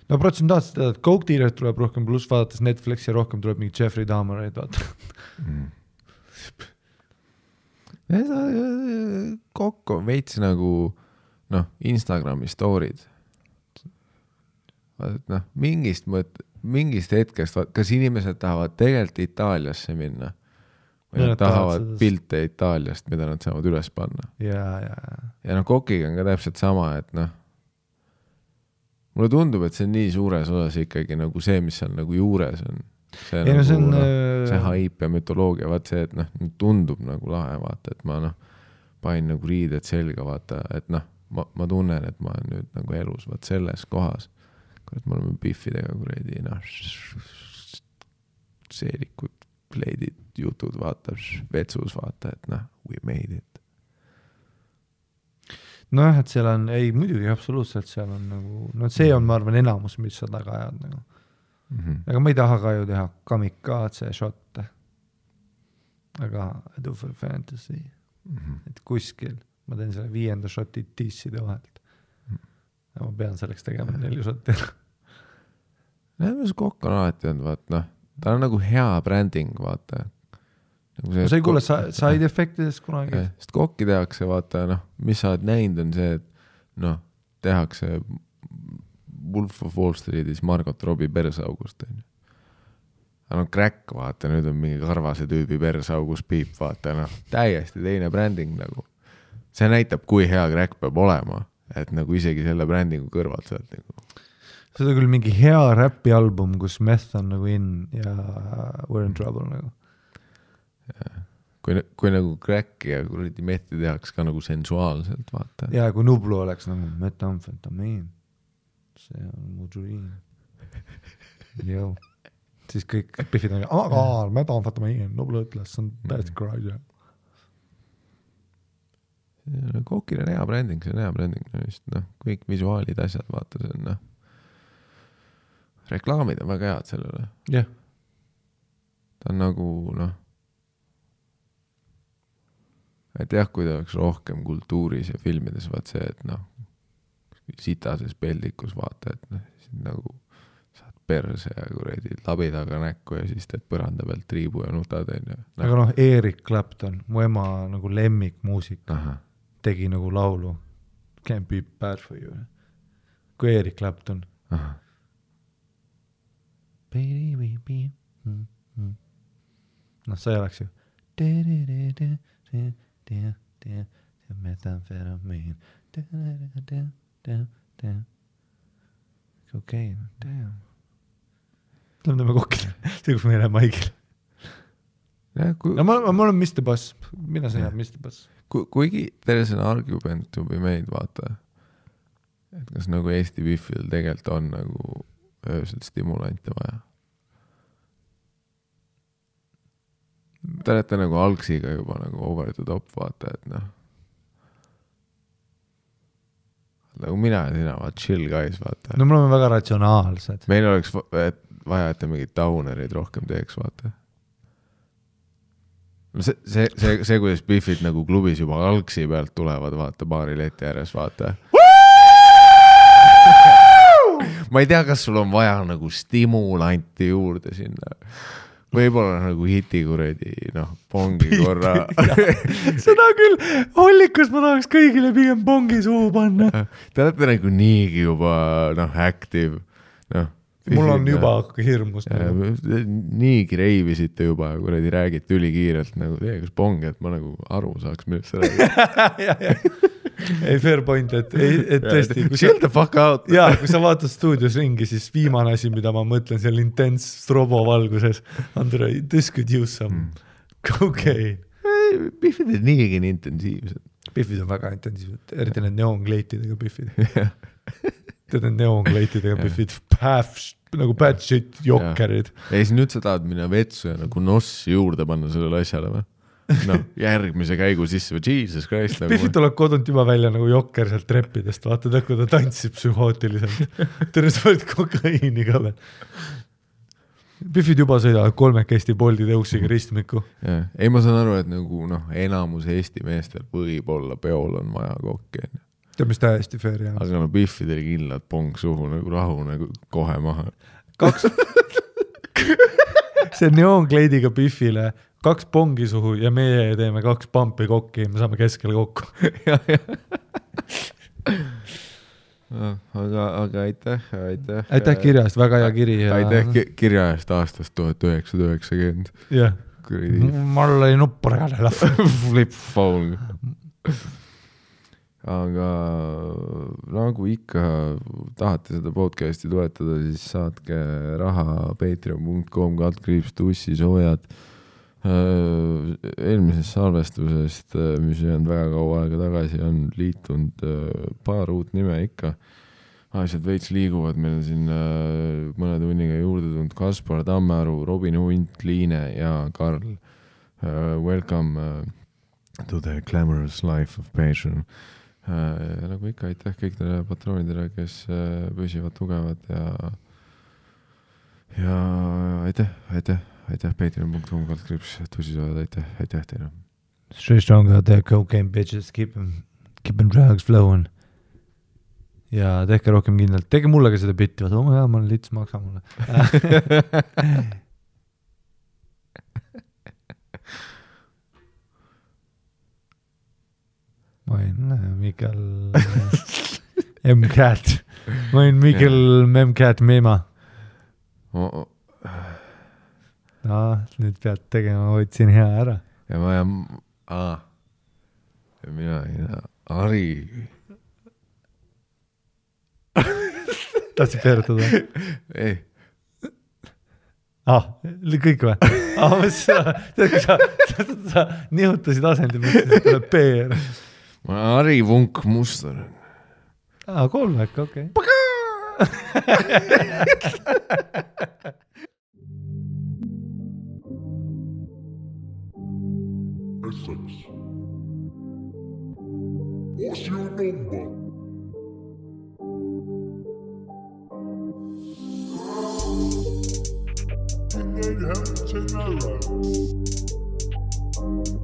No protsentaalselt teada, et Coke Dealer tuleb rohkem, pluss vaadates Netflixi rohkem tuleb mingi Jeffrey Dahmereid, vaata. Kokk on veits nagu Instagrami story'd. Mingist hetkest, kas inimesed tahavad tegelikult Itaaliasse minna? Või nad tahavad pilte Itaaliast, mida nad saavad üles panna. Ja kokiga on ka täpselt sama, et mulle tundub, et see on nii suures osas ikkagi nagu see, mis seal nagu juures on. See haip ja mütoloogia, vaat see, et tundub nagu lahe, vaata, et ma pain nagu riided selga, vaata, et ma tunnen, et ma olen nüüd nagu elus, vaat selles kohas, kurat, me oleme biffidega kuredi, seelikud, pleidid, jutud, vaata, vetsus, vaata, et we made it. Et seal on, ei, muidugi absoluutselt seal on nagu, see on, ma arvan, enamus, mis sa taga ajad nagu. Aga ma ei taha ka ju teha kamikaatse šotte. Aga I do for fantasy. Et kuskil ma teen selle 5. šoti tiisside vahelt. Ja ma pean selleks tegema 4 šotti. Mis kokk on alati olnud, vaata, ta on nagu hea branding, vaata. Nagu sa ei kuule side effectidest kunagi? Sest kokki tehakse, vaata, mis sa oled näinud on see, et tehakse Wolf of Wall Streetis Margot Robbie persaugust. Aga crack, vaata, nüüd on mingi karvase tüübi persaugus piip, vaata, täiesti teine branding nagu. See näitab, kui hea crack peab olema, et nagu isegi selle brandingu kõrvalt sealt nagu. See on küll mingi hea räpi album, kus meth on nagu in ja we're in trouble nagu. Kui nagu crack ja kuradi methi tehaks ka nagu sensuaalselt, vaata. Ja kui Nublu oleks nagu metamfetamiin, see on mu dream. Jõu. Siis kõik piffid on, metamfetamiin, Nublu ütles, see on täiesti kraad. Kokil on hea branding, see on hea branding. Kõik visuaalid, asjad, vaata, see on reklaamid on väga head sellele. Jah. Ta on nagu, et jah, kui ta oleks rohkem kultuuris ja filmides, vaat see, et sitases peldikus vaata, et nagu saad perse ja kuredi labi taga näkku ja siis teed põranda pealt triibu ja nutad. Aga Eric Clapton, mu ema nagu lemmikmuusik, tegi nagu laulu Can't be bad for you. Kui Eric Clapton. See oleks ju methamphetamine okei, damn. Lämdame kokile, see kus me ei lähe maigil. Ma olen Mr. Boss, mina sa jääb Mr. Boss. Kuigi there is an argument to be made, vaata, et kas nagu Eesti Biffil tegelikult on nagu öösel stimulante vaja. Te olete nagu algsiga juba nagu over the top, vaata, et nagu mina ja sina, vaata, chill guys, vaata. No me oleme väga ratsionaalsed. Meil oleks vaja, et mingid downerid rohkem teeks, vaata. See kuidas Biffid nagu klubis juba algsi pealt tulevad, vaata, baari leti ääres, vaata. Ma ei tea, kas sul on vaja nagu stimulanti juurde sinna. Võib-olla nagu hiti kuredi, pongi korra. Seda küll, hollikus ma tahaks kõigile pigem pongi suhu panna. Te olete nagu niigi juba, active. Mul on juba hirmus. Niigi reivisite juba, kuredi räägite ülikiirelt nagu, kas pongi, et ma nagu aru saaks, millest sa räägid. ei, fair point, et tõesti. Chill the fuck out. Jaa, kui sa vaatad stuudios ringi, siis viimane asi, mida ma mõtlen seal intens strobo valguses, Andrei, this could use some cocaine. Biffid on niigi nii intensiivsed. Biffid on väga intensiivsed, eriti need neonkleitidega biffid. Tead need neonkleitidega biffid, nagu bad shit jokkerid. Ja siis nüüd sa tahad minna vetsu ja nagu nossi juurde panna sellele asjale või? No, järgmise käigu sisse või Jesus Christ. Biffid tuleb kodunt juba välja nagu jokker sealt treppidest, vaatad, kui ta tantsib psühhootiliselt. Terve sa võid kokaiini ka veel. Biffid juba sõidavad 3 Eesti Bolti tõuksiga ristmiku. Ei, ma saan aru, et nagu enamus Eesti meestel võib-olla peol on vaja kokki. Tead, mis täiesti fair jah. Aga Biffidel kindlad pong suhu nagu rahu nagu kohe maha. 2 see neoonkleidiga Biffile 2 pongi suhu ja meie teeme 2 pampi kokki ja me saame keskele kokku. Aga aitäh. Aitäh kirja eest, väga hea kiri. Aitäh kirja eest aastast 1990. Jah, mul oli nuppuragale flip phone. Aga nagu ikka tahate seda podcasti toetada, siis saatke raha patreon.com/tussisoojad. Eelmisest salvestusest, mis on väga kaua aega tagasi, on liitunud paar uut nime ikka. Asjad veits liiguvad, meil on siin mõne tunniga juurde tulnud Kaspar Tammearu, Robin Hunt, Liine ja Karl. Welcome to the glamorous life of Patreon. Nagu ikka aitäh kõikidele patroonidele, kes püsivad tugevad ja aitäh patreon.com/tussisoojad, aitäh teile. Stay strong out there, cocaine bitches, keep them drugs flowing. Ja tehke rohkem kindlalt, tege mulle ka seda bitti, vaata, ma olen lits, maksa mulle. Ma olin Mikael M-Cat. Ma olin Mikael M-Cat Mema. Nüüd pead tegema, ma võtsin hea ära. Ja ma jään... Ja mina olin Ari. Tahtsid peerutada? Ei. Kõik või? Sa nihutasid asendi, mõtlesid, et tuleb peer. Ma olen Ari Vunk Mustar. Kolmek, okei. Essex. What's your number? And then have tomorrow.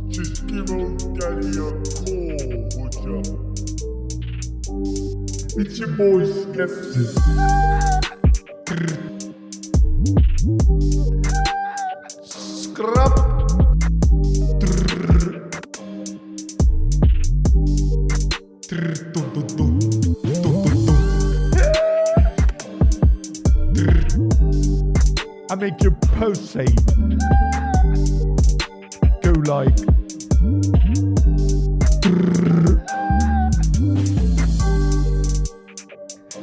Just give old daddy a call, would ya? It's your boy Skepsis. Scrap. I make your pussy go like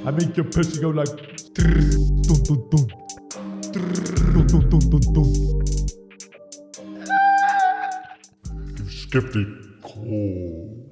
I make your pussy go like You skeptic. Cool.